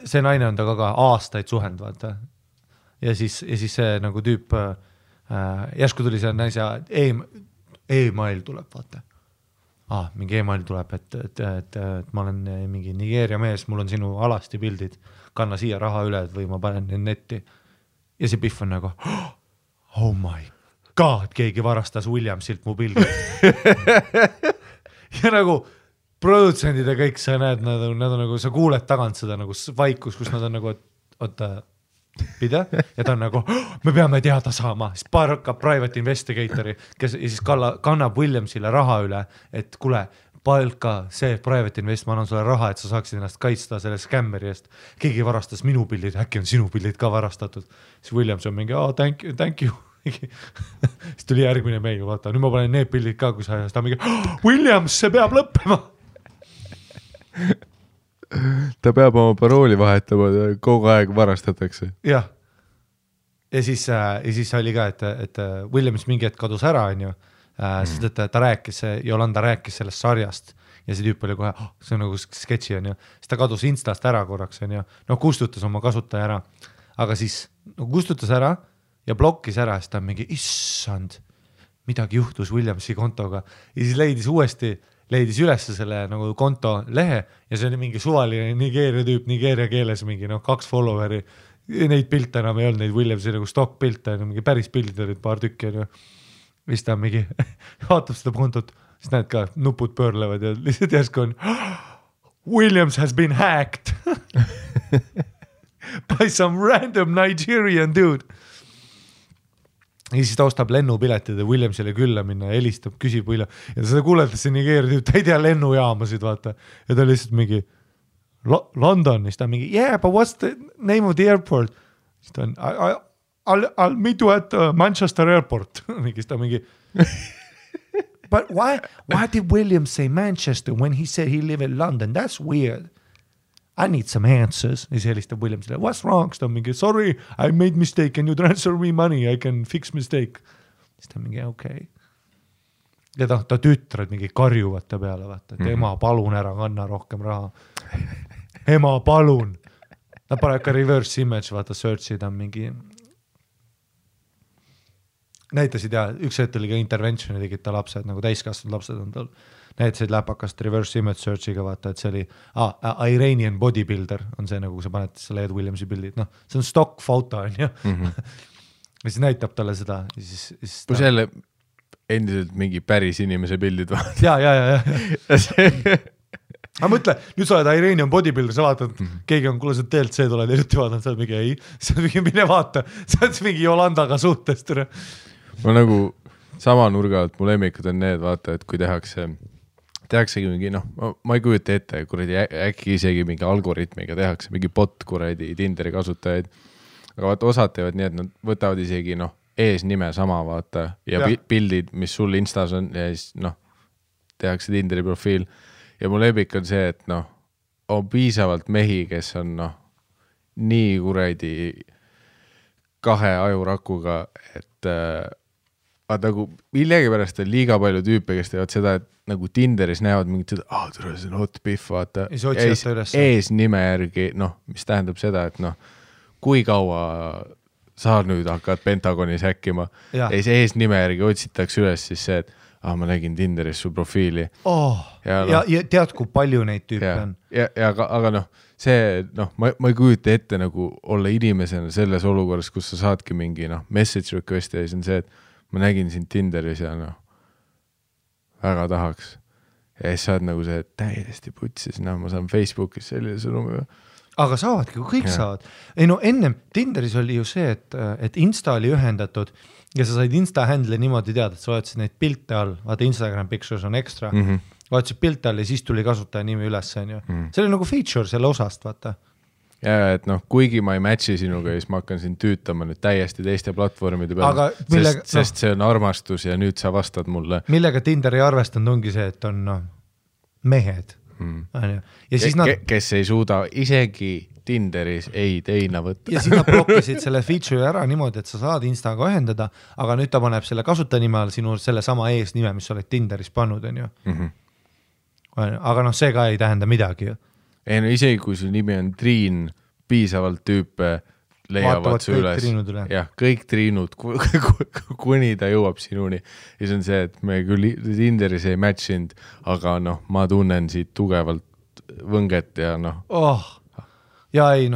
see naine on ta ka aastaid suhend, vaata. Ja siis see nagu tüüp, järsku tuli see naise e-mail tuleb, vaata. Mingi e-mail tuleb, et ma olen mingi Nigeeria mees, mul on sinu alasti pildid, kanna siia raha üle, või ma panen netti. Ja see Biff on nagu, oh my god, keegi varastas Williamsilt mu pildid. Ja nagu produtsendid ja kõik, sa näed, nad on nagu, sa kuuled tagant seda nagu vaikus, kus nad on nagu, oota, pide, ja ta on nagu, me peame teada saama, siis hakkab private investigatori, kes siis kannab Williamsile raha üle, et kuule, palka see private invest, ma annan sulle raha, et sa saaksid ennast kaitsta selle scammeri eest. Keegi varastas minu pildid, äkki on sinu pildid ka varastatud. Siis Williams on mingi, thank you. Siis tuli järgmine meil, vaata, nüüd ma panen need pildid ka, kui sa ta mingi, Williams, see peab lõppema. Ta peab oma parooli vahetama, kogu aeg varastatakse. Jah. Ja siis oli ka, et Williams mingi hetk kadus ära, on ju. Sest et ta rääkis, Jolanda rääkis sellest sarjast ja see tüüp oli kohe, see on nagu sketši, on ju. Siis ta kadus Instast ära korraks, on ju. Kustutas oma kasutaja ära. Aga siis kustutas ära ja blokkis ära, siis ta mingi, issand, midagi juhtus Williamsi kontoga. Ja siis leidis üles selle nagu konto lehe ja see oli mingi suvaline Nigeeria tüüp, Nigeeria keeles mingi 2 followeri. Neid pilte enam ei olnud, neid Williamsi nagu stock pilte, mingi päris pildid olid paar tükki, on ju. Mis ta mingi, vaatab seda kontot, siis näed ka, nupud pöörlevad ja lihtsalt järsku on Williams has been hacked by some random Nigerian dude. Ja siis ta ostab lennupiletid ja Williamsile külla minna ja helistab, küsib William. Ja ta seda kuuletas see Nigeeria tüüp, ta ei tea lennujaamasid, vaata. Ja ta lihtsalt mingi London, siis ta mingi, yeah, but what's the name of the airport? Siis ta on, I'll meet you at Manchester airport. But why did William say Manchester when he said he lived in London? That's weird. I need some answers. Ja siis helistab Williamsile, what's wrong? Siis ta mingi, sorry, I made mistake. Can you transfer me money? I can fix mistake. Siis ta mingi, okay. Ja ta tütred mingi karjuvad ta peale, vaata, et ema, palun ära, kanna rohkem raha. Ema, palun. Ta pane ka reverse image, vaata, search'id on mingi... Näitasid ja üks hetk oli ka interventioni tegid ta lapsed, nagu täiskasvanud lapsed on tal. Näitasid läpakast reverse image searchiga, vaata, et see oli Iranian bodybuilder, on see nagu, kui sa paned selle Ed Williamsi pildid, see on stock foto, on ju. Ja siis näitab talle seda. Kui selle endiselt mingi päris inimese pildid vaata. Ja. aga mõtle, nüüd sa oled Iranian bodybuilder, sa vaatad, keegi on, kuule sa TLC tuled hiljuti vaatad, sa oled mingi ei, sa oled mingi mine vaata, sa oled mingi Jolandaga suhtest. Ma nagu sama nurga alt mu lemmikud on need, vaata, et kui tehaksegi mingi, ma ei kujuta ette, kuradi äkki isegi mingi algoritmiga tehakse, mingi bot kuradi Tinderi kasutajaid, aga vaata osad teevad nii, et nad võtavad isegi eesnime sama, vaata, ja pildid, mis sul Instas on ja siis tehakse Tinderi profiil. Ja mu lemmik on see, et on piisavalt mehi, kes on nii kuradi 2 ajurakuga, et nagu millegipärast on liiga palju tüüpe, kes teevad seda, et nagu Tinderis näevad mingit seda, tule see on hot piff, vaata. Eesnime järgi, mis tähendab seda, et kui kaua sa nüüd hakkad Pentagonis häkkima ja siis eesnime järgi otsitakse üles siis see, et ma nägin Tinderis su profiili. Ja tead, kui palju neid tüüpe on. Aga see, ma ei kujuta ette nagu olla inimesena selles olukorras, kus sa saadki mingi message request ja siis on see, et ma nägin sind Tinderis ja väga tahaks. Ja siis saad nagu see täiesti putsis, ma saan Facebookis sellise sõnumi. Aga saavadki, kui kõik saavad. Ei ennem Tinderis oli ju see, et Insta oli ühendatud ja sa said Insta handle niimoodi teada, et sa vaatasid neid pilte all, vaata Instagram pictures on ekstra, vaatasid pilte all ja siis tuli kasutaja nimi üles. See oli nagu feature selle osast, vaata. Ja, et kuigi ma ei matchi sinuga, siis ma hakkan sind tüütama nüüd täiesti teiste platvormide peale, sest see on armastus ja nüüd sa vastad mulle. Millega Tinder ei arvestanud ongi see, et on mehed. Ja siis kes ei suuda isegi Tinderis ei teina võtta. Ja siis nad blokkisid selle feature ära niimoodi, et sa saad Instaga ühendada, aga nüüd ta paneb selle kasutajanime all sinu selle sama eesnime, mis sa oled Tinderis pannud, on ju. Aga see ka ei tähenda midagi ju. Ei isegi kui su nimi on Triin, piisavalt tüüpe leiavad su üles. Jah, kõik triinud, kuni ta jõuab sinuni. Ja see on see, et me küll Tinderis ei matchinud, aga ma tunnen siit tugevalt võnget ja Ja ei,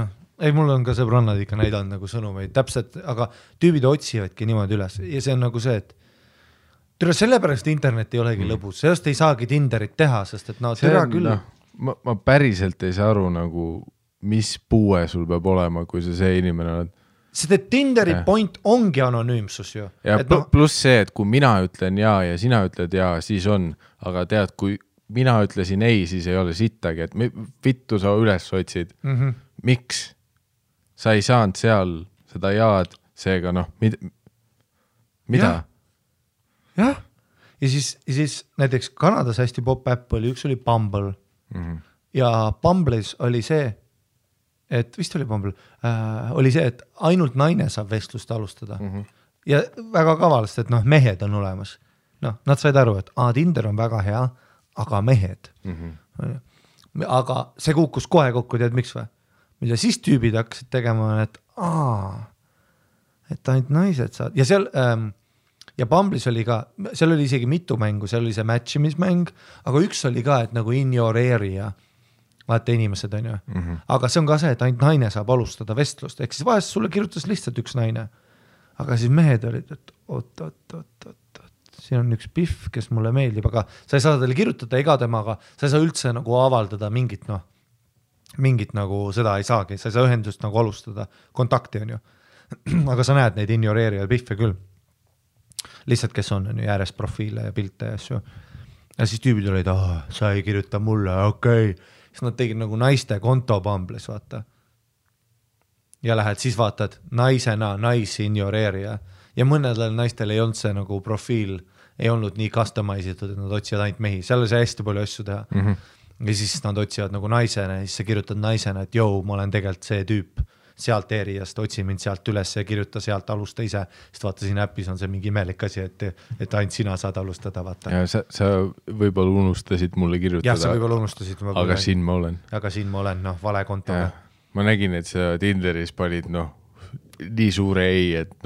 mul on ka sõbrannad ikka näidanud nagu sõnumeid täpselt, aga tüübid otsivadki niimoodi üles ja see on nagu see, et sellepärast internet ei olegi lõbus, sellest ei saagi Tinderit teha, sest et türa küll. Ma päriselt ei saa aru nagu mis puue sul peab olema, kui sa see inimene oled. Sest et Tinderi point ongi anonüümsus ju. Ja pluss see, et kui mina ütlen ja sina ütled ja, siis on. Aga tead, kui mina ütlesin ei, siis ei ole sittagi, et vittu sa üles otsid. Miks? Sa ei saanud seal seda jaad, seega mida? Jah. Ja siis näiteks Kanadas hästi pop-app oli, üks oli Bumble. Ja Bumble'is oli see, et vist oli Bumble, oli see, et ainult naine saab vestlust alustada. Ja väga kavalast, et mehed on olemas. Nad said aru, et Tinder on väga hea, aga mehed. Aga see kukkus kohe kokku, tead miks või? Mida siis tüübid hakkasid tegema, et ainult naised saad. Ja seal ja Bumble'is oli ka, seal oli isegi mitu mängu, seal oli see matchimismäng, aga üks oli ka, et nagu in your area vaata inimesed on ju. Aga see on ka see, et ainult naine saab alustada vestlust. Ehk siis vahest sulle kirjutas lihtsalt üks naine. Aga siis mehed olid, et oot. Siin on üks piff, kes mulle meeldib, aga sa ei saa talle kirjutada ega temaga, sa ei saa üldse nagu avaldada mingit nagu seda ei saagi, sa ei saa ühendust nagu alustada, kontakti on ju. Aga sa näed neid ignoreerivad piffe küll. Lihtsalt, kes on ju järjest profiile ja pilte ja asju. Ja siis tüübid olid, sa ei kirjuta mulle, okei. Siis nad tegid nagu naiste konto Bumble'is, vaata. Ja lähed, siis vaatad naisena, ignoreerija. Ja mõnedel naistel ei olnud see nagu profiil, ei olnud nii customise'itud, et nad otsivad ainult mehi. Seal oli see hästi palju asju teha. Ja siis nad otsivad nagu naisena, ja siis sa kirjutad naisena, et ma olen tegelikult see tüüp sealt eriast, otsi mind sealt üles ja kirjuta sealt, alusta ise. Sest vaata, siin äppis on see mingi imelik asi, et ainult sina saad alustada, vaata. Ja sa võib-olla unustasid mulle kirjutada. Jah, sa võib-olla unustasid. Aga siin ma olen. Aga siin ma olen, vale kontoga. Ma nägin, et sa Tinderis panid, nii suure ei, et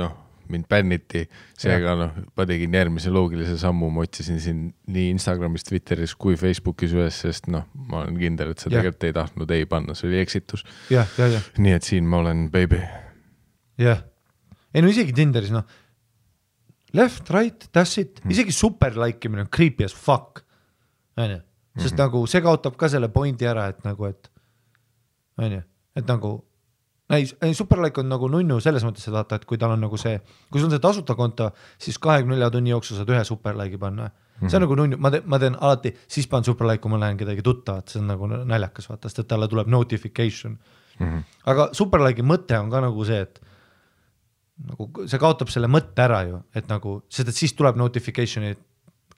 mind bänniti, seega ma tegin järgmise loogilise sammu, ma otsisin siin nii Instagramis, Twitteris kui Facebookis üles, sest ma olen kindel, et sa tegelikult ei tahtnud ei panna, see oli eksitus. Nii et siin ma olen, baby. Jah. Ei isegi Tinderis, left, right, that's it, isegi super like imine on creepy as fuck. sest nagu see kaotab ka selle pointi ära, et nagu, et on ju, et nagu Superlike on nagu nunnu selles mõttes, et vaata, et kui tal on nagu see, kui sul on see tasuta konto, siis 24 tunni jooksul saad ühe Superlike'i panna. See on nagu nunnu, ma teen alati, siis panen Superlike, kui ma lähen kedagi tuttavat, see on nagu naljakas, vaata, sest et talle tuleb notification. Aga Superlike'i mõte on ka nagu see, et nagu see kaotab selle mõtte ära ju, et nagu, sest et siis tuleb notification'i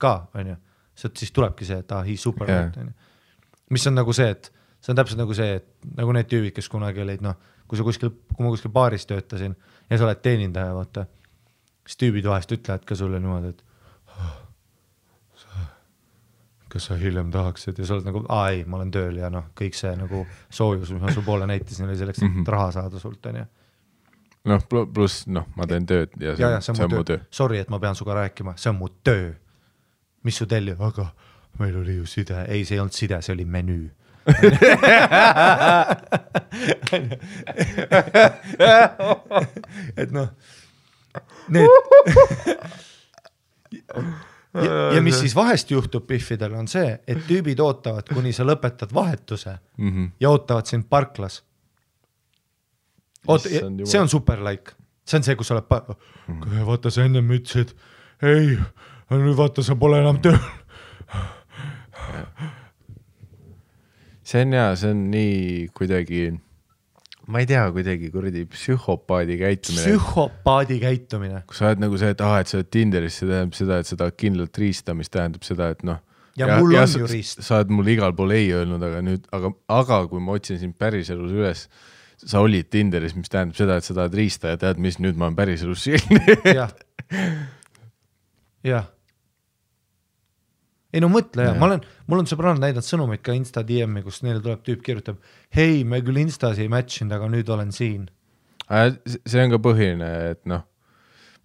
ka, on ju, sest siis tulebki see, et he's Superlike, on ju. Mis on nagu see, et see on täpselt nagu see, et nagu need tüübid, kes kunagi olid, noh, kui ma kuskil baaris töötasin ja sa oled teenindaja, vaata, siis tüübid vahest ütlevad ka sulle niimoodi, et kas sa hiljem tahaksid ja sa oled nagu, ei, ma olen tööl ja noh, kõik see nagu soojus, mis ma su poole näitasin, oli selleks, et raha saada sult, on ju. Noh, pluss, noh, ma teen tööd ja see on mu töö. Sorry, et ma pean suga rääkima, see on mu töö. Mis su telli? Aga meil oli ju side. Ei, see ei olnud side, see oli menüü. Et noh, need ja mis siis vahest juhtub Biffidel on see, et tüübid ootavad, kuni sa lõpetad vahetuse ja ootavad sind parklas. See on Superlike, see on see, kus sa oled vaata sa enne ütlesid, ei, nüüd vaata sa pole enam tööl. See on hea, see on nii kuidagi, ma ei tea, kuidagi kuradi psühhopaadi käitumine. Kui sa oled nagu see, et et sa oled Tinderis, see tähendab seda, et sa tahad kindlalt riista, mis tähendab seda, et noh. Ja mul on ju riist. Sa oled mul igal pool ei öelnud, aga kui ma otsin sind päriselus üles, sa olid Tinderis, mis tähendab seda, et sa tahad riista ja tead, mis nüüd ma olen päriselus siin. Jah. Ei no mõtle, mul on sõbrannad näidanud sõnumid ka Insta DM-i, kus neile tuleb tüüp kirjutab, hei, me küll Instas ei matchinud, aga nüüd olen siin. See on ka põhiline, et noh,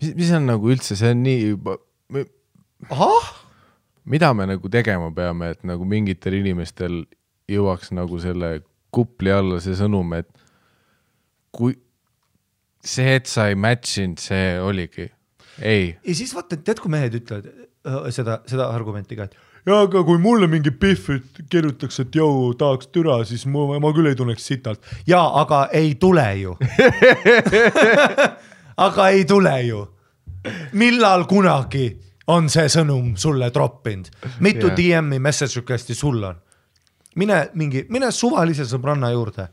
mis on nagu üldse, see on nii juba, mida me nagu tegema peame, et nagu mingitel inimestel jõuaks nagu selle kupli alla see sõnum, et kui see, et sa ei matchinud, see oligi. Ei. Ja siis vaata, et tead, kui mehed ütlevad seda argumenti ka, et ja aga kui mulle mingi Biff kirjutaks, et jõu, tahaks türa, siis ma küll ei tunneks sitalt. Ja, aga ei tule ju. Aga ei tule ju. Millal kunagi on see sõnum sulle droppinud? Mitu DM-i message requesti sul on? Mine suvalise sõbranna juurde.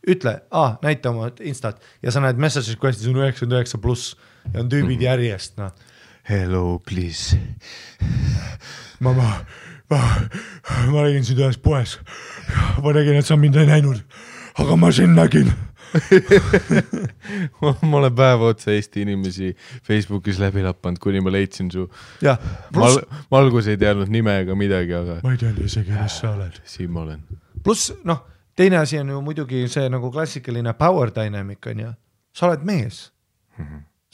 Ütle, näita oma Instat ja sa näed message requestis on 99+ ja on tüübid järjest, noh. Hello, please. Ma nägin sind ühes poes. Ma nägin, et sa mind ei näinud, aga ma sind nägin. Ma olen päeva otsa Eesti inimesi Facebookis läbi lappanud, kuni ma leidsin su. Ma algus ei teadnud nime ega midagi, aga ma ei teadnud isegi, mis sa oled. Siin ma olen. Plus, noh, teine asi on ju muidugi see nagu klassikaline power dynamic on ja sa oled mees.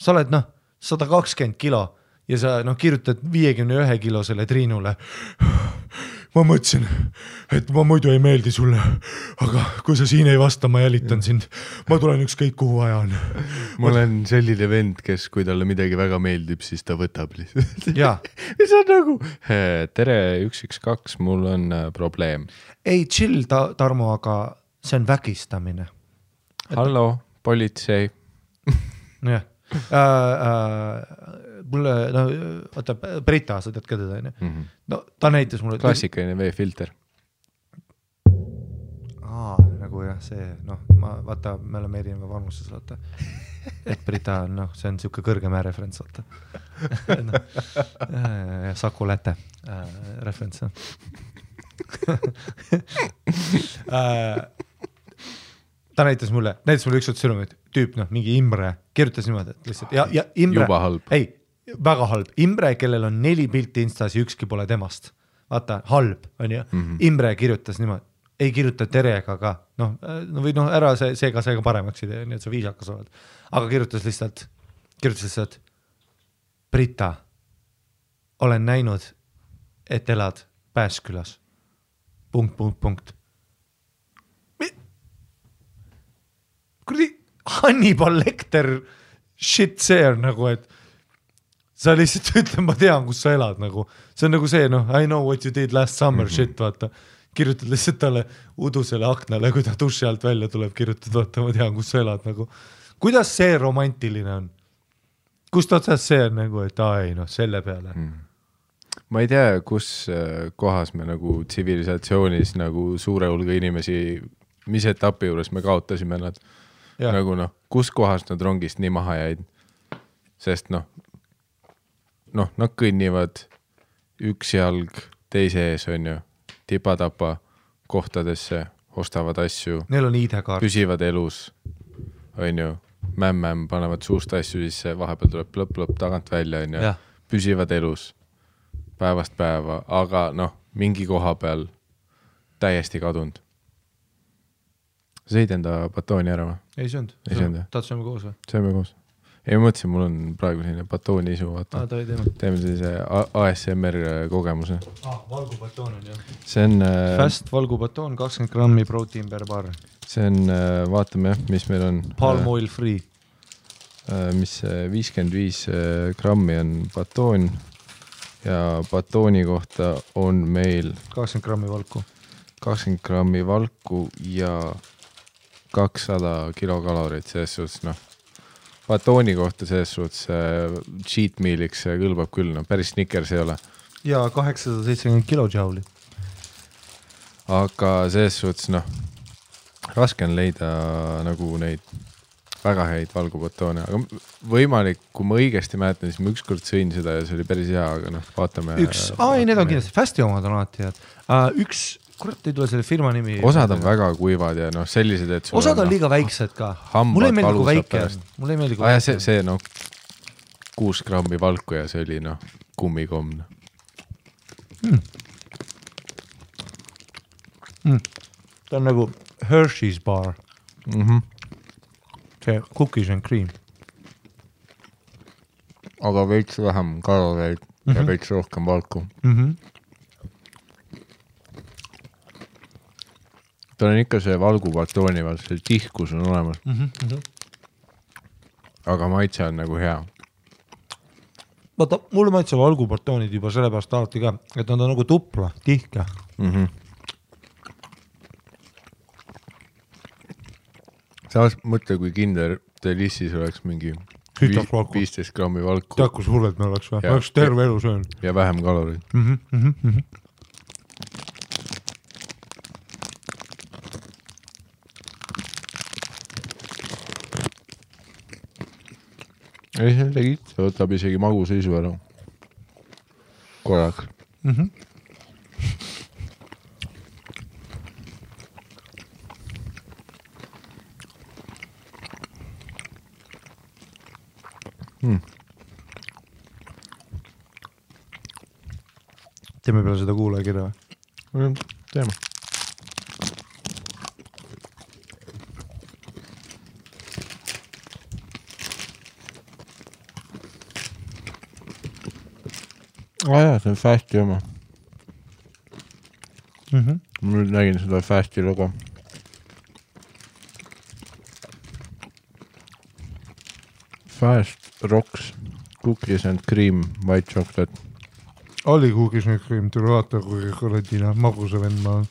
Sa oled, 120 kilo ja sa kirjutad 51 kilo selle Triinule. Ma mõtlesin, et ma muidu ei meeldi sulle, aga kui sa siin ei vasta, ma jälitan sind. Ma tulen ükskõik kuhu aja on. Ma olen selline vend, kes kui talle midagi väga meeldib, siis ta võtab lihtsalt. Jaa. Mis on nagu, tere 112, mul on probleem. Ei, chill, Tarmo, aga see on vägistamine. Hallo, politsei. Jah. Mulle, vaata, Brita, sa tead ka teda, no ta näitas mulle klassikaline veefilter. Nagu jah, see, vaata, me oleme erineva vanuses, vaata, et Brita on, see on siuke kõrgemäe referents, vaata. Saku Läte referents. Ta näitas mulle üks sõnumit, tüüp, mingi Imre, kirjutas niimoodi, et lihtsalt, ja Imre, juba halb. Ei, väga halb. Imre, kellel on 4 pilti Instas ja ükski pole temast. Vaata, halb, on ju. Imre kirjutas niimoodi, ei kirjuta terega ka, või ära seega paremaks idee, nii et sa viisakas oled. Aga kirjutas lihtsalt, Brita, olen näinud, et elad Pääskülas. ... Kurdi Hannibal Lecter shit see on nagu, et sa lihtsalt ütled, ma tean, kus sa elad nagu, see on nagu see, I know what you did last summer shit, vaata, kirjutad lihtsalt talle udusele aknale, kui ta duši alt välja tuleb, kirjutad, vaata, ma tean, kus sa elad nagu, kuidas see romantiline on? Kust otsast see on nagu, et ei, selle peale. Ma ei tea, kus kohas me nagu tsivilisatsioonis nagu suure hulga inimesi, mis etapi juures me kaotasime nad, nagu kus kohas nad rongist nii maha jäid, sest nad kõnnivad üks jalg teise ees, on ju, tipa-tapa kohtadesse, ostavad asju, neil on ID-kaart, püsivad elus, on ju, mämm, panevad suust asju sisse, vahepeal tuleb plõpp tagant välja, on ju, püsivad elus päevast päeva, aga mingi koha peal täiesti kadunud. Sa sõid enda batooni ära või? Ei söönud. Tahad sööme koos või? Sööme koos. Ei, ma mõtlesin, mul on praegu selline batooni isu, vaata. Teeme sellise ASMR kogemuse. Valgubatoon on, jah. See on... Fast valgubatoon, 20 grammi protein per bar. See on, vaatame, mis meil on... Palm oil free. Mis 55 grammi on batoon ja batooni kohta on meil 20 grammi valku. 20 grammi valku ja 200 kilokalorit, selles suhtes, batooni kohta selles suhtes cheat mealiks kõlbab küll, päris Snickers ei ole. Ja 870 kilojoule'i. Aga selles suhtes, raske on leida nagu neid väga häid valgubatoone, aga võimalik, kui ma õigesti mäletan, siis ma ükskord sõin seda ja see oli päris hea, aga vaatame. Need on kindlasti, Fasti omad on alati head. Kurat ei tule selle firma nimi. Osad on väga kuivad ja sellised, et osad on liiga väiksed ka. Mulle ei meeldi kui väike. Mulle ei meeldi kui väike. See 6 grammi valku ja see oli kummikomm. Ta on nagu Hershey's bar. See cookies and cream. Aga veits vähem kaloreid ja veits rohkem valku. Ta on ikka see valgubatooni vaat, see tihkus on olemas. Aga maitse on nagu hea. Vaata, mulle maitse valgubatoonid juba sellepärast alati ka, et nad on nagu tupla, tihke. Sa mõtle, kui Kinder Delissis oleks mingi 15 grammi valku. Tead, kus hulled me oleks või? Ma oleks terve elu söön. Ja vähem kaloreid. Ei, see tegid. See võtab isegi maguseisu ära. Korrak. Teeme peale seda kuulajakirja või? Teeme. Jaa, see on Fasti oma. Ma nüüd nägin seda Fasti logo. Fast Rocks, cookies and cream, white chocolate. Oli cookies and cream, tule vaata, kui korradina magusa vend ma on.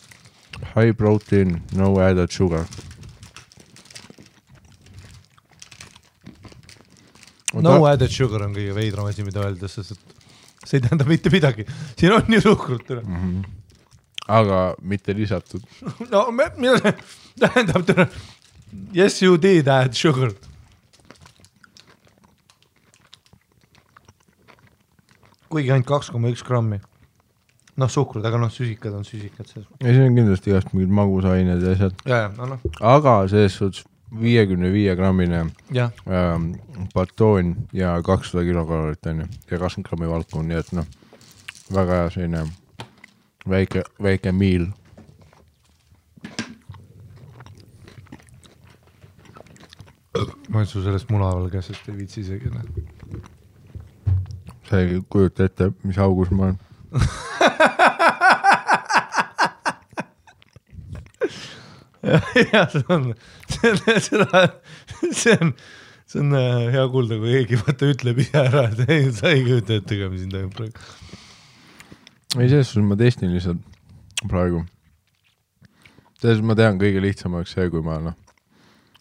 High protein, no added sugar. No added sugar on kõige veidram asi, mida öelda, sest see ei tähenda mitte midagi. Siin on nii suhkrut. Aga mitte lisatud. No, mida tähendab? Yes, you did add sugar. Kuigi ainult 2,1 grammi. Suhkrud, aga süsikad on süsikad. Ei, see on kindlasti igast mingid magusained ja asjad. Aga selles suhtes 55 grammine batoon ja 200 kilokalorit on ja 20 grammi valku, nii et väga hea selline väike miil. Ma olen su sellest munaval käsest ei viitsi isegi. Sa ei kujuta ette, mis augus ma olen. Ja see on see on hea kuulda, kui keegi vaata ütleb ise ära, et ei, sa ei kujuta ette, mis siin toimub praegu. Ei, selles ma testin lihtsalt praegu. Selles ma tean kõige lihtsamaks see, kui ma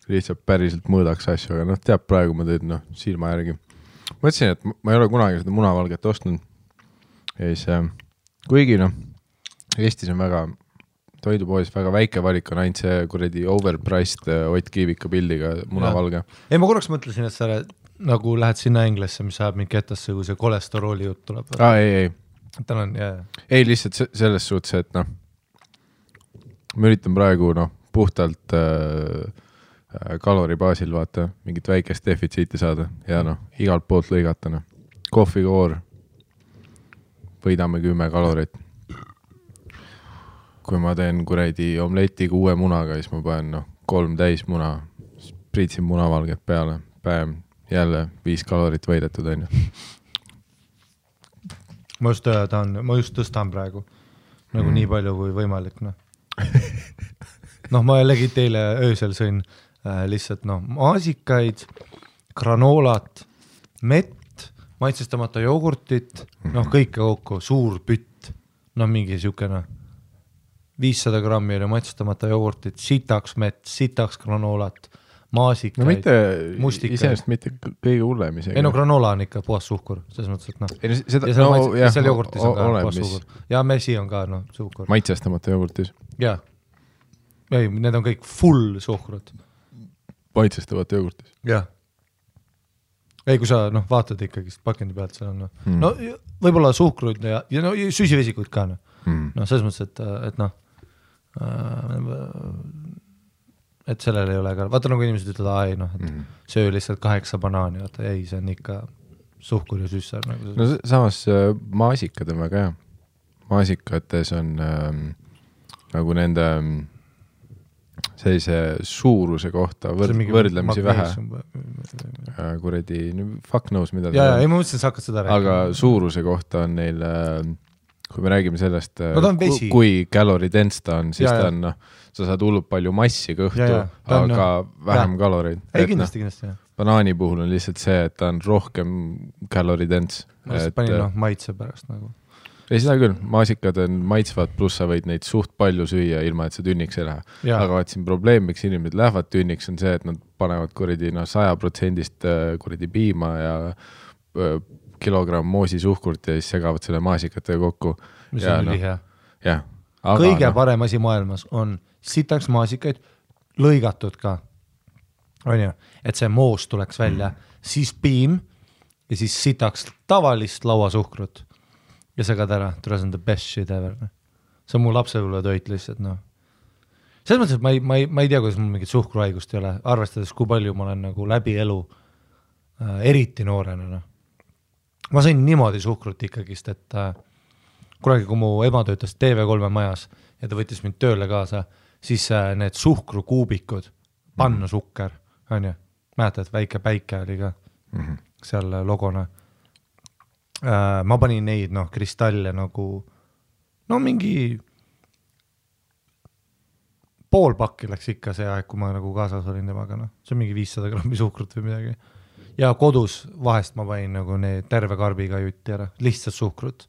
lihtsalt päriselt mõõdaks asju, aga teab praegu ma teed silma järgi. Mõtlesin, et ma ei ole kunagi seda munavalget ostnud. Ja siis, kuigi Eestis on väga toidupoes väga väike valik on ainult see kuradi overpriced Ott Kiivika pildiga munavalge. Ei, ma korraks mõtlesin, et sa nagu lähed sinna Englesse, mis saab mingi etasse, kui see kolesterooli jutt tuleb. Ei. Tänan, jah. Ei, lihtsalt selles suhtes, et ma üritan praegu puhtalt kalori baasil vaata, mingit väikest defitsiiti saada ja igalt poolt lõigata. Kohvikoor, võidame 10 kalorit. Kui ma teen kuradi omletiga uue munaga, siis ma panen 3 täis muna, priitsin munavalget peale, päev, jälle 5 kalorit võidetud on ju. Ma just tõstan praegu nagu nii palju kui võimalik. Ma jällegi teile öösel sõin lihtsalt maasikaid, granoolat, mett, maitsestamata jogurtit, kõike kokku, suur pütt, mingi siukene 500 grammi oli maitsestamata jogurtit, sitaks mett, sitaks granoolat, maasikaid, mustikaid. Iseenesest mitte kõige hullem isegi. Ei granoola on ikka puhas suhkur, selles mõttes, et ja seal jogurtis on ka puhas suhkur. Ja mesi on ka suhkur. Maitsestamata jogurtis? Jaa. Ei, need on kõik full suhkrut. Maitsestamata jogurtis? Jah. Ei, kui sa vaatad ikkagi pakendi pealt, seal on võib-olla suhkrud ja süsivesikuid ka. Selles mõttes, et et sellel ei ole ka, vaata nagu inimesed ütlevad, et söö lihtsalt 8 banaani, vaata, ei, see on ikka suhkur ja süssar. Samas maasikad on väga hea. Maasikates on nagu nende sellise suuruse kohta võrdlemisi vähe. Kuradi, fuck knows, mida ja, ei, ma mõtlesin, sa hakkad seda rääkima. Aga suuruse kohta on neil, kui me räägime sellest, kui kaloridense ta on, siis ta on, sa saad hullult palju massi kõhtu, aga vähem kaloreid. Ei, kindlasti, jah. Banaani puhul on lihtsalt see, et ta on rohkem kaloridense. Ma lihtsalt panin maitse pärast nagu. Ei, seda küll, maasikad on maitsvad, pluss sa võid neid suht palju süüa, ilma et sa tünniks ei lähe. Aga vaat siin probleem, miks inimesed lähevad tünniks, on see, et nad panevad kuradi 100% kuradi piima ja kilogramm moosi suhkurt ja siis segavad selle maasikatega kokku. Mis on ülihea. Jah. Kõige parem asi maailmas on sitaks maasikaid lõigatud ka. On ju, et see moos tuleks välja, siis piim ja siis sitaks tavalist lauasuhkrut. Ja segad ära, see on the best shit ever. See on mu lapsepõlve toit lihtsalt. Selles mõttes, et ma ei tea, kuidas mul mingit suhkruhaigust ei ole, arvestades, kui palju ma olen nagu läbi elu eriti noorena. Ma sain niimoodi suhkrut ikkagist, et kunagi, kui mu ema töötas TV3 majas ja ta võttis mind tööle kaasa, siis need suhkrukuubikud, panna sukker, on ju, mäletad, väike päike oli ka seal logona. Ma panin neid kristalle nagu mingi pool pakki läks ikka see aeg, kui ma nagu kaasas olin temaga, see on mingi 500 grammi suhkrut või midagi ja kodus vahest ma panin nagu need terve karbiga jutti ära, lihtsalt suhkrut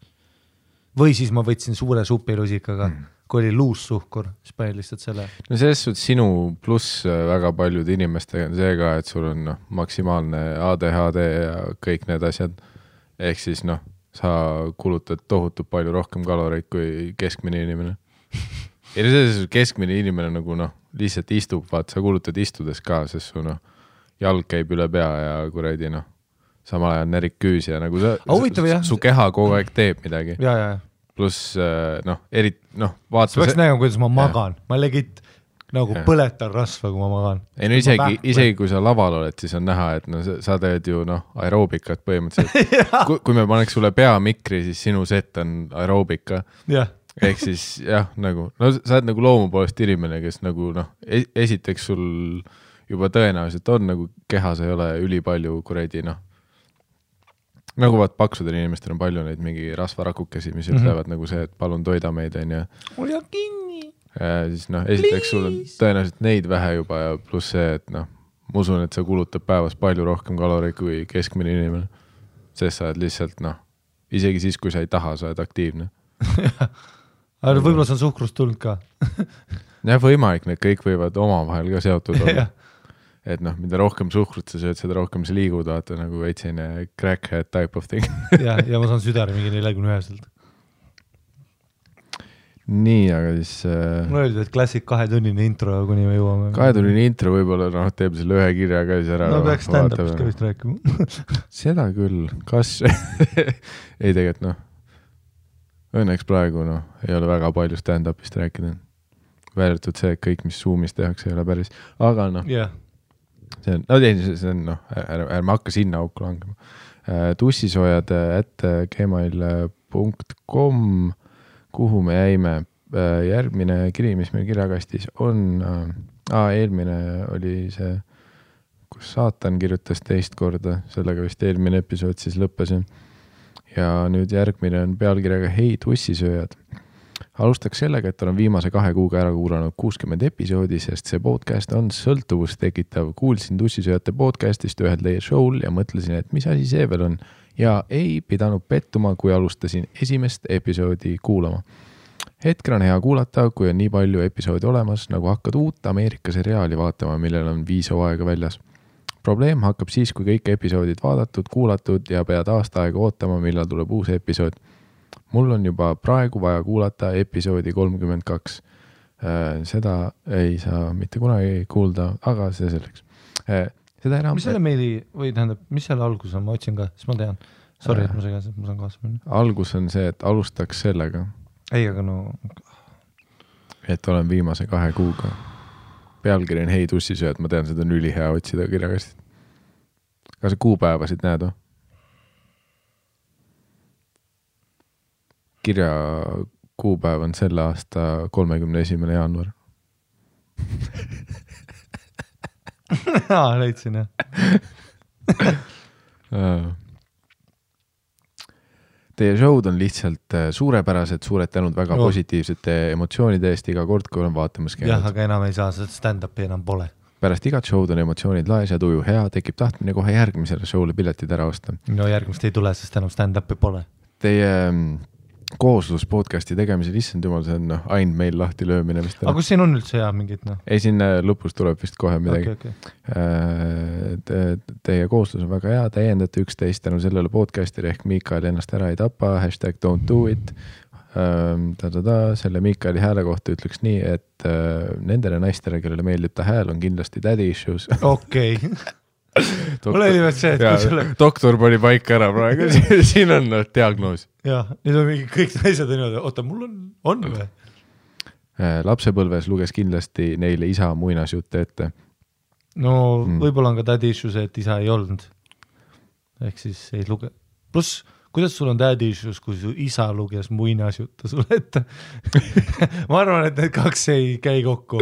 või siis ma võtsin suure supilusikaga kui oli luussuhkur, siis panin lihtsalt selle. No selles suhtes sinu pluss väga paljude inimestega on see ka, et sul on maksimaalne ADHD ja kõik need asjad. Ehk siis sa kulutad tohutult palju rohkem kaloreid kui keskmine inimene. Ja selles keskmine inimene nagu lihtsalt istub, vaat sa kulutad istudes ka, sest su jalg käib üle pea ja kuradi samal ajal närik küüs ja nagu su keha kogu aeg teeb midagi. Ja. Pluss vaata. See peaks nägema, kuidas ma magan. Ma legit nagu põletan rasva, kui ma magan. Ei, isegi kui sa laval oled, siis on näha, et sa teed ju aeroobikat põhimõtteliselt. Kui me paneks sulle peamikri, siis sinu set on aeroobika. Ehk siis nagu, sa oled nagu loomu poolest inimene, kes nagu esiteks sul juba tõenäoliselt on nagu kehas ei ole ülipalju kuredi nagu vaat paksudel inimestel on palju neid mingi rasvarakukesi, mis ütlevad nagu see, et palun toida meid on ja ole kinni. Ja siis esiteks sul on tõenäoliselt neid vähe juba ja pluss see, et ma usun, et sa kulutad päevas palju rohkem kaloreid kui keskmine inimene. Sest sa oled lihtsalt, isegi siis, kui sa ei taha, sa oled aktiivne. Aga võib-olla see on suhkrust tulnud ka. Jah, võimalik, need kõik võivad omavahel ka seotud olla. Et mida rohkem suhkrut sa sööd, seda rohkem sa liigud, vaata nagu veitsine crackhead type of thing. ja ma saan südari mingi 41-selt. Nii, aga siis... Mul öeldi, et klassik 2-tunnine intro, kuni me jõuame. 2-tunnine intro võib-olla teeb selle ühe kirja ka siis ära. No peaks stand-upist ka vist rääkima. Seda küll. Kas? ei tegelikult õnneks praegu ei ole väga palju stand-upist rääkida. Väärtud see, et kõik, mis Zoomis tehakse, ei ole päris. Aga see on, ärme hakka sinna auku langema. tussisoojad@gmail.com, kuhu me jäime. Järgmine kiri, mis meil kirjakastis on, eelmine oli see, kus saatan kirjutas teist korda, sellega vist eelmine episood siis lõppesin. Ja nüüd järgmine on pealkirjaga Hei tussisööjad. Alustaks sellega, et olen viimase 2 kuuga ära kuulanud 60 episoodi, sest see podcast on sõltuvust tekitav. Kuulsin tussisööjate podcastist ühel teie show'l ja mõtlesin, et mis asi see veel on. Ja ei pidanud pettuma, kui alustasin esimest episoodi kuulama. Hetkel on hea kuulata, kui on nii palju episoodi olemas, nagu hakkad uut Ameerika seriaali vaatama, millel on 5 hooaega väljas. Probleem hakkab siis, kui kõik episoodid vaadatud, kuulatud ja pead aasta aega ootama, millal tuleb uus episood. Mul on juba praegu vaja kuulata episoodi 32. Seda ei saa mitte kunagi kuulda, aga see selleks. Seda enam... Mis selle meili, või tähendab, mis selle algus on, ma otsin ka, siis ma tean. Sorry, et ma segas, et ma saan kaasa minna. Algus on see, et alustaks sellega. Ei, aga Et olen viimase 2 kuuga. Pealkiri on Hei tussisööjad, ma tean, seda on ülihea otsida kirjakastist. Kas sa kuupäevasid näed? Kirja kuupäev on selle aasta 31. jaanuar. Leidsin, jah. Teie show'd on lihtsalt suurepärased, suured tänud väga positiivsete emotsioonide eest iga kord, kui olen vaatamas käinud. Jah, aga enam ei saa, sest stand-upi enam pole. Pärast igat show'd on emotsioonid laes ja tuju hea, tekib tahtmine kohe järgmisele show'le piletid ära osta. No järgmist ei tule, sest enam stand-upi pole. Teie kooslus podcasti tegemisel, issand jumal, see on ainult meil lahti löömine. Aga kus siin on üldse hea mingit? Ei, siin lõpus tuleb vist kohe midagi. Okay. Teie kooslus on väga hea, täiendate üksteist tänu sellele podcastile ehk Miikael ennast ära ei tapa, #don'tdoit. Selle Miikaeli hääle kohta ütleks nii, et nendele naistele, kellele meeldib ta hääl, on kindlasti daddy issues. Okei. Mul oli veel see, et kui selle... Doktor pani paika ära praegu, siin on diagnoos. Jah, nüüd on mingi kõik naised niimoodi, oota, mul on või? Lapsepõlves luges kindlasti neile isa muinasjutte ette. No võib-olla on ka daddy issues, et isa ei olnud. Ehk siis ei luge. Plus, kuidas sul on daddy issues, kui su isa luges muinasjutte sulle ette? Ma arvan, et need 2 ei käi kokku.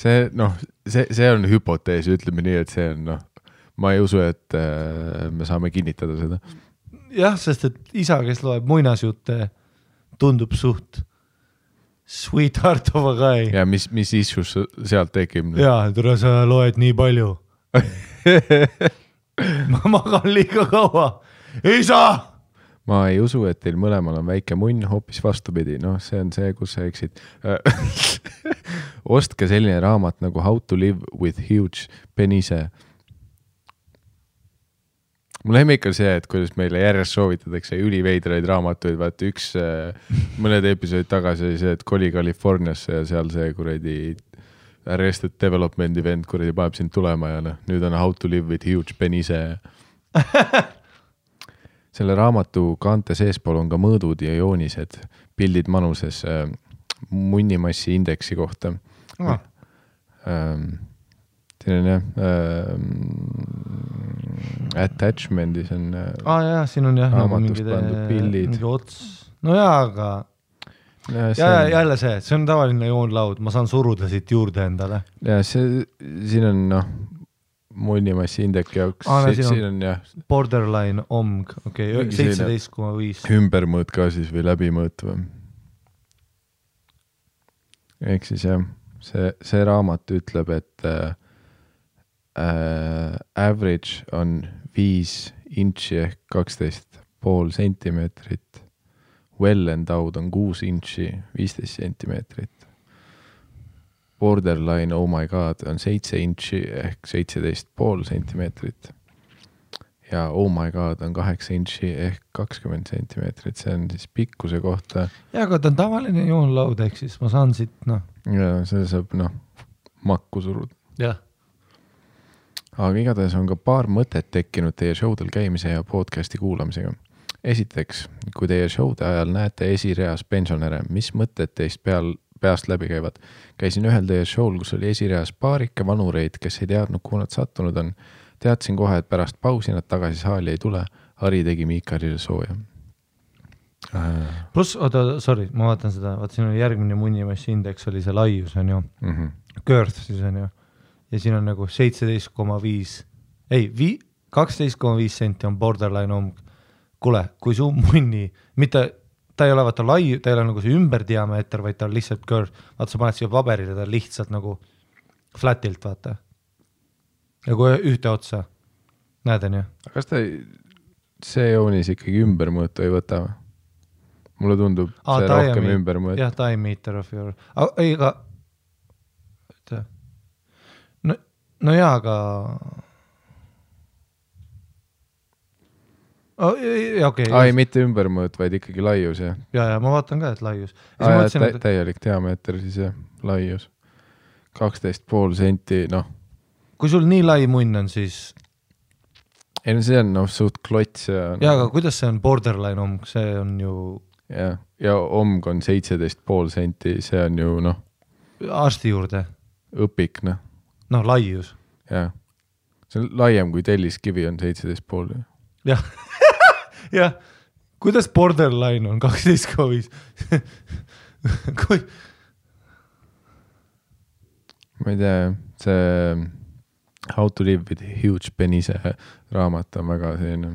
See on hüpotees, ütleme nii, et see on, ma ei usu, et me saame kinnitada seda. Jah, sest et isa, kes loeb muinasjutte, tundub suht sweetheart of a guy. Ja mis issues sealt tekib? Jaa, tule sa loed nii palju. Ma magan liiga kaua. Isa! Ma ei usu, et teil mõlemal on väike munn, hoopis vastupidi. See on see, kus sa eksid. Ostke selline raamat nagu How to live with huge penise. Mul lemmik on see, et kuidas meile järjest soovitatakse üliveidraid raamatuid, vaata üks mõned episoodid tagasi oli see, et koli Californiasse ja seal see kuradi Arrested Development event kuradi paneb sind tulema ja nüüd on How to live with huge penise. Selle raamatu kaante seespool on ka mõõdud ja joonised, pildid manuses munnimassi indeksi kohta. Siin on jah attachment'is on siin on jah raamatust pandud pildid. No jaa, aga jälle see on tavaline joonlaud, ma saan suruda siit juurde endale. Ja siin on munnimassi indeki jaoks. Siin on borderline omg, 17,5. Ümbermõõt ka siis või läbimõõt või? Ehk siis jah, see raamat ütleb, et Average on 5 inči ehk 12,5 sentimeetrit. Well endowed on 6 inči 15 sentimeetrit. Borderline, oh my god, on 7 inči ehk 17,5 sentimeetrit. Ja oh my god on 8 inči ehk 20 sentimeetrit. See on siis pikkuse kohta. Ja, aga ta on tavaline joonlaud, ehk siis ma saan siit, Ja see saab, makku suruda. Jah. Aga igatahes on ka paar mõtet tekkinud teie showdel käimise ja podcasti kuulamisega. Esiteks, kui teie showde ajal näete esireas pensionäre, mis mõtted teist peast läbi käivad? Käisin ühel teie show'l, kus oli esireas paarike vanureid, kes ei teadnud, kuhu nad sattunud on. Teadsin kohe, et pärast pausi nad tagasi saali ei tule. Hari tegi Miikarile sooja. Plus, sorry, ma vaatan seda, siin oli järgmine munnimassi indeks, oli see laius, on ju. Girth siis on ju. Ja siin on nagu 17,5, ei, 12,5 senti on borderline omg. Kule, kui su munni, mitte, ta ei ole vaata lai, ta ei ole nagu see ümberdiameeter, vaid ta on lihtsalt girth. Vaata, sa paned siia paberile, ta on lihtsalt nagu flatilt, vaata. Nagu ühte otsa. Näed, on ju? Kas ta see joonis ikkagi ümbermõõtu ei võta? Mulle tundub see rohkem ümbermõõtu. Jah, diameter of your... Ei, aga... No jaa, aga... Okay, Ai, mitte ümbermõõt, vaid ikkagi laius, jah? Ja, ma vaatan ka, et laius. Täielik diameeter siis, jah, laius. 12,5 senti, Kui sul nii lai munn on, siis... Ei, see on suht klots ja... Jaa, aga kuidas see on borderline omg? See on ju... Ja omg on 17,5 senti, see on ju, Arsti juurde? Õpik, laius. Jah. See on laiem kui telliskivi on 17,5. Jah. Jah. Kuidas borderline on 12,5? Kui... Ma ei tea, see... How to live with huge penise raamat on väga selline.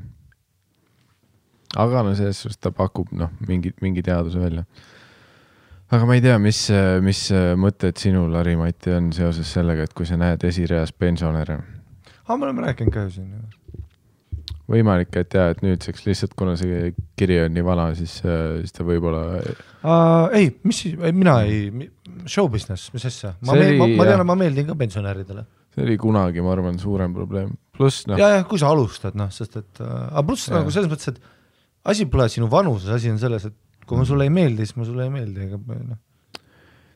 Aga selles suhtes ta pakub mingi teaduse välja. Aga ma ei tea, mis mõtted sinul, Ari-Mati, on seoses sellega, et kui sa näed esireas pensionäre. Me oleme rääkinud ka siin. Võimalik, et et nüüdseks lihtsalt, kuna see kiri on nii vana, siis ta võib-olla... Ei, mina ei... Show business, mis asja? Ma tean, ma meeldin ka pensionäridele. See oli kunagi, ma arvan, suurem probleem. Pluss, Ja, kui sa alustad, sest et... Pluss nagu selles mõttes, et asi pole sinu vanuses, asi on selles, et kui ma sulle ei meeldi, siis ma sulle ei meeldi.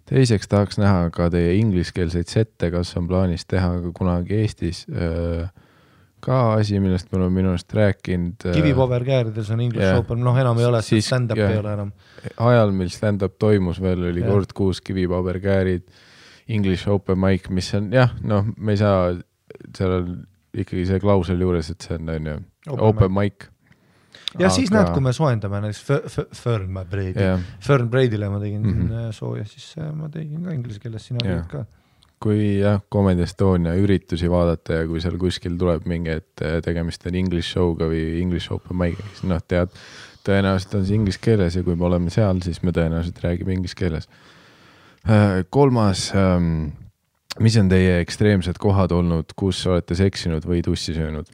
Teiseks tahaks näha ka teie ingliskeelseid sette, kas on plaanis teha ka kunagi Eestis. Ka asi, millest me oleme minust rääkinud. Kivipaberkäärides on English Open, enam ei ole, stand-up ei ole enam. Ajal, mil stand-up toimus veel, oli kord 6 kivipaberkäärid, English Open mic, mis on, me ei saa, seal on ikkagi see klausel juures, et see on open mic. Ja siis näed, kui me soendame näiteks Fern Braidile ma tegin sooja, siis ma tegin ka inglise keeles, sina olid ka. Kui Comedy Estonia üritusi vaadata ja kui seal kuskil tuleb mingi, et tegemist on English show'ga või English Open mic, siis tead, tõenäoliselt on see inglise keeles ja kui me oleme seal, siis me tõenäoliselt räägime inglise keeles. Kolmas, mis on teie ekstreemsed kohad olnud, kus olete seksinud või tussi söönud?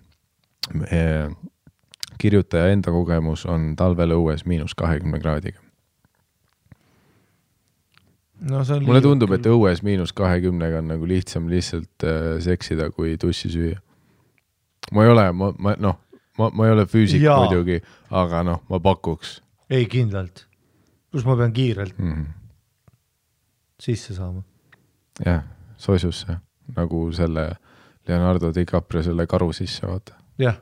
Kirjutaja enda kogemus on talvel õues -20 kraadiga. Mulle tundub, et õues -20 on nagu lihtsam lihtsalt seksida kui tussi süüa. Ma ei ole füüsik muidugi, aga ma pakuks. Ei, kindlalt. Plus ma pean kiirelt sisse saama. Jah, soisusse. Nagu selle Leonardo DiCaprio selle karu sisse, vaata. Jah.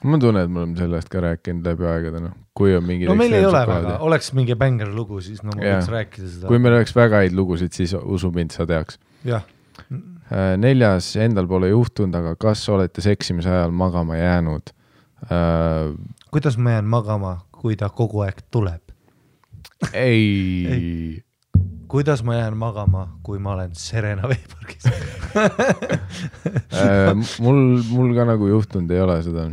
Ma tunnen, et me oleme sellest ka rääkinud läbi aegade, kui on mingi... meil ei ole väga, oleks mingi banger lugu, siis ma võiks rääkida seda. Kui meil oleks väga häid lugusid, siis usu mind, sa teaks. Jah. 4. endal pole juhtunud, aga kas olete seksimise ajal magama jäänud? Kuidas ma jään magama, kui ta kogu aeg tuleb? Ei. Kuidas ma jään magama, kui ma olen Serena veepargis? Mul ka nagu juhtunud ei ole seda.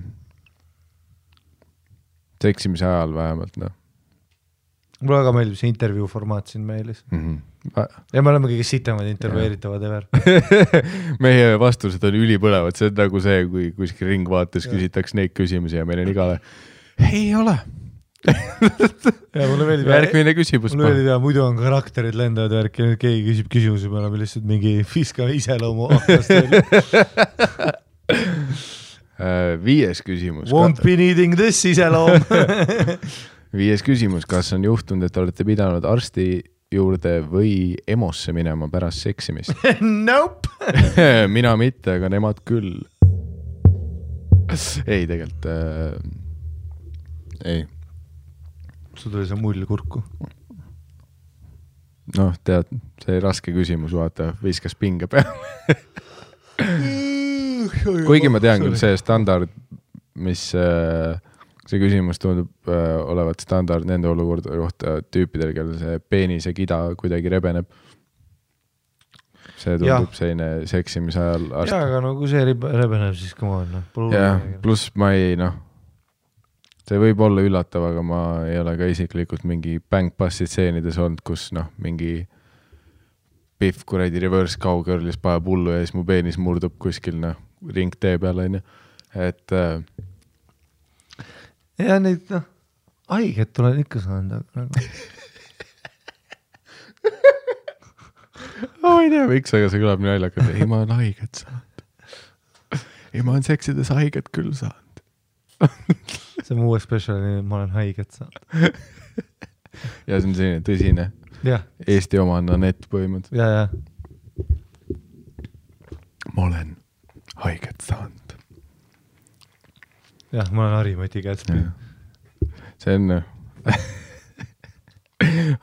Seksimise ajal vähemalt, Mul väga meeldib see intervjuu formaat siin meilis. Ja me oleme kõige sitemad intervjueeritavad ever. Meie vastused on ülipõlevad, see on nagu see, kui kuskil ringvaates küsitakse neid küsimusi ja meil on igale ei ole. Ja mulle meeldib järgmine küsimus. Mulle meeldib ja muidu on karakterid lendavad värk ja nüüd keegi küsib küsimuse, me oleme lihtsalt mingi fiska iseloomu aknast. 5. küsimus. Won't be needing this iseloom. 5. küsimus, kas on juhtunud, et olete pidanud arsti juurde või EMO-sse minema pärast seksimist? Nope. Mina mitte, aga nemad küll. Ei, tegelikult ei. Sul tuli see mull kurku. Noh, tead, see raske küsimus, vaata, viskas pinge peale. Kuigi ma tean küll see standard, mis see küsimus tundub olevat standard nende olukorda kohta tüüpidel, kellel see peenise kida kuidagi rebeneb. See tundub selline seksimise ajal arst. Jaa, aga no kui see rebeneb, siis come on. Jah, pluss ma ei, see võib olla üllatav, aga ma ei ole ka isiklikult mingi bang-passi stseenides olnud, kus mingi pihv kuradi reverse cowgirlis paneb hullu ja siis mu peenis murdub kuskil ring tee peal, on ju. Et ja neid haiget tuleb ikka saanud. Ma ei tea, miks, aga see kõlab nii naljakalt. Ei, ma olen haiget saanud. Ei, ma olen seksides haiget küll saanud. See on uue speciali, ma olen haiget saanud. Ja see on selline tõsine. Ja. Eesti oma on Anett põhimõtt. Ja. Ma olen haiget saanud. Jah, ma olen Harimati Kätspi. See on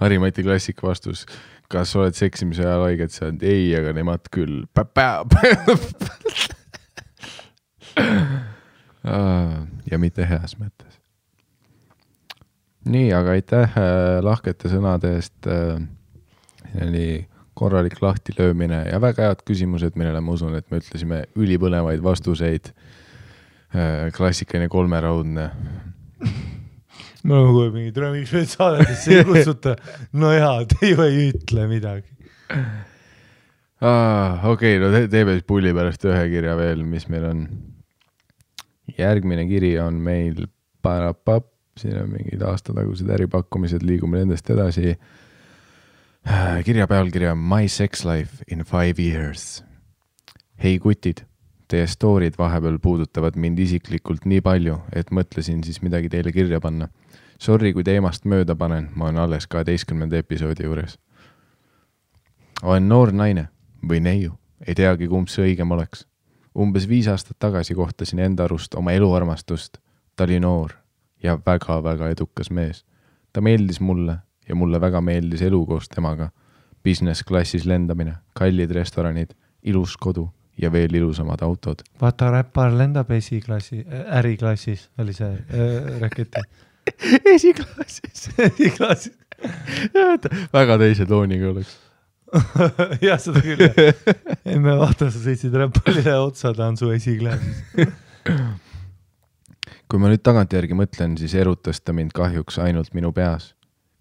Harimati klassika vastus. Kas oled seksimise ajal haiget saanud? Ei, aga nemad küll. Ja mitte heas mõttes. Nii, aga aitäh lahkete sõnade eest. Oli korralik lahti löömine ja väga head küsimused, millele ma usun, et me ütlesime ülipõnevaid vastuseid. Klassikaline 3-raudne. Ma olen kohe mingi miks veel saadetesse ei kutsuta. No jaa, te ju ei ütle midagi. Okei, no teeme siis pulli pärast ühe kirja veel, mis meil on. Järgmine kiri on meil Parapap, siin on mingid aastatagused äripakkumised, liigume nendest edasi. Kirja pealkirja My Sex Life in 5 Years. Hei kutid, teie storid vahepeal puudutavad mind isiklikult nii palju, et mõtlesin siis midagi teile kirja panna. Sorry, kui teemast mööda panen, ma olen alles 12. episoodi juures. Olen noor naine või neiu, ei teagi kumb see õigem oleks. Umbes 5 aastat tagasi kohtasin enda arust oma eluarmastust. Ta oli noor ja väga-väga edukas mees. Ta meeldis mulle ja mulle väga meeldis elu koos temaga. Business klassis lendamine, kallid restoranid, ilus kodu ja veel ilusamad autod. Vaata, räppar lendab äriklassis, oli see raketi. Esiklassis. Väga teise tooniga oleks. Jah, seda küll. Me vaata, sa sõitsid räppalile otsa, ta on su esiklaasis. Kui ma nüüd tagantjärgi mõtlen, siis erutas ta mind kahjuks ainult minu peas.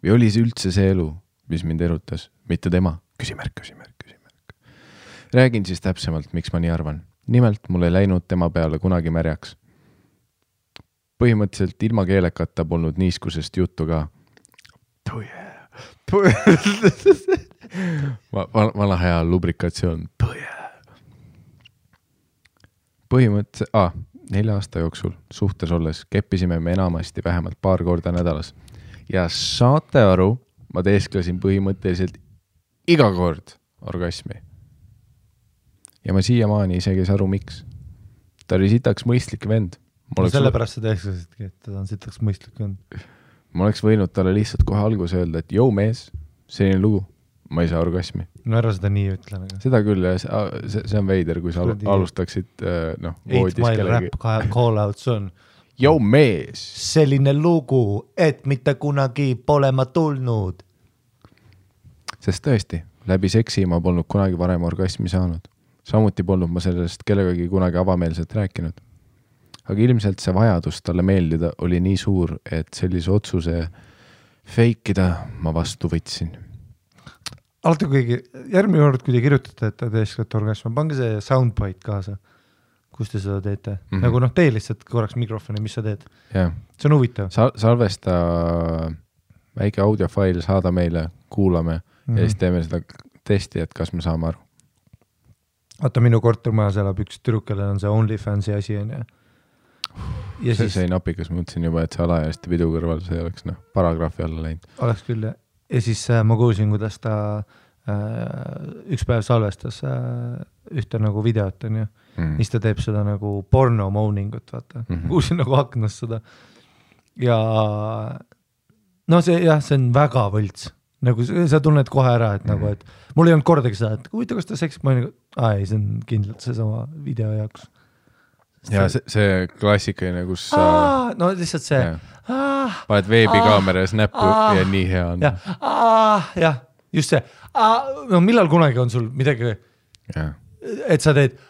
Või oli see üldse see elu, mis mind erutas? Mitte tema. Küsimärk. Räägin siis täpsemalt, miks ma nii arvan. Nimelt mul ei läinud tema peale kunagi märjaks. Põhimõtteliselt ilma keelekata polnud niiskusest juttu ka. Vana hea lubrikatsioon. Põhimõtteliselt 4 aasta jooksul suhtes olles keppisime me enamasti vähemalt paar korda nädalas. Ja saate aru, ma teesklesin põhimõtteliselt iga kord orgasmi. Ja ma siiamaani isegi ei aru, miks. Ta oli sitaks mõistlik vend. Sellepärast sa teesklesidki, et ta on sitaks mõistlik vend. Ma oleks võinud talle lihtsalt kohe alguse öelda, et jõu mees, selline lugu. Ma ei saa orgasmi. No ära seda nii ütlen. Aga. Seda küll, see on veider, kui sa alustaksid voodis 8 Mile rap call-outs on. Jou mees! Selline lugu, et mitte kunagi pole ma tulnud. Sest tõesti, läbi seksi ma polnud kunagi varem orgasmi saanud. Samuti polnud ma sellest kellegagi kunagi avameelselt rääkinud. Aga ilmselt see vajadus talle meeldida oli nii suur, et sellise otsuse feikida ma vastu võtsin. alati kuigi, järgmine kord, kui te kirjutate, et te teesklete orgasmi, pange see soundbite kaasa, kus te seda teete. Nagu noh, tee lihtsalt korraks mikrofoni, mis sa teed. See on huvitav. Salvesta väike audiofail, saada meile, kuulame ja siis teeme seda testi, et kas me saame aru. Vaata, minu kortermajas elab üks tüdrukele on see OnlyFansi asi on ja see siis... ei napikas, mõtlesin juba, et see alaealiste pidu kõrval see oleks paragrahvi alla läinud. Oleks küll, ja siis ma kuulsin, kuidas ta üks päev salvestas ühte nagu videot on ju, siis ta teeb seda nagu porno moaningut, vaata. Kuulsin nagu aknast seda. Ja no see on väga võlts. Nagu sa tunned kohe ära, et nagu, et mul ei olnud kordagi seda, et huvitav, kas ta seksib, ma nagu, ei, see on kindlalt see sama video jaoks. Ja see klassikaline, kus sa... no lihtsalt see... Paned veebikaameras näppu ja nii hea on. Ja, just see. No millal kunagi on sul midagi, et sa teed...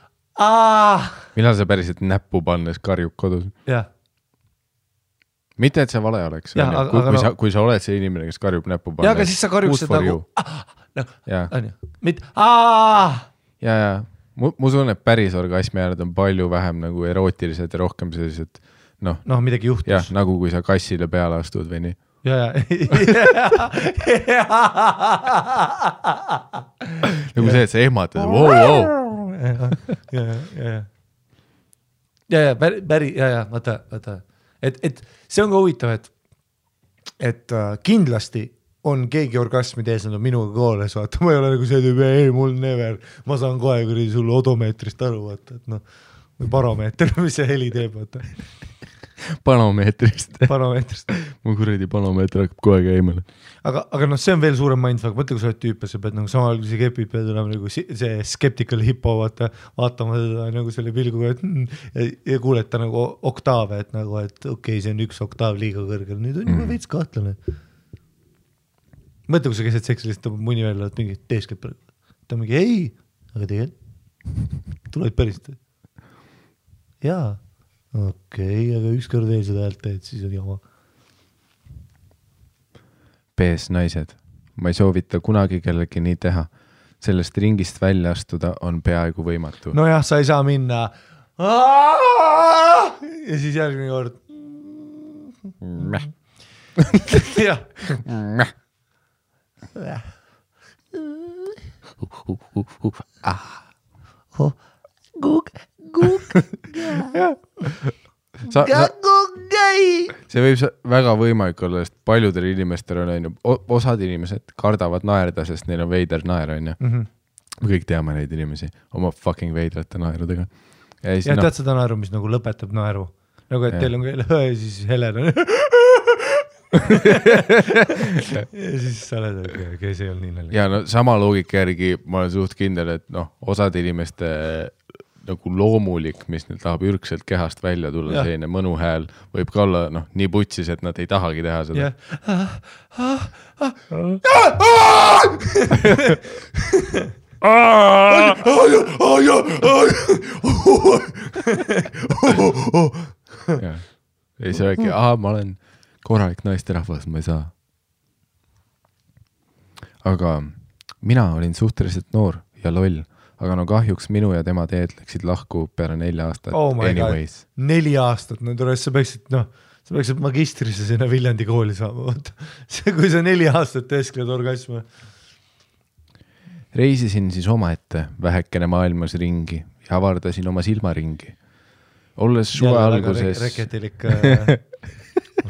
Millal sa päriselt näppu pannes karjub kodus? Ja. Mitte, et see vale oleks. Kui sa oled see inimene, kes karjub näppu pannes. Ja, aga siis sa karjuksid nagu... Ja. Mu tunne, et päris orgasmi äärad on palju vähem nagu erootilised ja rohkem sellised, noh, midagi juhtus. Jah, nagu kui sa kassile peale astud või nii. Nagu see, et sa ehmatad. Vaata. Et see on ka huvitav, et kindlasti on keegi orgasmi tees, nad on minuga kooles, vaata, ma ei ole nagu see tüüb, ei, mul never, ma saan kohe kuradi sulle odomeetrist aru, vaata, et noh, või baromeeter, mis see heli teeb, vaata. Panomeetrist. Mu kuradi panomeeter hakkab kohe käimale. Aga noh, see on veel suurem mindfuck, mõtle, kui sa oled tüüp ja sa pead nagu samal kui see kepid pead olema nagu see skeptical hippo, vaatama seda nagu selle pilguga, ja kuuleta nagu oktaave, et nagu, et okei, see on üks oktav liiga kõrgel, nüüd on juba veits kahtlane. Mõtle, kui sa keset seksi lihtsalt tõmbab muni välja, et mingi teeskab praegu. Ta mingi, ei, aga tegelikult tuled päriselt. Jaa, okei, aga ükskord veel seda häält teed, siis on jama. Pees naised, ma ei soovita kunagi kellegi nii teha. Sellest ringist välja astuda on peaaegu võimatu. No jah, sa ei saa minna. Ja siis järgmine kord. Jah. See võib väga võimalik olla, sest paljudel inimestel on osad inimesed kardavad naerda, sest neil on veider naer on ju. Me kõik teame neid inimesi oma fucking veidrate naerudega. Ja tead seda naeru, mis nagu lõpetab naeru, nagu et teil on ja siis Helen on ja siis sa oled, kes ei olnud nii nalja. Ja no sama loogika järgi ma olen suht kindel, et noh, osad inimeste nagu loomulik, mis neil tahab ürgselt kehast välja tulla, selline mõnu hääl võib ka olla noh, nii putsis, et nad ei tahagi teha seda. Ei see äkki, ma olen korralik naisterahvas, ma ei saa. Aga mina olin suhteliselt noor ja loll, aga no kahjuks minu ja tema teed läksid lahku peale 4 aastat. Anyways. 4 aastat, no tule, sa peaksid magistrisse sinna Viljandi kooli saama. Kui sa 4 aastat teeskled orgasme. Reisisin siis omaette vähekene maailmas ringi ja avardasin oma silmaringi. Olles suve alguses... Reketilik...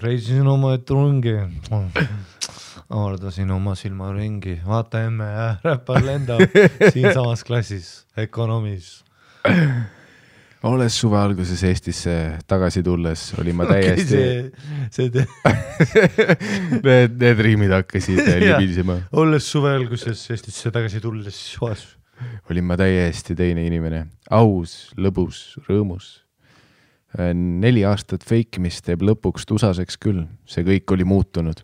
Reisisin oma etrungi, avardasin oma silmaringi, vaata emme ja räppar lendab siin samas klassis, ökonomis. Olles suve alguses Eestisse tagasi tulles, oli ma täiesti... Need riimid hakkasid libisema. Olles suve alguses Eestisse tagasi tulles, olin ma täiesti teine inimene, aus, lõbus, rõõmus. 4 aastat feikimist teeb lõpuks tusaseks küll, see kõik oli muutunud.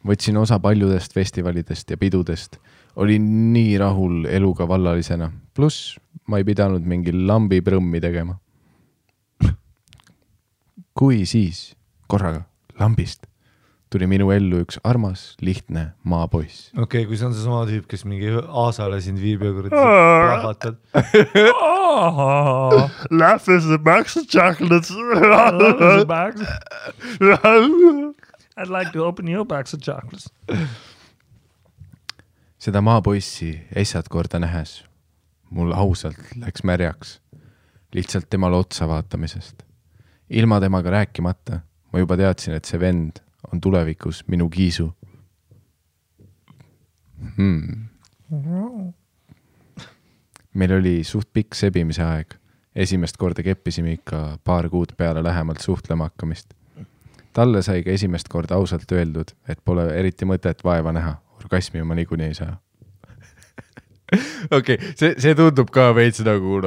Võtsin osa paljudest festivalidest ja pidudest, olin nii rahul eluga vallalisena, pluss ma ei pidanud mingi lambi prõmmi tegema. Kui siis korraga lambist tuli minu ellu üks armas, lihtne maapoiss. Okei, kui see on see sama tüüp, kes mingi aasale sind viib ja plahvatad. Laugh is the box of chocolates. I'd like to open your box of chocolates. Seda maapoissi essad korda nähes. Mul ausalt läks märjaks. Lihtsalt temale otsa vaatamisest. Ilma temaga rääkimata ma juba teadsin, et see vend on tulevikus minu kiisu. Meil oli suht pikk sebimise aeg. Esimest korda keppisime ikka paar kuud peale lähemalt suhtlema hakkamist. Talle sai ka esimest korda ausalt öeldud, et pole eriti mõtet vaeva näha. Orgasmi ma niikuinii ei saa. Okei, see tundub ka veits nagu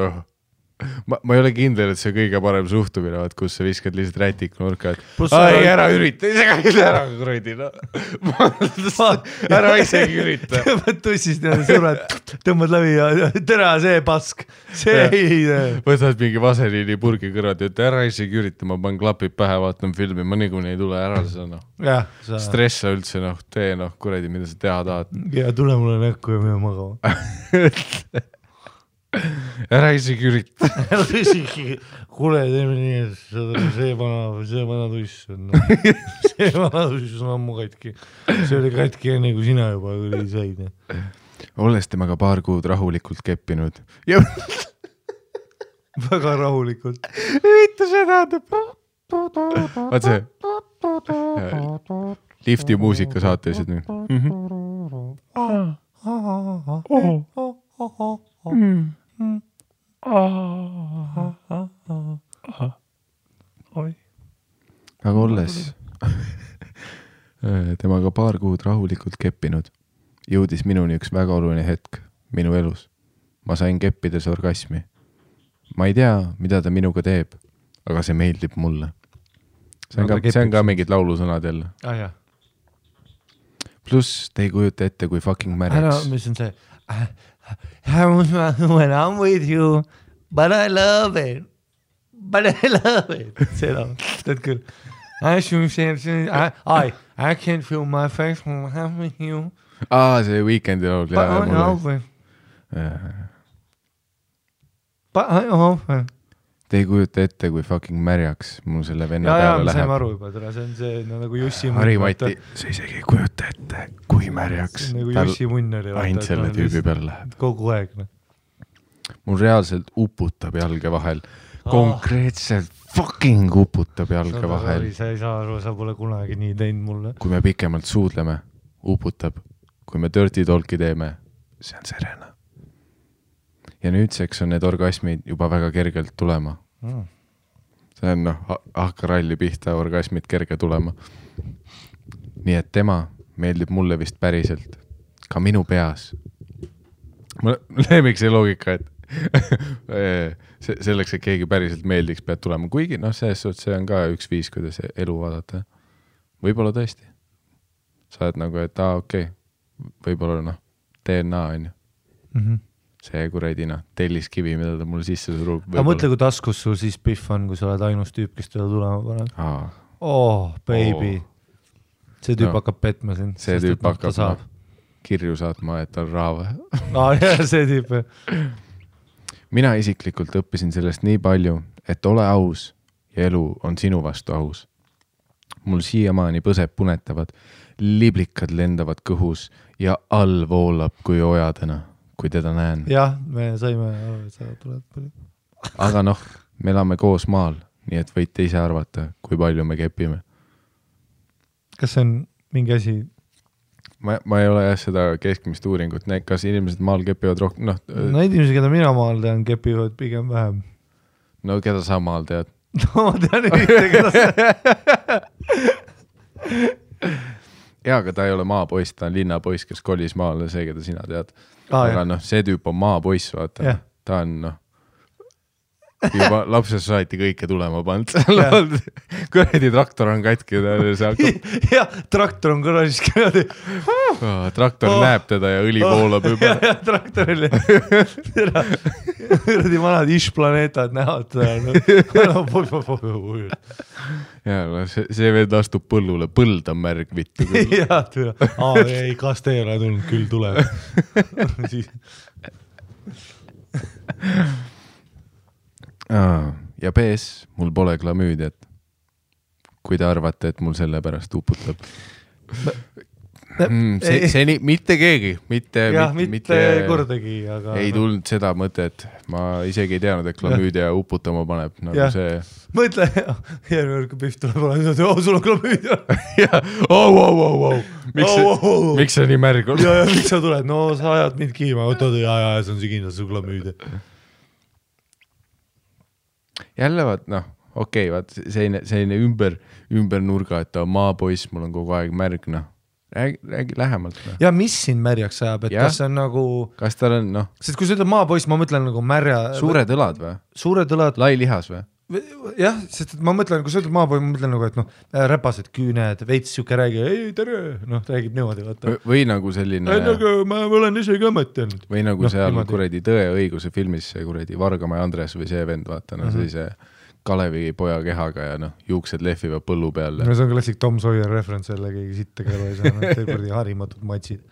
ma ei ole kindel, et see kõige parem suhtumine, kus sa viskad lihtsalt rätik nurka, et ära ürita, ära kuradi, ära isegi ürita. Tõmbad tussist ja sured, tõmbad läbi ja tere see pask, see ei. Võtad mingi vaseliini purgi kõrvad ja ära isegi ürita, ma panen klapid pähe, vaatan filmi, ma niikuinii ei tule ära seda stressa üldse, tee kuradi, mida sa teha tahad. Ja tule mulle näkku ja mine magama. Ära isegi ürita. Kuule, teeme nii, et see vana tuss on. See vana tuss on ammu katki. See oli katki enne, kui sina juba said. Olles temaga paar kuud rahulikult keppinud. Väga rahulikult. Mitte seda. Vaat see. Lifti muusika saatelised nüüd. Aga olles temaga paar kuud rahulikult keppinud, jõudis minuni üks väga oluline hetk minu elus. Ma sain keppides orgasmi. Ma ei tea, mida ta minuga teeb, aga see meeldib mulle. See on ka mingid laulusõnad jälle. Plus te ei kujuta ette, kui fucking märjaks. Mis on see? When I'm with you, but I love it. Seda, tead küll. I can't feel my face when I'm with you. See Weekendi laul. But I offer. Te ei kujuta ette, kui fucking märjaks mul selle venna peale läheb. Ja, saime aru juba, see on see nagu Jussi munn. Harimati, sa isegi ei kujuta ette, kui märjaks. See on nagu Jussi munn oli. Ainult selle tüübi peale läheb. Kogu aeg. Mul reaalselt uputab jalge vahel. Konkreetselt fucking uputab jalge vahel. Sa ei saa aru, sa pole kunagi nii teinud mulle. Kui me pikemalt suudleme, uputab. Kui me dirty talki teeme, see on serena. Ja nüüdseks on need orgasmid juba väga kergelt tulema. See on hakkaralli pihta orgasmid kerge tulema. Nii et tema meeldib mulle vist päriselt. Ka minu peas. Mulle lemmik see loogika, et selleks, et keegi päriselt meeldiks, pead tulema. Kuigi, see on ka üks viis, kuidas elu vaadata. Võib-olla tõesti. Sa oled nagu, et okei. Võib-olla DNA on ju. See kuradina, telliskivi, mida ta mulle sisse surub. Aga mõtle, kui taskus sul siis pihv on, kui sa oled ainus tüüp, kes teda tulema paneb. Baby. See tüüp hakkab petma sind. See tüüp hakkab kirju saatma, et on raava. See tüüp. Mina isiklikult õppisin sellest nii palju, et ole aus ja elu on sinu vastu aus. Mul siiamaani põseb punetavad, liblikad lendavad kõhus ja all voolab kui ojadena. Kui teda näen. Jah, me saime aru, et sa tuled palju. Aga me elame koos maal, nii et võite ise arvata, kui palju me kepime. Kas see on mingi asi? Ma ei ole seda keskmist uuringut. Kas inimesed maal kepivad rohkem? Need inimesed, keda mina maal tean, kepivad pigem vähem. No keda sa maal tead? Ma tean ühte, keda sa... Jaa, aga ta ei ole maapoiss, ta on linnapoiss, kes kolis maale, see, keda sina tead. Aga see tüüp on maapoiss, vaata. Ta on juba lapsest saati kõike tulema pand. Kuradi traktor on katki. Ja, traktor on kõrvalis kõrvadi. Traktor näeb teda ja õli voolab juba. Ja, traktoril. Kuradi vanad Ish-planeetad näevad. Ja, see veel astub põllule. Põld on märg vittu. Ja, ei, kas te ei ole tulnud, küll tuleb. Ja PS, mul pole klamüüdiat. Kui te arvate, et mul selle pärast uputab. See mitte keegi, mitte kordagi, aga ei tulnud seda mõtet. Ma isegi ei teadnud, et klamüüdia uputama paneb nagu ja. See. Mõtle, järgmine kui Pihv tuleb, sul on klamüüdia. Miks see nii märg on? Ja, miks sa tuled? No sa ajad mind kiima, võtad ja see on see kindlasti su klamüüdia. Jälle vaat, okei, vaat selline ümber nurga, et ta maapoiss, mul on kogu aeg märg, räägi lähemalt. Ja mis siin märjaks ajab, et kas see on nagu... Kas tal on, Sest kui sa ütled maapoiss, ma mõtlen nagu märja... Suured õlad või? Suured õlad... Lai lihas või? Jah, sest ma mõtlen, kui sa ütled maapoiss, ma mõtlen nagu, et räpased küüned, veits siuke räägi, ei tere, räägib niimoodi. Vaata. Või nagu selline... Nagu ma olen isegi mõtelnud. Või nagu seal kuradi Tõe õiguse filmis see kuradi Vargamäe Andres või see vend, vaata, sellise Kalevi poja kehaga ja juuksed lehvivad põllu peal. See on klassik Tom Sawyer reference jälle, keegi sitta kõrva ei saa, teil kuradi harimatud matsid.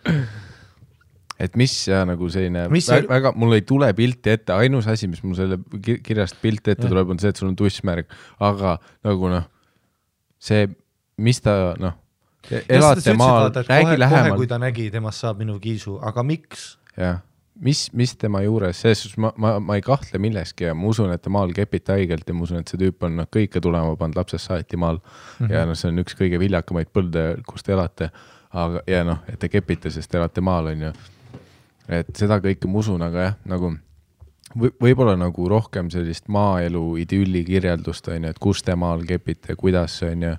Et mis ja nagu selline, väga, mul ei tule pilti ette, ainus asi, mis mul selle kirjast pilti ette tuleb, on see, et sul on tussmärg, aga nagu see, mis ta, elate maal, räägi lähemalt. Kohe, kui ta nägi, temast saab minu kiisu, aga miks? Jah, mis tema juures, sest ma ei kahtle milleski ja ma usun, et ta maal kepita haigelt ja ma usun, et see tüüp on kõike tulema pand lapsest saati maal ja see on üks kõige viljakamaid põlde, kus te elate, aga, ja et te kepite, sest te elate maal, on ju. Et seda kõike ma usun, aga jah, nagu võib-olla nagu rohkem sellist maaelu idülli kirjeldust, on ju, et kus te maal kepite, kuidas on ju,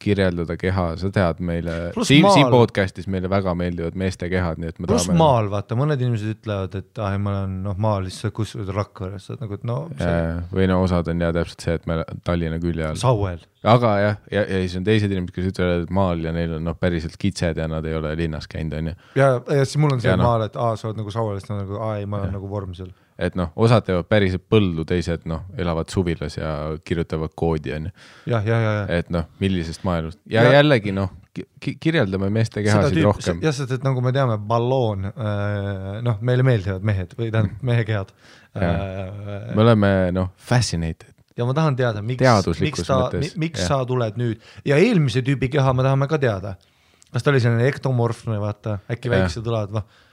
kirjeldada keha, sa tead meile, siin podcastis meile väga meeldivad meeste kehad, nii et me tahame... maal, vaata, mõned inimesed ütlevad, et ma olen maal lihtsalt kus Rakveres, nagu, et või osad on täpselt see, et me Tallinna külje all. Sauel. Aga ja siis on teised inimesed, kes ütlevad, et maal ja neil on päriselt kitsed ja nad ei ole linnas käinud, on ju. Ja siis mul on see maal, et sa oled nagu Sauelist, nagu ei, ma olen nagu vorm seal. Et osad teevad päriselt põldu, teised elavad suvilas ja kirjutavad koodi, on ju. Ja. Et millisest maailust. Ja jällegi, kirjeldame meeste kehasid rohkem. Jah, sest et nagu me teame, balloon, meile meeldivad mehed või tähendab mehe kehad. Me oleme, fascinated. Ja ma tahan teada, miks sa tuled nüüd. Ja eelmise tüübi keha me tahame ka teada. Kas ta oli selline ektomorfne, vaata, äkki väikse tulad,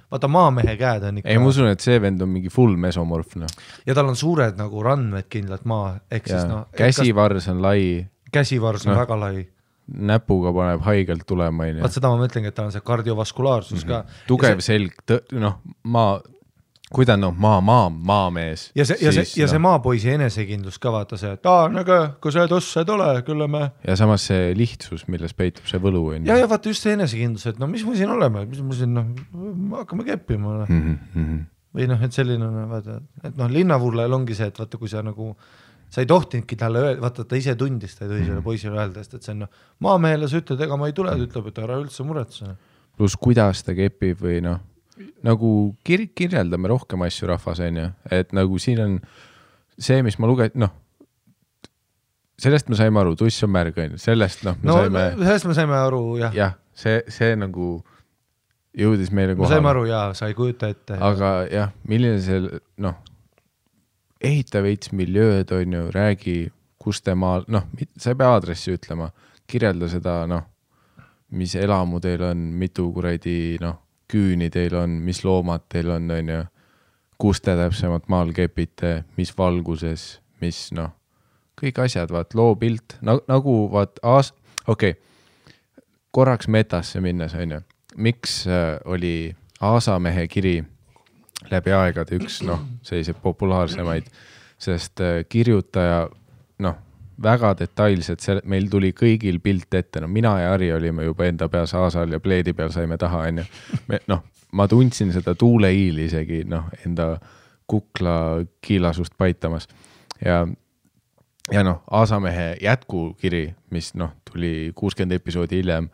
vaata maamehe käed on ikka... Ei, ma usun, et see vend on mingi full mesomorfne. Ja tal on suured nagu randmed kindlalt maa. Käsivars on lai. Käsivars on väga lai. Näpuga paneb haigelt tulema. Vaat seda ma mõtlengi, et tal on see kardiovaskulaarsus ka. Tugev selg, kui ta on maamees. Ja see maapoisi enesekindlus ka vaata see, et kui sa tossed ole, küll me... Ja samas see lihtsus, milles peitub see võlu. Ja vaata just see enesekindlus, et mis me siin oleme, mis me siin, hakkame keppima. Või et selline, vaata, et linnavurlajal ongi see, et vaata, kui sa nagu, sa ei tohtinudki talle öelda, vaata, ta ise tundis, ta ei tohi selle poisile öelda, et see on maamehele sa ütled, ega ma ei tule, ta ütleb, et ära üldse muretse. Plus kuidas ta kepib või nagu kirjeldame rohkem asju rahvas, on ju, et nagu siin on see, mis ma sellest me saime aru, tuss on märg, on ju, sellest sellest me saime aru, jah. Jah, see nagu jõudis meile kohale. Me saime aru, jaa, sa ei kujuta ette. Aga jah, milline see, ehita veits miljööd, on ju, räägi, kus te maal, sa ei pea aadressi ütlema, kirjelda seda, mis elamu teil on, mitu kuradi, küüni teil on, mis loomad teil on ju, kus te täpsemalt maal kepite, mis valguses, mis kõik asjad, vaat loo pilt, nagu vaat korraks metasse minnes, on ju, miks oli Aasamehe kiri läbi aegade üks, selliseid populaarsemaid, sest kirjutaja, väga detailselt, meil tuli kõigil pilt ette, mina ja Ari olime juba enda peas Aasal ja pleedi peal saime taha, on ju. Ma tundsin seda tuuleiili isegi, enda kukla kiilasust paitamas ja noh, Aasamehe jätkukiri, mis noh, tuli 60 episoodi hiljem,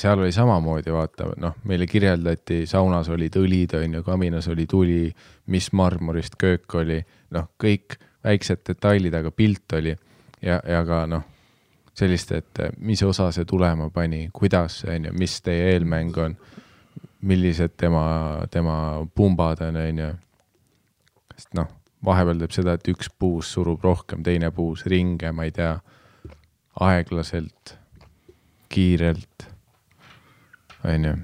seal oli samamoodi, vaata, noh, meile kirjeldati, saunas olid õlid, kaminas oli tuli, mis marmorist köök oli, noh, kõik väiksed detailid, aga pilt oli ja ka noh, sellist, et mis osa see tulema pani, kuidas see on ja mis teie eelmäng on, millised tema pumbad on, sest noh, vahepeal teeb seda, et üks puus surub rohkem, teine puus ringe, ma ei tea, aeglaselt, kiirelt, on ju.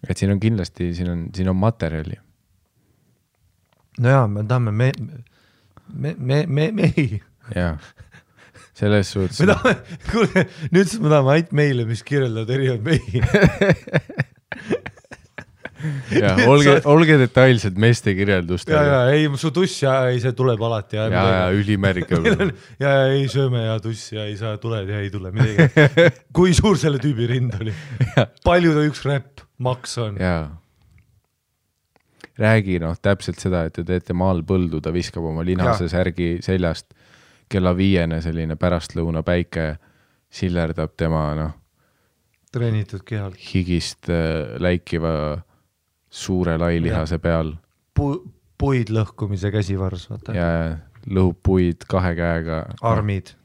Et siin on kindlasti, siin on materjali. No jaa, me tahame mehi. Jaa, selles suhtes. Kuule, nüüd me tahame ainult meile, mis kirjeldavad erinevad mehi. Ja, olge detailsed meeste kirjeldust. Ja, ei, su tuss ja ei, see tuleb alati. Ja, ülimärg. Ja ei sööme ja tuss ja ei saa tuled ja ei tule midagi. Kui suur selle tüübi rind oli? Palju ta üks räpp maks on? Jaa. Räägi noh, täpselt seda, et te teete maal põldu, ta viskab oma linase särgi seljast, kella 5 selline pärastlõuna päike sillerdab tema noh, treenitud kehal. Higist läikiva suure lailihase peal. Puid lõhkumise käsivars, vaata. Ja lõhub puid 2 käega. Armid.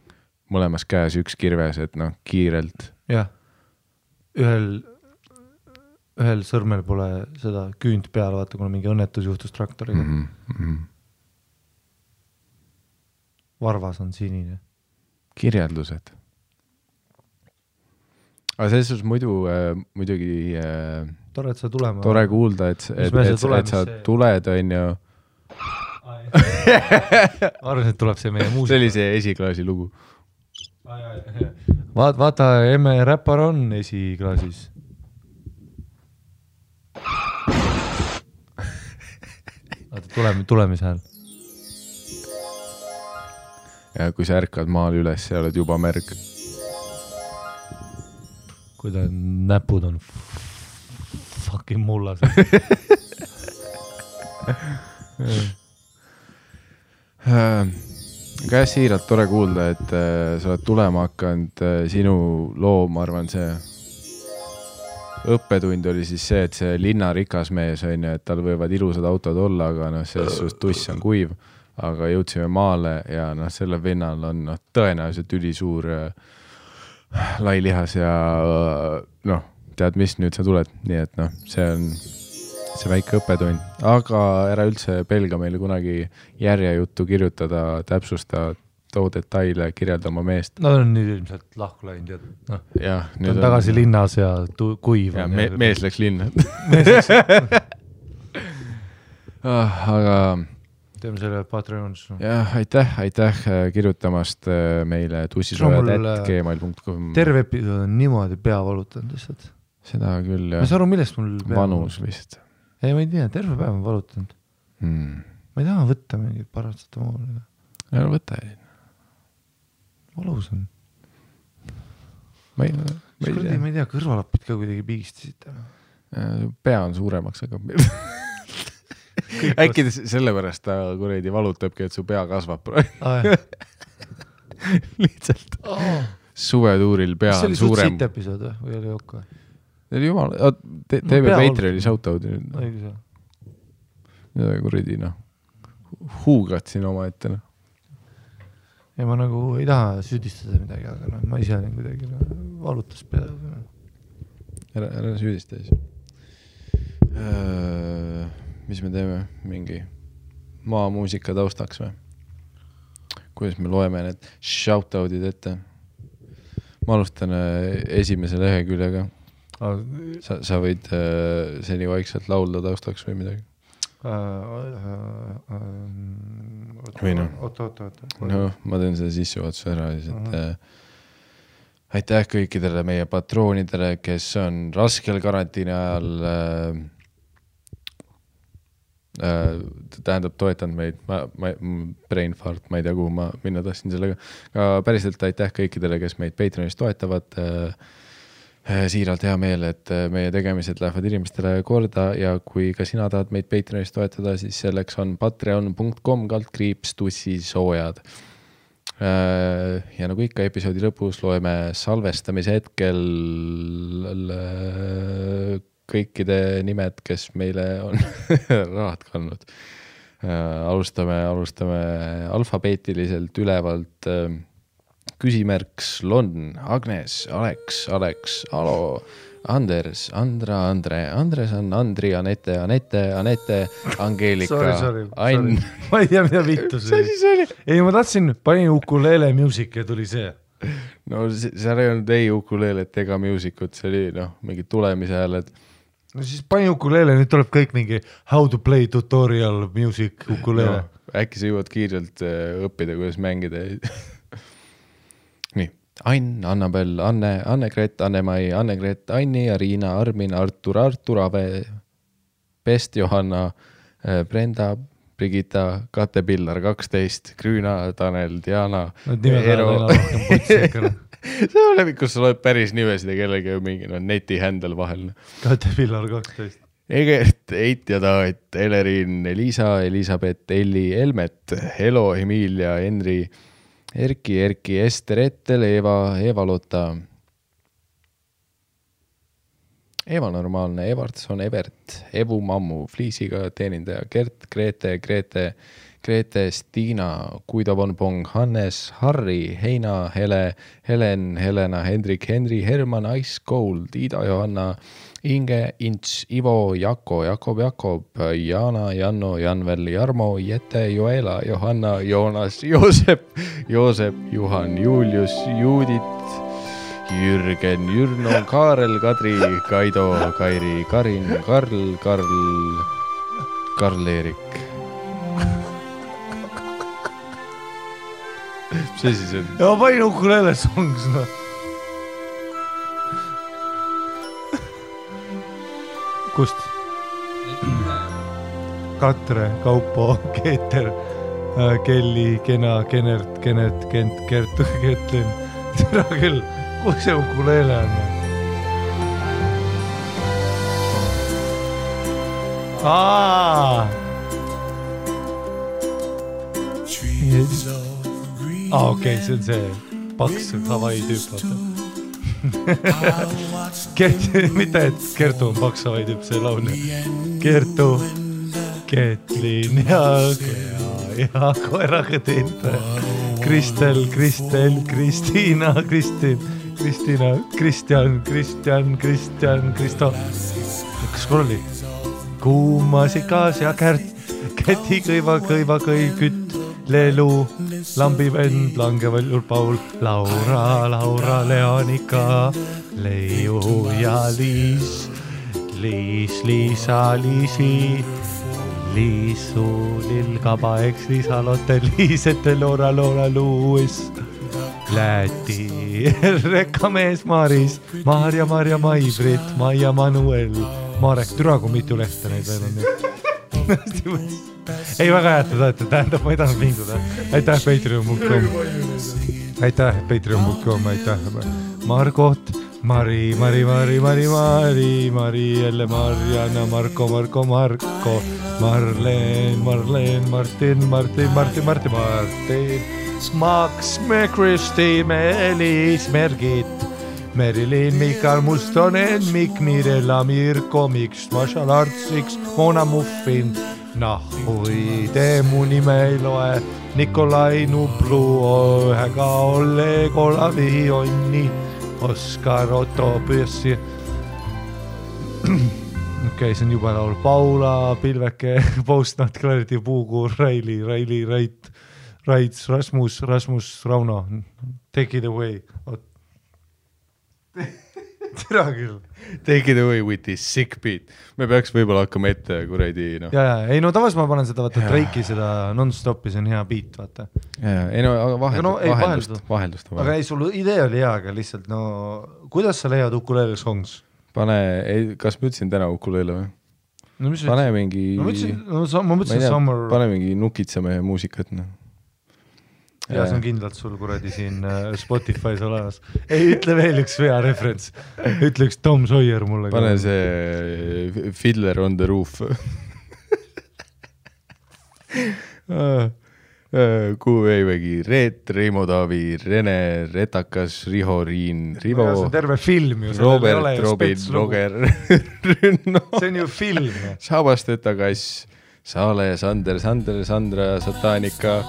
Mõlemas käes üks kirves, et noh, kiirelt. Jah, ühel sõrmel pole seda küünt peal, vaata, kuna mingi õnnetus juhtus traktoriga. Varvas on sinine. Kirjeldused. Aga selles suhtes muidugi tore, et sa tulema. Tore kuulda, et sa tuled, on ju. Arvan, et tuleb see meie muusika. See oli see esiklaasi lugu. Vaata, emme räppar on esiklaasis. Tulemise hääl. Ja kui sa ärkad maal üles, sa oled juba märg. Kui ta näpud on fucking mullas. Käes siiralt tore kuulda, et sa oled tulema hakanud sinu loo, ma arvan, see õppetund oli siis see, et see linna rikas mees on ju, et tal võivad ilusad autod olla, aga noh, selles tuss on kuiv, aga jõudsime maale ja noh, selle vennal on noh, tõenäoliselt ülisuur lailihas ja noh, tead mis, nüüd sa tuled, nii et noh, see on see väike õppetund, aga ära üldse pelga meile kunagi järjejuttu kirjutada, täpsusta too detaile, kirjeldama meest. No on nüüd ilmselt lahku läinud ja noh, nüüd on tagasi linnas ja kuiv. Ja mees läks linna. Aga teeme selle Patreonis. Jah, aitäh kirjutamast meile tussisojad@gmail.com. Terve episood on niimoodi pea valutanud lihtsalt. Seda küll, jah. Ma saa aru, millest mul pea vanus vist. Ei, ma ei tea, terve päev on valutanud. Ma ei taha võtta mingit paratsetamooli. Ja võta ei. Valus on. Ma ei tea, kõrvalapid ka kuidagi pigistasid. Pea on suuremaks, aga äkki sellepärast ta kuredi valutabki, et su pea kasvab. Lihtsalt. Suvetuuril pea on suurem. See oli suht siit episood või oli okka? See oli jumal, teeme Patreoni shoutout. Õigus. Kuredi, noh. Huugad siin oma ette, noh. Ja ma nagu ei taha süüdistada midagi, aga no, ma ise olen kuidagi valutas peale. Ära süüdista siis. Mis me teeme? Mingi maamuusika taustaks või? Kuidas me loeme need shoutoutid ette? Ma alustan esimese leheküljega. Sa võid seni vaikselt laulda taustaks või midagi? Või noh, ma teen seda sissejuhatuse ära siis, et aitäh kõikidele meie patroonidele, kes on raskel karantiini ajal tähendab toetanud meid, brain fart, ma ei tea kuhu ma minna tahtsin sellega, aga päriselt aitäh kõikidele, kes meid Patreonis toetavad, siiralt hea meel, et meie tegemised lähevad inimestele korda ja kui ka sina tahad meid Patreonis toetada, siis selleks on patreon.com/tussisoojad. Ja nagu ikka episoodi lõpus loeme salvestamise hetkel kõikide nimed, kes meile on rahad kandnud. Alustame alfabeetiliselt ülevalt küsimärk Lon, Agnes, Alex, Alo, Anders, Andra, Andresan, Andri, Anette, Angeelika, Ain. Ma ei tea, mida vittu see oli. Ei, ma tahtsin, panin ukulele music ja tuli see. No seal ei olnud ei ukulelet ega musicut, see oli mingi tulemise hääled. No siis panin ukulele, nüüd tuleb kõik mingi how to play tutorial music ukulele. Äkki sa jõuad kiirelt õppida, kuidas mängida. Nii, Ain, Annabel, Anne-Gret, Anne-Mai, Anne-Gret, Anni, Ariina, Armin, Artur, Ave, Pest, Johanna, Brenda, Brigitta, Kate Pillar, 12, Grüüna, Tanel, Diana, Ero. See on läbi, kus sa loed päris nimesid ja kellegi mingi neti händel vahel. Kate Pillar, 12. Egert, Eit ja Taat, Elerin, Elisa, Elisabeth, Elli, Elmet, Helo, Emilia, Henri, Erki, Ester, Ettel, Eva Lotta, Eva Normaalne, Evartson, Evert, Evu Mammu, Fliisiga teenindaja, Gert, Grete, Stiina, Guido von Pong, Hannes, Harri, Heina, Helen, Helena, Hendrik, Henri, Herman, Ice Gold, Ida, Johanna, Inge, Ints, Ivo, Jako, Jakob, Jana, Janno, Janvel, Jarmo, Jette, Joela, Johanna, Joonas, Joosep, Juhan, Julius, Juudit, Jürgen, Jürno, Kaarel, Kadri, Kaido, Kairi, Karin, Karl-Erik. See siis on? Ja ma panin ukulele songs, Kust? Katre, Kaupo, Keeter, Kelli, Kena, Kenert, Kent, Kertu, Ketlin. Tere küll, kus see ukulele on? Okei, see on see paks Hawaii tüüp. Mitte, et Kertu on paks Hawaii tüüp, see laulja. Kertu, Ketlin ja koeraga tinte. Kristel, Kristiina, Kristjan, Kristo. Kas kol oli? Kuumasikas ja Käti kõiva kütt. Lelu, lambivend, langeval Paul, Laura, Leonika, Leiu ja Liisa, Liisu, Lilkaba, Liisa, Lotte, Liisete, Loora, Luuis, Läti, Rekkamees, Maris, Maarja, Maivrit, Maia, Manuel, Marek, türa kui mitu lehte neid veel on nüüd. Ei, väga hääd, tähendab, ma ei tahtnud vinguda. Aitäh, Patreon.com, aitäh, Margot, Mari, jälle Marjana, Marko, Marleen, Martin, Max, Kristi, Meelis, Mergit, Merilin, Mikael Mustonen, Mikk, Mirella, Mirko, Miks, Marshall Artsiks, Mona Muffin, Nahui, mu nime ei loe, Nikolai Nublu, ühega Olle, Kolavi, Onni, Oskar, Otto, Püssi. Okei, see on juba laul. Paula, Pilveke, Postnat, Clarity, Puukuur, Raili, Raits, Rasmus, Rauno. Take it away. Tere küll. Take it away with this sick beat. Me peaks võib-olla hakkama ette kuradi. Ei, no tavas ma panen seda, vaata, Drake'i seda non-stopi, see on hea beat, vaata. Ei, no vaheldust. Aga ei, sul idee oli hea, aga lihtsalt, kuidas sa leiad ukulele songs? Kas ma ütlesin täna ukulele või? Pane mingi... Ma mõtlesin Summer... Pane mingi nukitseme muusikat, ja see on kindlalt sul kuradi siin Spotify's olemas. Ei, ütle veel üks vea referents. Ütle üks Tom Sawyer mulle. Pane see Fiddler on the Roof. Kuhu Veivägi, Reet, Reimo Taavi, Rene, Retakas, Riho, Riin, Rivo. See on terve film ju. Robert, Robin, Roger, Rünno. See on ju film. Sabasteta Kass, Saale, Sander, Sandra, Satanika.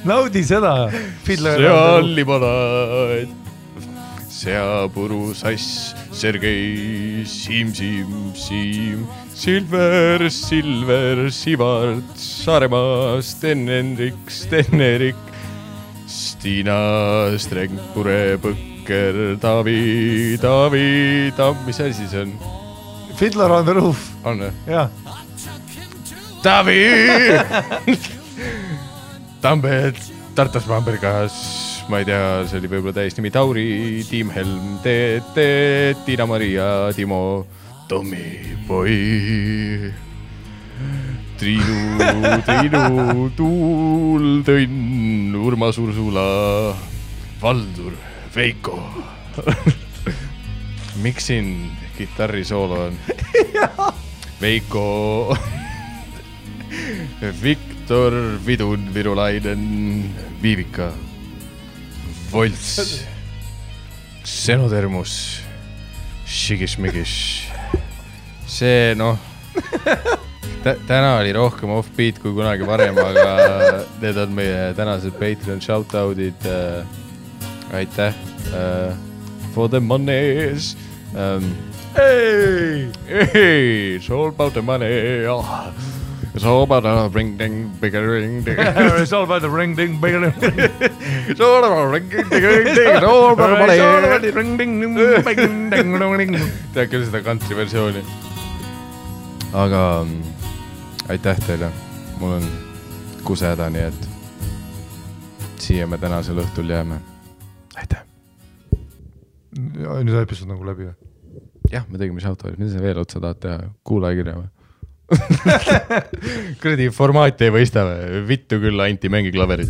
Naudi seda. Seal limonad, seapuru sass, Sergei, Siim, Silver, Sivart, Saaremaa, Sten-Erik, Stiina, Strengpure, Põkker, Taavi, mis asi see on? Fiddler on the Roof. On või? Jah. Taavi! Tambed, Tartas Bambergas, ma ei tea, see oli võib-olla täiesti nimi Tauri, Tiim Helm, Tiina-Maria, Timo, Tommy Boy, Triinu, Tuul, Tõnn, Urmas Ursula, Valdur, Veiko. Miks siin kitarrisoolo on? Veiko, Viktor, Vidun, Virulainen, Viivika, Volts, Xenodermus, Shigishmigish. See täna oli rohkem off-beat kui kunagi varem, aga need on meie tänased Patreon shoutoutid. Aitäh for the monies. Hey, it's all about the money. It's all about the ring-ding, bigger-ring, ding. It's all about the ring-ding, bigger-ring. It's all about the ring-ding, bigger-ring, ding. It's all about the money. It's all about the ring-ding, bigger-ring. Tead küll seda country versiooni. Aga aitäh teile. Mul on kuseda, nii et siia me tänasel õhtul jääme. Aitäh. Nüüd episood nagu läbi või? Jah, me tegime shoutoutid. Mida sa veel otsa tahad teha? Kuulajakirja või? Kuradi formaati ei võista või? Vittu küll, Anti, mängi klaverit.